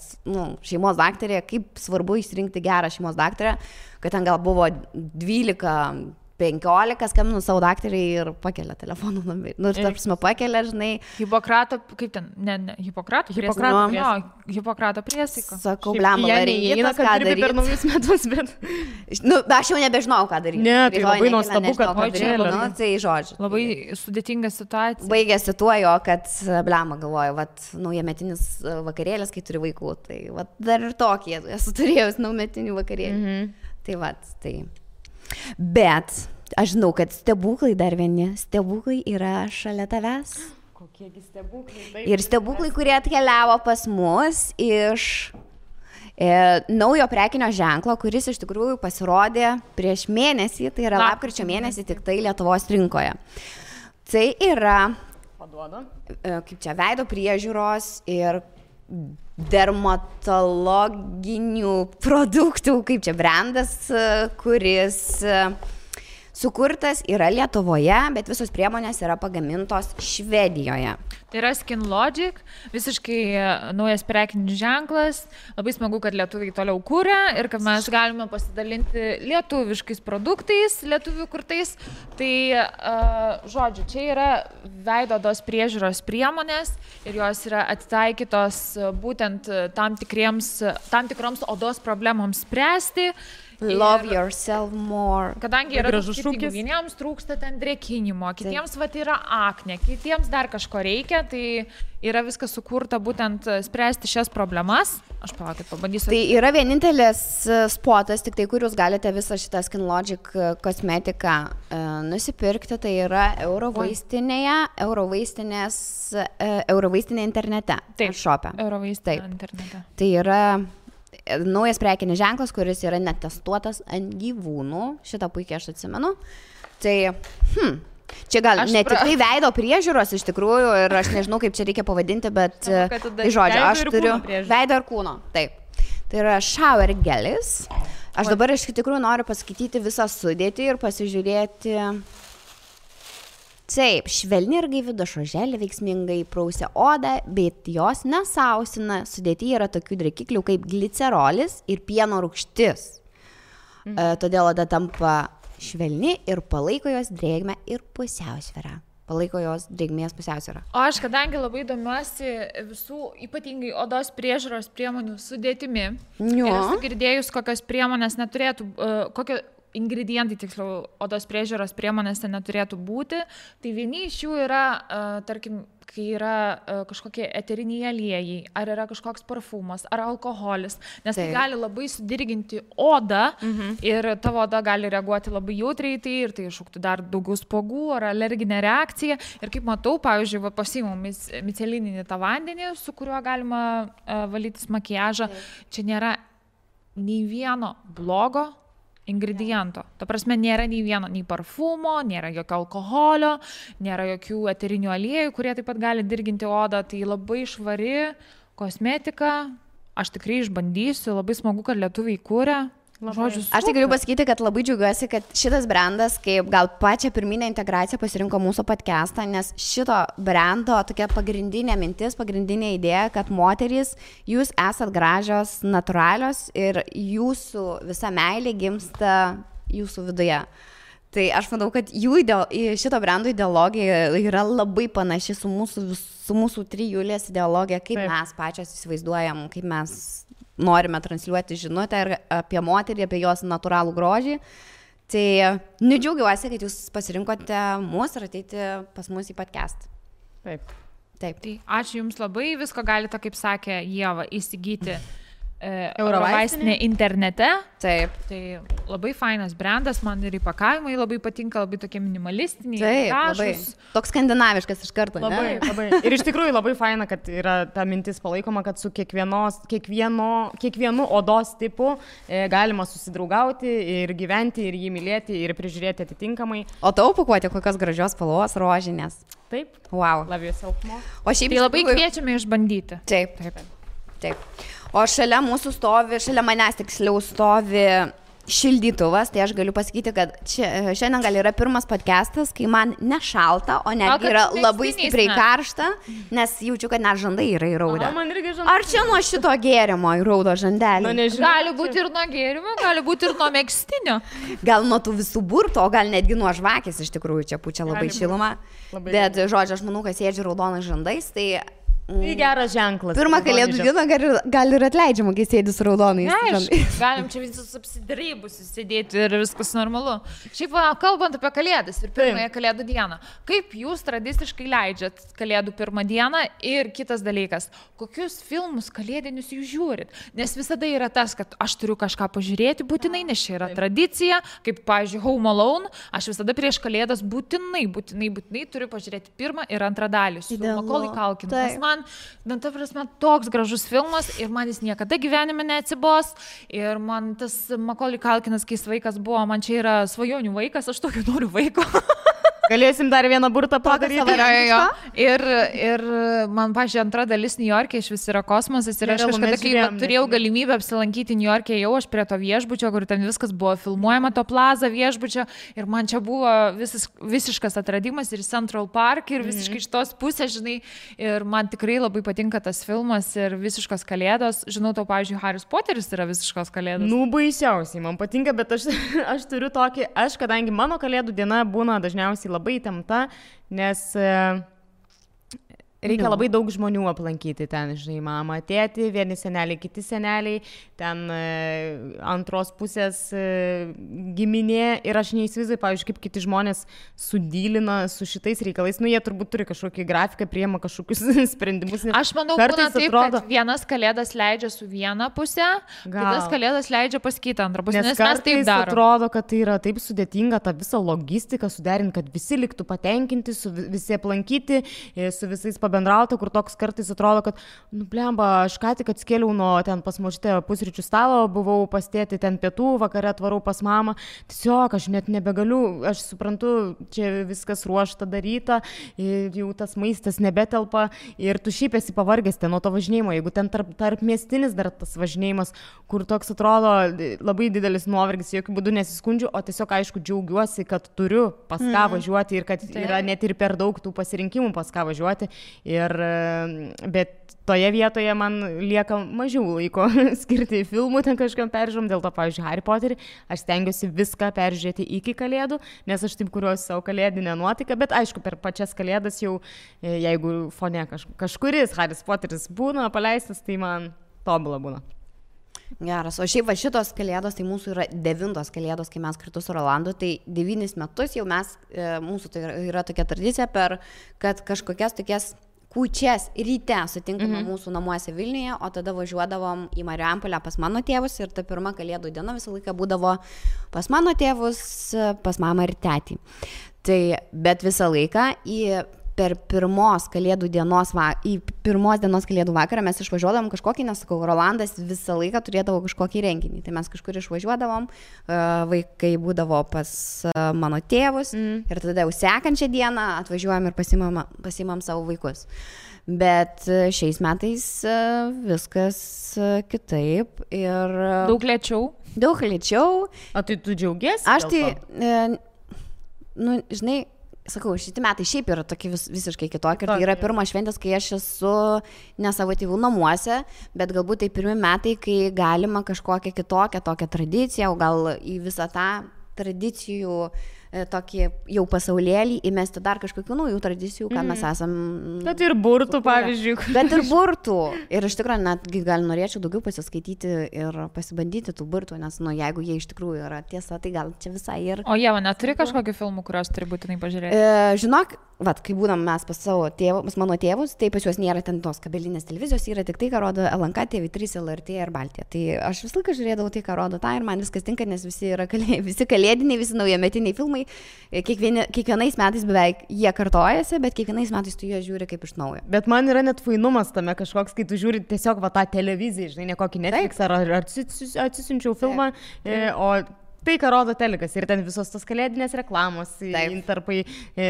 šeimos daktarė, kaip svarbu išsirinkti gerą šeimos daktarę, kad ten gal buvo 12, 15, skambinu savo daktarį ir pakelia telefonų numerį. Ir tarpsime pakelia, žinai. Hipokrato, kaip ten, Hipokrato priesaika. Sakau, blemba, laringitas, ką daryti. Per naujus metus, bet... Aš jau nebežinau, ką daryti. Ne, tai labai nuostabu, kad pakelia. Tai žodžiu. Labai sudėtinga situacija. Baigėsi tuo jo, kad blemba galvoju, naujametinis vakarėlis, kai turi vaikų. Tai dar ir tokie, esu turėjus naujametinių vakarėlį. Tai. Bet aš žinau, kad stebuklai dar vieni, stebuklai yra šalia tavęs. Kokiegi stebuklai? Ir stebuklai, kurie atkeliavo pas mus iš naujo prekinio ženklo, kuris iš tikrųjų pasirodė prieš mėnesį, tai yra lapkričio mėnesį tik tai Lietuvos rinkoje. Tai yra, kaip čia, veido priežiūros ir dermatologinių produktų, kaip čia brandas, kuris sukurtas yra Lietuvoje, bet visos priemonės yra pagamintos Švedijoje. Tai yra Skin Logic, visiškai naujas prekinis ženklas, labai smagu, kad lietuviai toliau kūrė ir kad mes galime pasidalinti lietuviškais produktais, lietuvių kurtais. Tai, žodžiu, čia yra veido odos priežiūros priemonės ir jos yra atitaikytos būtent tam tikroms odos problemoms spręsti. Love yourself more. Kadangi yra skirtingų, vieniems trūksta ten drėkinimo, kitiems yra aknė, kitiems dar kažko reikia, tai yra viskas sukurta būtent spręsti šias problemas. Aš palaukit, pabandysiu. Tai yra vienintelis spotas, tik tai, kur jūs galite visą šitą Skin Logic kosmetiką nusipirkti, tai yra Eurovaistinė internete. Taip, šope. Eurovaistinė internete. Tai yra naujas prekinis ženklas, kuris yra netestuotas ant gyvūnų. Šitą puikiai aš atsimenu. Tai, čia gal ne tik tai veido priežiūros iš tikrųjų ir aš nežinau, kaip čia reikia pavadinti, bet tai žodžiu, aš turiu veido ir kūno. Taip. Tai yra shower gelis. Aš dabar iš tikrųjų noriu paskaityti visą sudėtį ir pasižiūrėti. Taip, švelni ir gaivi dušo želė veiksmingai prausia odą, bet jos nesausina. Sudėtyje yra tokių drėkiklių kaip glicerolis ir pieno rūgštis. Todėl oda tampa švelni ir palaiko jos drėgmę ir pusiausvyrą. Palaiko jos drėgmės pusiausvyrą. O aš, kadangi labai domiuosi visų, ypatingai odos priežiūros priemonių sudėtimi, ir esu girdėjus, kokios priemonės neturėtų, ingredientai, tiksliau, odos priežiūros priemonėse neturėtų būti, tai vieni iš jų yra, tarkim, kai yra kažkokie eteriniai aliejai, ar yra kažkoks parfumas, ar alkoholis, nes tai gali labai sudirginti odą ir tavo oda gali reaguoti labai jautriai tai ir tai iššauktų dar daugiau spuogų ar alerginę reakciją. Ir kaip matau, pavyzdžiui, pasiimu micelininį tą vandenį, su kuriuo galima valytis makiažą, čia nėra nei vieno blogo ingrediento. Ta prasme, nėra nei vieno, nei parfumo, nėra jokio alkoholio, nėra jokių eterinių aliejų, kurie taip pat gali dirginti odą. Tai labai švari kosmetika. Aš tikrai išbandysiu. Labai smagu, kad lietuviai kūrė. Žodžiu, aš tik galiu pasakyti, kad labai džiaugiuosi, kad šitas brandas, kaip gal pačią pirminę integraciją pasirinko mūsų podcastą, nes šito brando tokia pagrindinė mintis, pagrindinė idėja, kad moterys, jūs esat gražios, natūralios ir jūsų visa meilė gimsta jūsų viduje. Tai aš manau, kad šito brando ideologija yra labai panaši su mūsų trijulės ideologija, kaip mes pačios įsivaizduojam, kaip mes norime transliuoti žinutę ir apie moterį, apie jos natūralų grožį. Tai džiaugiuosi, kad jūs pasirinkote mus ir ateiti pas mus į podcast. Taip. Tai ačiū Jums labai, visko galite, kaip sakė Ieva, įsigyti Eurovaistinė internete. Taip. Tai labai fainas brandas, man ir įpakavimai labai patinka, labai tokie minimalistiniai. Taip, labai. Toks skandinaviškas iš karto. Labai, labai. Ir iš tikrųjų labai faina, kad yra ta mintis palaikoma, kad su kiekvienu odos tipu galima susidraugauti ir gyventi, ir jį mylėti, ir prižiūrėti atitinkamai. O tavo pakuotė kokios gražios spalvos, rožinės. Taip. Wow. Love yourself more. O šiaip tai labai kviečiame išbandyti. Taip. O šalia manęs tiksliau stovi šildytuvas, tai aš galiu pasakyti, kad šiandien gal yra pirmas podcastas, kai man nešalta, o netgi yra labai stipriai karšta, nes jaučiu, kad net žandai yra įraudę. Ar čia nuo šito gėrimo įraudo žandelį? Gali būti ir nuo gėrimo, gali būti ir nuo megztinio. Gal nuo tų visų burtų, o gal netgi nuo žvakės, iš tikrųjų čia pučia labai šilumą. Bet, žodžiu, aš manau, kad sėdžiu raudonais žandais, tai... Tai geras ženklas. Pirmą kalėdų dieną gal ir atleidžiama, kai sėdi su raudonais. Galim čia visus apsidarybusius sėdėti ir viskas normalu. Šiaip kalbant apie kalėdas ir pirmąją kalėdų dieną, kaip jūs tradiciškai leidžiat kalėdų pirmą dieną ir kitas dalykas, kokius filmus kalėdinius jūs žiūrit? Nes visada yra tas, kad aš turiu kažką pažiūrėti būtinai, nes čia yra tradicija, kaip, pavyzdžiui, Home Alone, aš visada prieš kalėdas būtinai turiu pažiūrėti pirmą ir antrą dalį su Macaulay Culkin. Ta prasme, toks gražus filmas ir man jis niekada gyvenime neatsibos ir man tas Macaulay Culkinas, kai vaikas buvo, man čia yra svajonių vaikas, aš tokio noriu vaiko. Galėsim dar vieną burtą padaryti. Ir man, pažiūrėjau, antra dalis New York'e iš vis yra kosmosas ir aš kažkada, kai turėjau galimybę apsilankyti New York'e, jau aš prie to viešbučio, kur ten viskas buvo filmuojama, to plaza viešbučio ir man čia buvo visiškas atradimas ir Central Park ir visiškai iš tos pusės, žinai, ir man tikrai labai patinka tas filmas ir visiškos kalėdos. Žinau, tau, pavyzdžiui, Harry Potteris yra visiškos kalėdos. Baisiausiai, man patinka, bet aš turiu tokį, kadangi mano kalėdų diena būna dažniausiai labai įtempta, nes reikia labai daug žmonių aplankyti ten, žinai, mama, tėti, vieni seneliai, kiti seneliai, ten antros pusės giminė ir aš neįsivaizduoju, pavyzdžiui, kaip kiti žmonės sudylina su šitais reikalais, jie turbūt turi kažkokį grafiką, priema kažkokius sprendimus. Aš manau, būna taip, kad vienas kalėdas leidžia su viena pusė, kitas kalėdas leidžia pas kitą antrą pusę, nes mes taip darom. Atrodo, kad tai yra taip sudėtinga tą visą logistiką suderinti, kad visi liktų patenkinti, visi aplankyti, su visais bendrauta, kur toks kartais atrodo, kad, blemba, aš ką tik atskėliau nuo ten pas močiutę pusryčių stalo, buvau pas tėtį ten pietų, vakare atvarau pas mamą, tiesiog aš net nebegaliu, aš suprantu, čia viskas ruošta daryta, jau tas maistas nebetelpa ir tu šiaip esi pavargęs ten nuo to važinėjimo, jeigu ten tarp miestinis dar tas važinėjimas, kur toks atrodo labai didelis nuovargis, jokių būdų nesiskundžiu, o tiesiog aišku džiaugiuosi, kad turiu pas ką važiuoti ir kad yra net ir per daug tų pasirinkimų pas ką važiuoti. Bet toje vietoje man lieka mažiau laiko skirti filmų, ten kažkam peržiūrom, dėl to, pavyzdžiui, Harry Potterį, aš stengiuosi viską peržiūrėti iki kalėdų, nes aš taip kuriuosi savo kalėdinę nuotaiką, bet aišku, per pačias kalėdas jau, jeigu fone kažkuris Harry Potteris būna paleistas, tai man tobula būna. Geras, o šiaip va šitos kalėdos, tai mūsų yra 9 kalėdos, kai mes kartu su Rolandu, tai 9 metus jau mes, mūsų tai yra tokia tradicija, kad kažkokias tokias kūčias ryte sutinkame mūsų namuose Vilniuje, o tada važiuodavom į Marijampolę pas mano tėvus ir ta pirma kalėdų diena visą laiką būdavo pas mano tėvus, pas mamą ir tetį. Tai, bet visą laiką per pirmos dienos kalėdų vakarą mes išvažiuodavom kažkokį, nesakau, Rolandas visą laiką turėdavo kažkokį renginį. Tai mes kažkur išvažiuodavom, vaikai būdavo pas mano tėvus ir tada jau sekančią dieną atvažiuojam ir pasimam savo vaikus. Bet šiais metais viskas kitaip ir... Daug lėčiau. O tai tu džiaugiesi? Aš tai, žinai, sakau, šitie metai šiaip yra tokie visiškai kitokie. Tai yra pirmas šventės, kai aš esu ne savo tėvų namuose, bet galbūt tai pirmi metai, kai galima kažkokią kitokią tokią tradiciją, o gal į visą tą tradicijų tokį jau pasaulėlį, įmesti dar kažkokių naujų tradicijų, ką mes esam. Bet ir burtų, pavyzdžiui. Bet ir burtų. Ir iš tikrųjų netgi gal norėčiau daugiau pasiskaityti ir pasibandyti tų burtų, nes jeigu jie iš tikrųjų yra tiesa, tai gal čia visai ir... O Ieva, neturi kažkokių filmų, kuriuos turi būtinai pažiūrėti? Žinok, kai būdam mes pas savo tėvus, mano tėvus, tai pas juos nėra ten tos kabelinės televizijos, yra tik tai, ką rodo LNK, TV3, LRT ir Baltija. Tai aš visą laiką žiūrėdavau tai, ką rodo tą ir man viskas tinka, nes visi kalėdiniai, visi naujametiniai filmai. Kiekvienais metais beveik jie kartojasi, bet kiekvienais metais tu juos žiūri kaip iš naujo. Bet man yra net fainumas tame kažkoks, kai tu žiūri tiesiog tą televiziją, žinai, ne kokį Netflix ar atsisiunčiau filmą, o tai, ką rodo telikas ir ten visos tos kalėdinės reklamos, intarpai,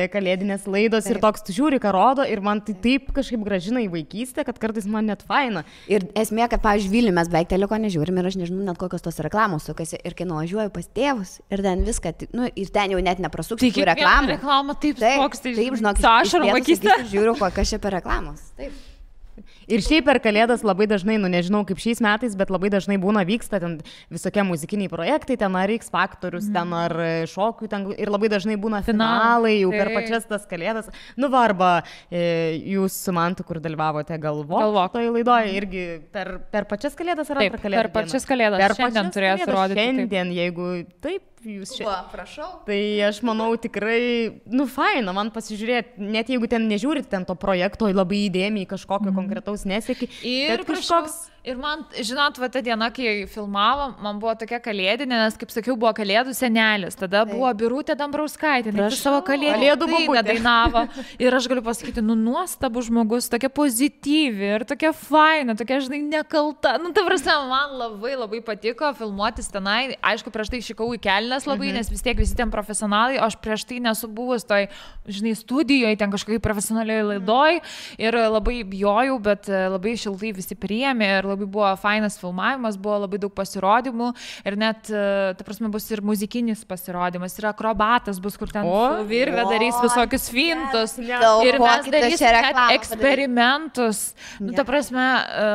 kalėdinės laidos ir toks tu žiūri, ką rodo ir man tai taip kažkaip gražina į vaikystę, kad kartais man net faina. Ir esmė, kad, pavyzdžiui, Vilniuje mes beveik teliko nežiūrim ir aš nežinau net kokios tos reklamos sukasi ir kai nuvažiuoju pas tėvus ir ten viską, ir ten jau net neprasuksiu tų reklamų. Reklama taip, taip, žinok, žiūriu, kas čia per reklamos. Taip. Ir šiaip per Kalėdas labai dažnai, nežinau kaip šiais metais, bet labai dažnai vyksta ten visokie muzikiniai projektai, ten ar X Faktorius, ten ar šokių, ten ir labai dažnai būna finalai jau per pačias tas Kalėdas. Arba jūs su Mantu, kur dalyvavote Galvok toje laidoje, irgi per pačias Kalėdas ar per Kalėdas? Per pačias Kalėdas. Šiandien turėtų rodyti. Šiandien, jeigu taip. Jūs čia. Prašau. Tai aš manau tikrai, faina man pasižiūrėti, net jeigu ten nežiūrit ten to projekto labai įdėmiai kažkokio konkretaus nesėki. Ir kažkoks... Ir man, žinot, ta diena, kai filmavom, man buvo tokia kalėdinė, nes, kaip sakiau, buvo Kalėdų senelis. Tada buvo Birutė Dambrauskaitė, nes savo Kalėdų dainą dainavo. Ir aš galiu pasakyti, nuostabus žmogus, tokia pozityvi ir tokia faina, tokia, žinai, nekalta. Ta prasme, man labai labai patiko filmuotis tenai. Aišku, prieš tai išikau į kelnes labai, nes vis tiek visi ten profesionalai, o aš prieš tai nesu buvus toj, žinai, studijoje, ten kažkokiai profesionaliai laidoj ir labai bijojau, bet labai šiltai visi priėmė ir labai buvo fainas filmavimas, buvo labai daug pasirodymų ir net, ta prasme, bus ir muzikinis pasirodymas, ir akrobatas bus, kur ten su virve darys visokius fintus ir mes darysim net eksperimentus. Ta prasme,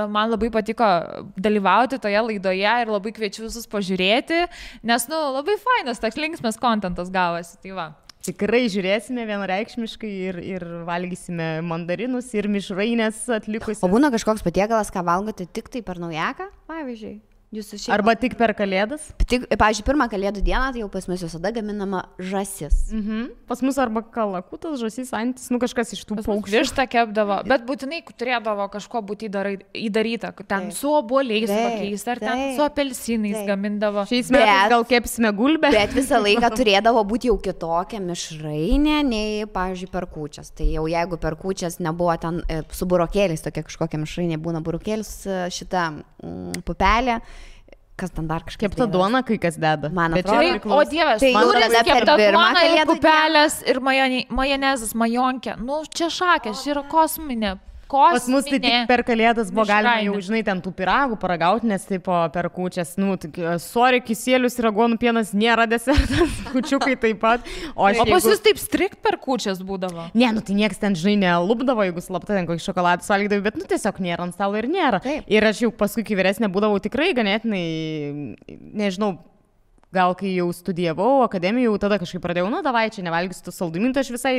man labai patiko dalyvauti toje laidoje ir labai kviečiu visus pažiūrėti, nes, labai fainas, toks linksmas kontentas gavosi, tai va. Tikrai žiūrėsime vienareikšmiškai ir valgysime mandarinus ir mišrainės atlikusius. O būna kažkoks patiekalas, ką valgote tik tai per naujaką, pavyzdžiui? Arba tik per Kalėdas? Pavyzdžiui, pirmą Kalėdų dieną, tai jau pas mus visada gaminama žąsis. Pas mus arba kalakutas, žąsis, antis, kažkas iš tų paukščių. Vištą kepdavo, bet būtinai turėdavo kažko būti įdaryta, ten su obuoliais kokiais, ar ten su apelsinais gamindavo. Šiais metais gal kepsime gulbę. Bet visą laiką turėdavo būti jau kitokia mišrainė, nei, pavyzdžiui, per kūčias. Tai jau jeigu per kūčias nebuvo ten su burokėliais, tokia kažkokia mišrainė, būna burokėlis, šita pupelė. Kas ten dar kažkaip. Kepta duona, kai kas deda. Man atrodo, o Dievas, tai kepta duona ir pupelės ir majonezas, majonkė. Čia šakės, čia yra kosminė. Pas mus tai tik per Kalėdas buvo galima jau, žinai, ten tų pyragų paragauti, nes taip per kūčias, sorry, kisielius ir aguonų pienas nėra desertas, kūčiukai taip pat. O pas jūs taip strikt per kūčias būdavo? Ne, tai nieks ten, žinai, nelupdavo, jeigu slapta ten kokį šokoladą valgydavo, bet, tiesiog nėra ant stalo ir nėra. Taip. Ir aš jau paskui, kai vyresnė būdavau, tikrai ganėtinai, nežinau, gal kai jau studijavau akademiją, jau tada kažkaip pradėjau, davai, čia nevalgysiu tų saldumynų, tai aš visai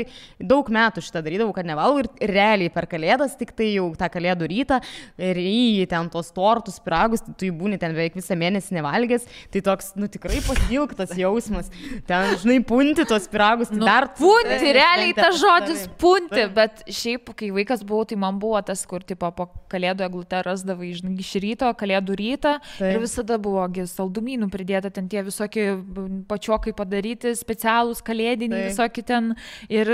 daug metų šitą darydavau, kad nevalgau ir realiai per Kalėdas, tik tai jau tą Kalėdų rytą, ryji ten tos tortus, piragus, tai tu jį būni ten beveik visą mėnesį nevalgęs, tai toks, tikrai pasilgtas jausmas, ten, žinai, punti tos piragus, tai dar... Punti, realiai tas žodis punti, bet šiaip, kai vaikas buvau, tai man buvo tas, kur, tipo, po Kalėdų eglutę rasdavai, žinai, iš ryto, Kalėdų rytą ir visada buvo saldumynų pridėta ten tie visokie pačiokai padaryti, specialūs kalėdiniai, visokie ten ir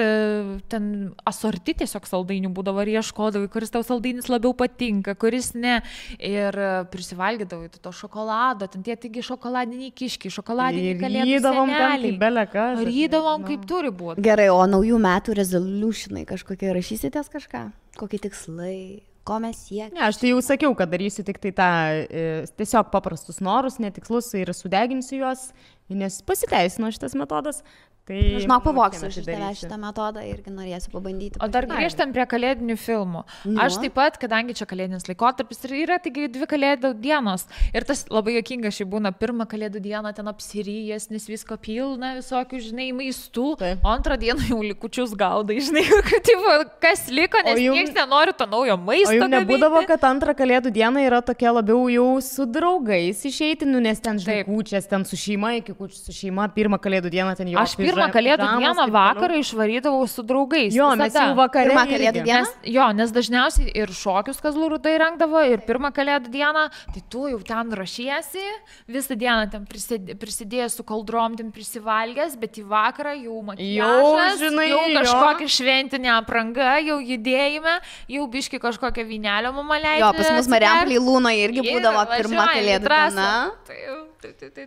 ten asorti tiesiog saldainių būdavo ir ieškodavai, kuris tau saldainis labiau patinka, kuris ne. Ir prisivalgydavai to šokolado, ten tie taigi šokoladiniai kiškiai, šokoladiniai kalėdų seneliai. Rydavom kaip turi būti. Gerai, o naujų metų resolutionai kažkokie rašysitės kažką? Kokie tikslai? Ko mes siekiame? Ne, aš tai jau sakiau, kad darysiu tik tai tą tiesiog paprastus norus, netikslus ir sudeginsiu juos nes pasiteisino šitas metodas. Tai žinau, pavoksiu iš tavęs šitą metodą irgi norėsiu pabandyti. O dar grįžtam prie kalėdinių filmų. Aš taip pat, kadangi čia kalėdinis laikotarpis ir yra taigi 2 kalėdų dienos. Ir tas labai juokinga šiai būna, pirmą kalėdų dieną ten apsiryjęs, nes visko pilna, visokių, žinai, maistų. O antrą dieną jau likučius gaudai, žinai, kas liko, nes niekas nenori to naujo maisto. O jau nebūdavo, kad antrą kalėdų dieną yra tokia labiau jau su draugais išeiti, nes ten, žinai, kūčias, ten su šeima, iki kūčių su šeima, pirmą kalėdų dieną ten jau. Pirmą kalėdų dieną vakarą išvarydavau su draugais. Jo, mes jau vakarą. Pirmą kalėdų dieną? Nes dažniausiai ir šokius Kazlų Rūdoj rengdavo, ir pirmą kalėdų dieną, tai tu jau ten rašiesi, visą dieną ten prisidėjęs su kaldrom, ten prisivalgęs, bet į vakarą jau makiažas, jau kažkokia šventinė apranga, jau judėjime, jau biški kažkokią vynelio mama leidžia. Jo, pas mus Marijampolėj Lūnoje irgi būdavo pirmą kalėdų dieną.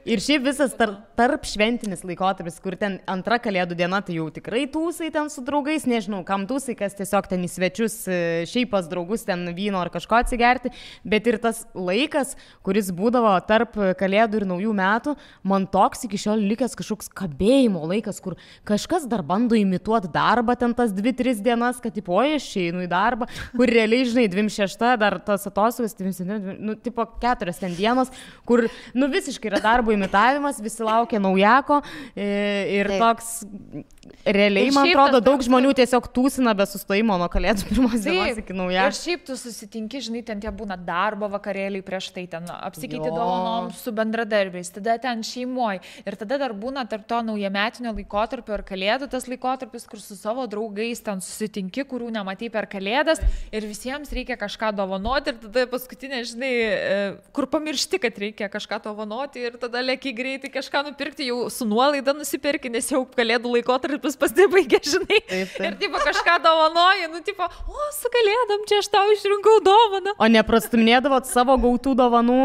Ir šiaip visas tarp šventinis laikotarpis, kur ten antra kalėdų diena, tai jau tikrai tūsai ten su draugais, nežinau, kam tūsai, kas tiesiog ten į svečius, šiaip pas draugus ten vyno ar kažko atsigerti, bet ir tas laikas, kuris būdavo tarp kalėdų ir naujų metų, man toks iki šiol likęs kažkoks kabėjimo laikas, kur kažkas dar bando imituoti darbą ten tas 2-3 dienas, kad tipo, aš einu į darbą, kur realiai, žinai, 26, dar tas atostogas, tipo 4 ten dienos, kur, visiškai yra darbo imitavimas, visi laukia naujako ir toks realiai, man atrodo, daug žmonių tiesiog tūsina be sustojimo nuo kalėdų pirmos dienos iki naujako. Ir šiaip tu susitinki, žinai, ten tie būna darbo vakarėliai prieš tai, ten apsikeiti dovanom su bendradarbiais, tada ten šeimoje. Ir tada dar būna tarp to naujametinio laikotarpio ir kalėdų tas laikotarpis, kur su savo draugais ten susitinki, kurių nematai per kalėdas ir visiems reikia kažką dovanoti ir tada paskutinė, žinai, kur pamiršti, kad reikia kažką dovanoti ir tada lėki greitai kažką nupirkti, jau su nuolaida nusipirki, nes jau kalėdų laikotarpis pasibaigė, žinai. Taip. Ir tipo kažką dovanoji, tipo, su kalėdom čia aš tau išrinkau dovaną. O neprastumėdavot savo gautų dovanų,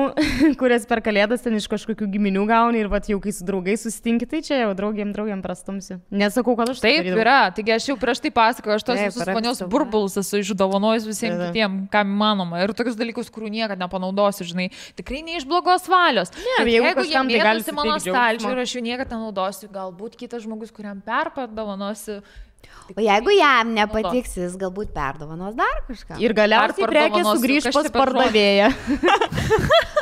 kurias per kalėdas ten iš kažkokių giminių gauni ir vat jau kai su draugais susitinki, tai čia jau draugiam prastumsiu. Nesakau, kad aš taip yra, taigi aš jau prieš tai pasakoju, aš tos visus ponios burbulus esu išdovanojus visiems kitiems, kam įmanoma. Ir tokius dalykus, kurių niekada nepanaudosiu, žinai, tikrai ne iš blogos valios. Jeigu jie mėtosi mano stalčių ir aš jų niekada nenaudosiu, galbūt kitas žmogus, kuriam perpadovanosiu. O jeigu jam nepatiks, jis galbūt perdovanos dar kažką. Ir galiausiai prekė sugrįž pas pardavėją.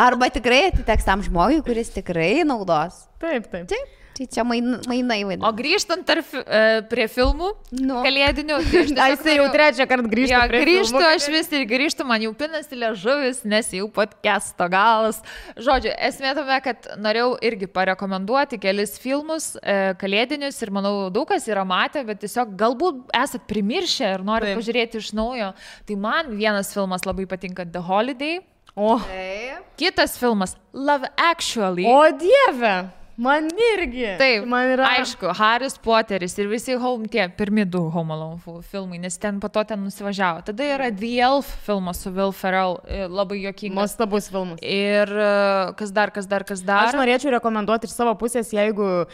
Arba tikrai atiteks tam žmogui, kuris tikrai naudos. Taip. Tai čia mainai vaidina. O grįžtant prie filmų kalėdinių. Aš jau trečią kartą grįžtu prie filmų. Aš vis ir grįžtu, man jau pinasi liežuvis, nes jau podcasto galas. Žodžiu, esmė tame, kad norėjau irgi parekomenduoti kelis filmus kalėdinius ir manau daug kas yra matę, bet tiesiog galbūt esat primiršę ir norit pažiūrėti iš naujo. Tai man vienas filmas labai patinka, The Holiday. Kitas filmas, Love Actually. O Dieve! Man irgi. Taip, man yra. Aišku, Haris Poteris ir visi tie pirmi 2 Home Alone filmai, nes ten po to ten nusivažiavo. Tada yra The Elf filmas su Will Ferrell, labai juokingas. Nuostabus filmas. Ir kas dar. Aš norėčiau rekomenduoti iš savo pusės, jeigu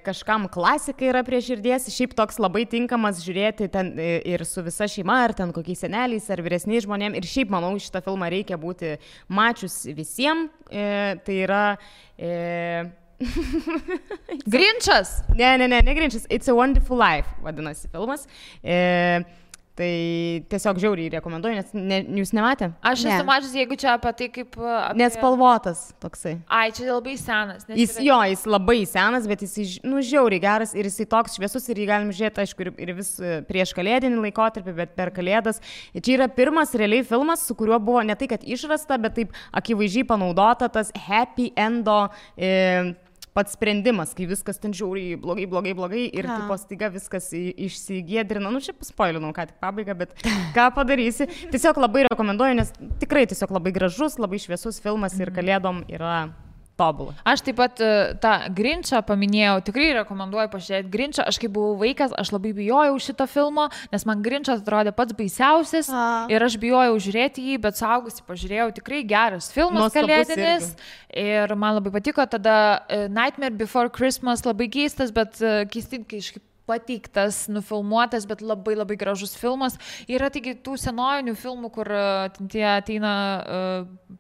kažkam klasika yra prie širdies, šiaip toks labai tinkamas žiūrėti ten ir su visa šeima, ar ten kokiais seneliais, ar vyresniais žmonėm. Ir šiaip, manau, šitą filmą reikia būti mačius visiems. Tai yra... Grinčas? Ne Grinčas. It's a Wonderful Life, vadinasi filmas. Tai tiesiog žiauriai rekomenduoju, nes jūs nematė? Aš esu mačius, jeigu čia apie tai kaip... Nespalvotas toksai. Ai, čia labai senas. Jis labai senas, bet jis žiauriai geras ir jis toks šviesus ir jį galim žiūrėti, aišku, ir vis prieš kalėdinį laikotarpį, bet per kalėdas. Ir čia yra pirmas realiai filmas, su kuriuo buvo ne tai, kad išrasta, bet taip akivaizdžiai panaudota tas happy endo pats sprendimas, kai viskas ten žiauriai blogai ir tipo staiga viskas išsigėdrina. Čia paspoilinau ką tik pabaigą, bet ką padarysi. Tiesiog labai rekomenduoju, nes tikrai tiesiog labai gražus, labai šviesus filmas ir kalėdom yra tobulą. Aš taip pat tą Grinčą paminėjau, tikrai rekomenduoju pažiūrėti Grinčą. Aš kai buvau vaikas, aš labai bijojau šito filmo, nes man Grinčas atrodė pats baisiausias ir aš bijojau žiūrėti jį, bet suaugusi pažiūrėjau, tikrai geras filmas kalėdinis ir man labai patiko. Tada Nightmare Before Christmas labai keistas, bet keistai, kai pateiktas, nufilmuotas, bet labai labai gražus filmas. Yra taigi tų senojinių filmų, kur tie ateina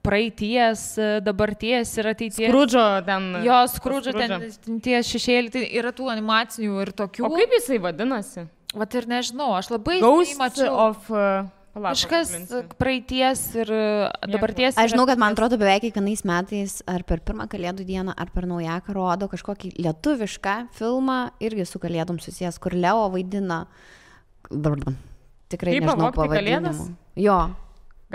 praeities, dabarties ir ateities. Skrudžo ten. Jo, Skrudžo ten tie šešėliai, tai yra tų animacinių ir tokių. O kaip jisai vadinasi? Vat ir nežinau, aš labai mačiau. Kažkas praeities ir dabarties. Aš žinau, kad man atrodo beveik kiekvienais metais ar per pirmą Kalėdų dieną, ar per Naujaką rodo kažkokį lietuvišką filmą, irgi su Kalėdom susijęs, kur Leo vaidina. Tikrai nežinau pavadinimų. Jo.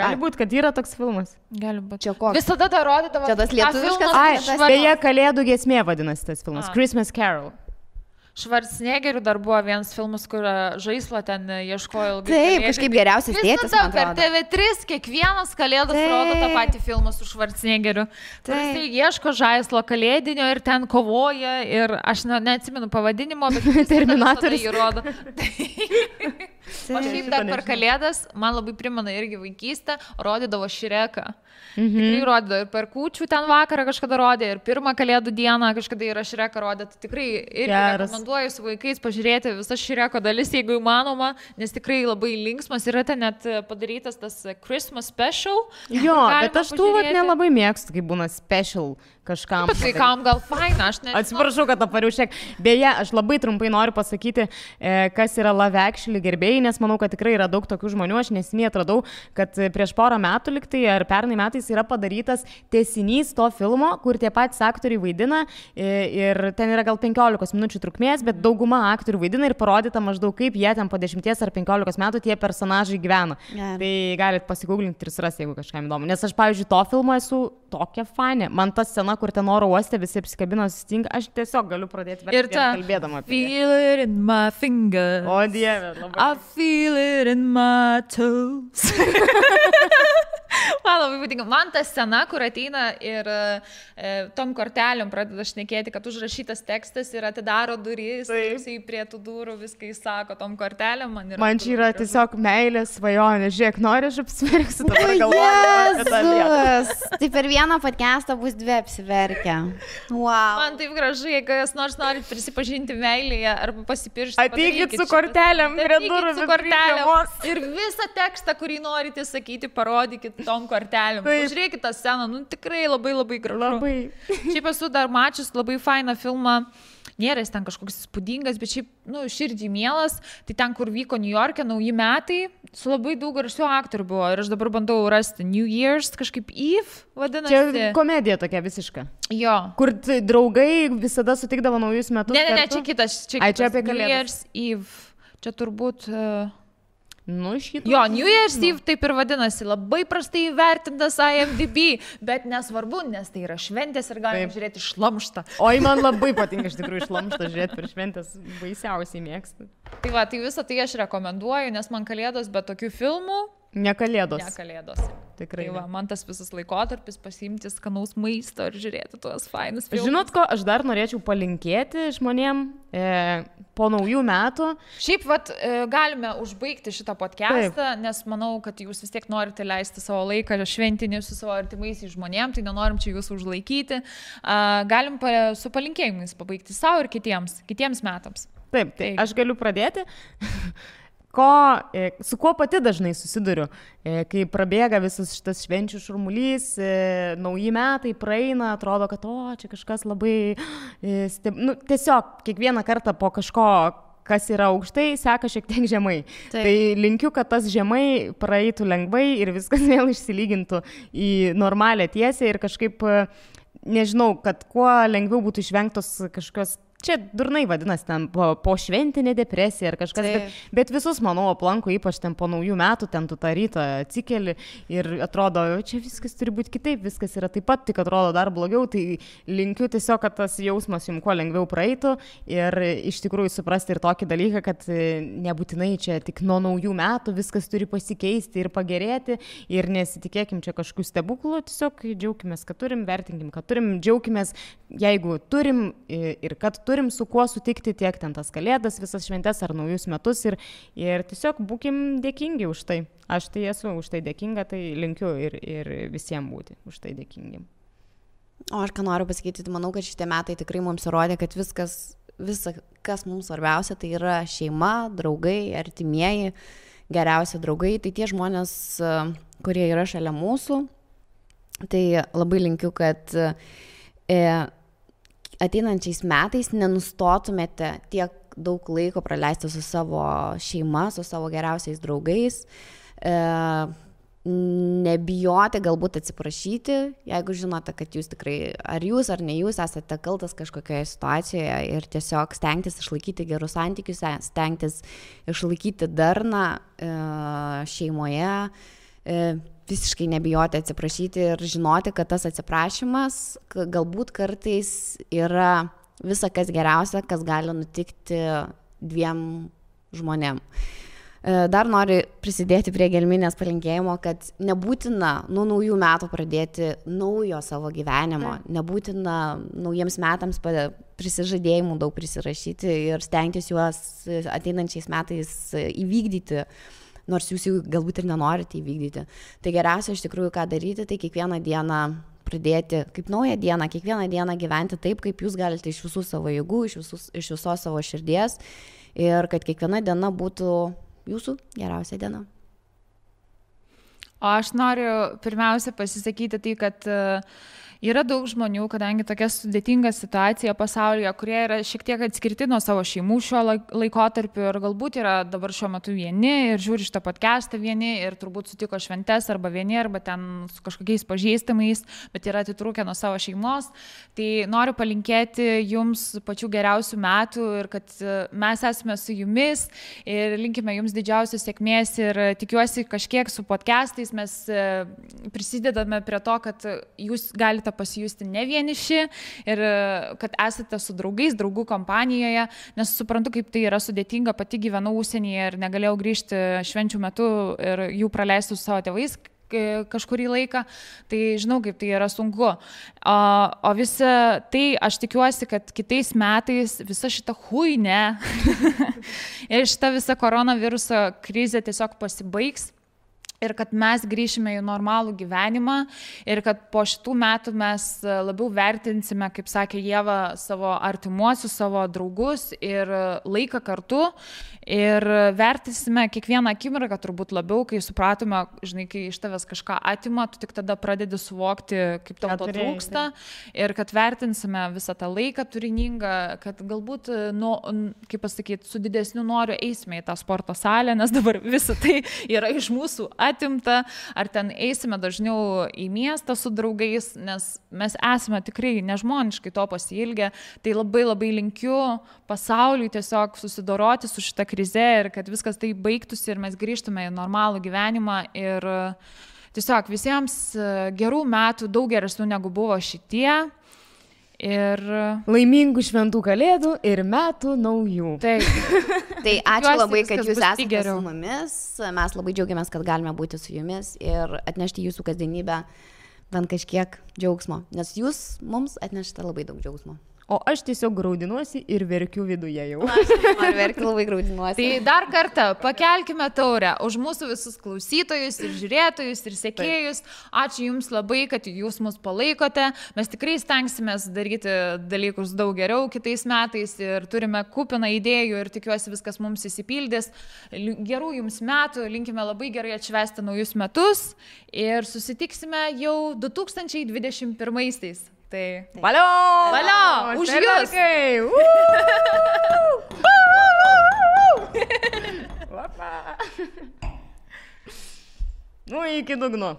Gali būti, kad yra toks filmas. Gali būti. Čia koks? Visada tą rodydavo. Čia tas lietuviškas. Beje, Kalėdų giesmė vadinasi tas filmas. Christmas Carol. Schwarzeneggeriu dar buvo vienas filmas, kur žaislą ten ieškojo ilgai. Taip, kažkaip geriausias tėtis. Visada per TV3 kiekvienas Kalėdas rodo tą patį filmą su Schwarzeneggeriu. Jisai ieško žaislo kalėdinio ir ten kovoja ir aš neatsimenu pavadinimo, bet Terminatorius jį rodo. O šiaip dar per Kalėdas, man labai primena irgi vaikystę, rodydavo Šreką. Tikrai rodydavo ir per kūčių ten vakarą kažkada rodė, ir pirmą Kalėdų dieną kažkada yra Šreką rodė. Tai tikrai irgi rekomenduoju su vaikais pažiūrėti visas Šreko dalis, jeigu įmanoma, nes tikrai labai linksmas. Yra ten net padarytas tas Christmas special. Jo, bet aš tų nelabai mėgstu, kai būna special kažkam. Bet vaikam gal faina, aš nežinau. Atsiprašau, kad apariu šiek. Beje, aš labai trumpai noriu pasakyti, kas yra Love Actually gerbėjai, nes manau, kad tikrai yra daug tokių žmonių. Aš neseniai atradau, kad prieš porą metų liktai ar pernai metais yra padarytas tęsinys to filmo, kur tie patys aktoriai vaidina ir ten yra gal 15 minučių trukmės, bet dauguma aktorių vaidina ir parodyta maždaug kaip jie ten po 10 ar 15 metų tie personažai gyvena. Tai galit pasigūglinti ir surasti, jeigu kažkam įdomu. Nes aš, pavyzdžiui, to filmo esu tokia fanė. Man ta scena, kur ten oro uoste visi apsikabino sustinga, aš tiesiog galiu pradėti verkti kalbėdama apie tai. Feel it in my finger. O Dieve, labai. I feel it in my toes. Man labai patinka. Man ta scena, kur ateina ir tom kortelėm pradeda šnekėti, kad užrašytas tekstas ir atidaro duris, jisai prie tų durų viską įsako tom kortelėm. Man čia yra tiesiog meilės svajonė. Žiūrėk, nori, aš apsiverksiu, dabar galvoju. Tai per vieną podcastą bus 2 apsiverkę. Wow. Man taip gražu, jeigu jūs norit prisipažinti meilėje arba pasipiršti. Ateikit su kortelėm prie durų. Su kortelėm. Ir visą tekstą, kurį norite sakyti, parodykit tom kortelėm. Pažiūrėkit tą sceną, tikrai labai labai gražu. Labai. Šiaip esu dar mačius labai fainą filmą. Nėra jis ten kažkoks įspūdingas, bet šiaip, širdžiai mielas. Tai ten, kur vyko New York'e nauji metai, su labai daug garsių aktorių buvo. Ir aš dabar bandau rasti New Year's, kažkaip Eve vadinasi. Čia komedija tokia visiška. Jo. Kur draugai visada sutikdavo naujus metus. Ne, čia kitas. Čia apie Kalėdas. New Year's Eve. Čia turbūt... šitą. Jo, New Year's Eve taip ir vadinasi, labai prastai įvertintas IMDb, bet nesvarbu, nes tai yra šventės ir galime žiūrėti šlamštą. Oi, man labai patinka iš tikrųjų šlamštą žiūrėti per šventės, baisiausiai mėgstu. Tai va, tai visą tai aš rekomenduoju, nes man Kalėdos be tokių filmų. Ne Kalėdos. Ne Kalėdos. Tikrai. Tai va, man tas visas laikotarpis pasiimti skanaus maisto ir žiūrėti tuos fainus filmus. Žinot ko, aš dar norėčiau palinkėti žmonėm po naujų metų. Šiaip, galime užbaigti šitą podcastą, nes manau, kad jūs vis tiek norite leisti savo laiką šventinį su savo artimaisiais žmonėm, tai nenorim čia jūsų užlaikyti. Galim su palinkėjimais pabaigti savo ir kitiems metams. Taip, tai aš galiu pradėti. Su kuo pati dažnai susiduriu, kai prabėga visas šitas švenčių šurmulys, nauji metai praeina, atrodo, kad čia kažkas labai, tiesiog kiekvieną kartą po kažko, kas yra aukštai, seka šiek tiek žemai. Taip. Tai linkiu, kad tas žemai praeitų lengvai ir viskas vėl išsilygintų į normalią tiesę ir kažkaip, nežinau, kad kuo lengviau būtų išvengtos kažkokios. Čia durnai vadinasi ten po šventinė depresija ar kažkas, bet visus, manau, aplanko, ypač ten po naujų metų, ten tu tą rytą atsikeli ir atrodo, čia viskas turi būti kitaip, viskas yra taip pat, tik atrodo dar blogiau, tai linkiu tiesiog, kad tas jausmas jums kuo lengviau praeitų ir iš tikrųjų suprasti ir tokį dalyką, kad nebūtinai čia tik nuo naujų metų viskas turi pasikeisti ir pagerėti ir nesitikėkim čia kažkokių stebuklų, tiesiog džiaukimės, kad turim, vertinkim, kad turim, džiaukimės, jeigu turim ir kad turim su kuo sutikti tiek ten tas Kalėdas, visas šventes ar naujus metus ir tiesiog būkim dėkingi už tai. Aš tai esu už tai dėkinga, tai linkiu ir visiems būti už tai dėkingi. O aš ką noriu pasakyti, manau, kad šitie metai tikrai mums įrodė, kad viskas visa, kas mums svarbiausia, tai yra šeima, draugai, artimieji, geriausi draugai, tai tie žmonės, kurie yra šalia mūsų. Tai labai linkiu, kad ateinančiais metais nenustotumėte tiek daug laiko praleisti su savo šeima, su savo geriausiais draugais, nebijoti, galbūt atsiprašyti, jeigu žinote, kad jūs tikrai, ar jūs ar ne jūs esate kaltas kažkokioje situacijoje ir tiesiog stengtis išlaikyti gerus santykius, stengtis išlaikyti darną šeimoje, visiškai nebijoti atsiprašyti ir žinoti, kad tas atsiprašymas galbūt kartais yra visa kas geriausia, kas gali nutikti dviem žmonėm. Dar noriu prisidėti prie Gelminės palinkėjimo, kad nebūtina nuo naujų metų pradėti naujo savo gyvenimo, nebūtina naujiems metams prisižadėjimų daug prisirašyti ir stengtis juos ateinančiais metais įvykdyti, nors jūs jų galbūt ir nenorite įvykdyti. Tai geriausia iš tikrųjų ką daryti, tai kiekvieną dieną pradėti kaip naują dieną, kiekvieną dieną gyventi taip, kaip jūs galite iš visų savo jėgų, iš visos savo širdies ir kad kiekviena diena būtų jūsų geriausia diena. O aš noriu pirmiausia pasisakyti tai, kad yra daug žmonių, kadangi tokia sudėtinga situacija pasaulyje, kurie yra šiek tiek atskirti nuo savo šeimų šiuo laikotarpiu ir galbūt yra dabar šiuo metu vieni ir žiūri šitą podcastą vieni ir turbūt sutiko šventes arba vieni, arba ten su kažkokiais pažįstamais, bet yra atitrūkę nuo savo šeimos. Tai noriu palinkėti jums pačių geriausių metų ir kad mes esame su jumis ir linkime jums didžiausios sėkmės ir tikiuosi kažkiek su podcastais mes prisidedame prie to, kad jūs galite pasijusti ne vieniši ir kad esate su draugais, draugų kompanijoje, nes suprantu, kaip tai yra sudėtinga, pati gyvenau užsienyje ir negalėjau grįžti švenčių metu ir jų praleisti su savo tėvais kažkurį laiką, tai žinau, kaip tai yra sunku. O visa tai, aš tikiuosi, kad kitais metais visa šita huinė ir šita visa koronaviruso krizė tiesiog pasibaigs. Ir kad mes grįšime į normalų gyvenimą ir kad po šitų metų mes labiau vertinsime, kaip sakė Ieva, savo artimuosius, savo draugus ir laiką kartu ir vertinsime kiekvieną akimirką turbūt labiau, kai supratome, žinai, kai iš tavęs kažką atima, tu tik tada pradedi suvokti, kaip tau to trūksta ir kad vertinsime visą tą laiką turiningą, kad galbūt, kaip pasakyti, su didesniu noriu eisime į tą sporto salę, nes dabar visa tai yra iš mūsų atimta, ar ten eisime dažniau į miestą su draugais, nes mes esame tikrai nežmoniškai to pasiilgę, tai labai labai linkiu pasauliui tiesiog susidoroti su šita krize ir kad viskas tai baigtųsi ir mes grįžtume į normalų gyvenimą ir tiesiog visiems gerų metų, daug geresnių negu buvo šitie. Ir laimingų šventų kalėdų ir metų naujų. Tai ačiū labai, kad jūs esate su mumis. Mes labai džiaugiamės, kad galime būti su jumis ir atnešti jūsų kasdienybę bent kažkiek džiaugsmo, nes jūs mums atnešate labai daug džiaugsmo. O aš tiesiog graudinuosi ir verkiu viduje jau. Aš noriu verkti, labai graudinuosi. Tai dar kartą pakelkime taurę už mūsų visus klausytojus ir žiūrėtojus ir sekėjus. Ačiū jums labai, kad jūs mus palaikote. Mes tikrai stengsimės daryti dalykus daug geriau kitais metais ir turime kupiną idėjų ir tikiuosi viskas mums įsipildys. Gerų jums metų, linkime labai gerai atšvęsti naujus metus ir susitiksime jau 2021-aisiais. Tai valio! Valio! Už jūs! Nu, iki dugno.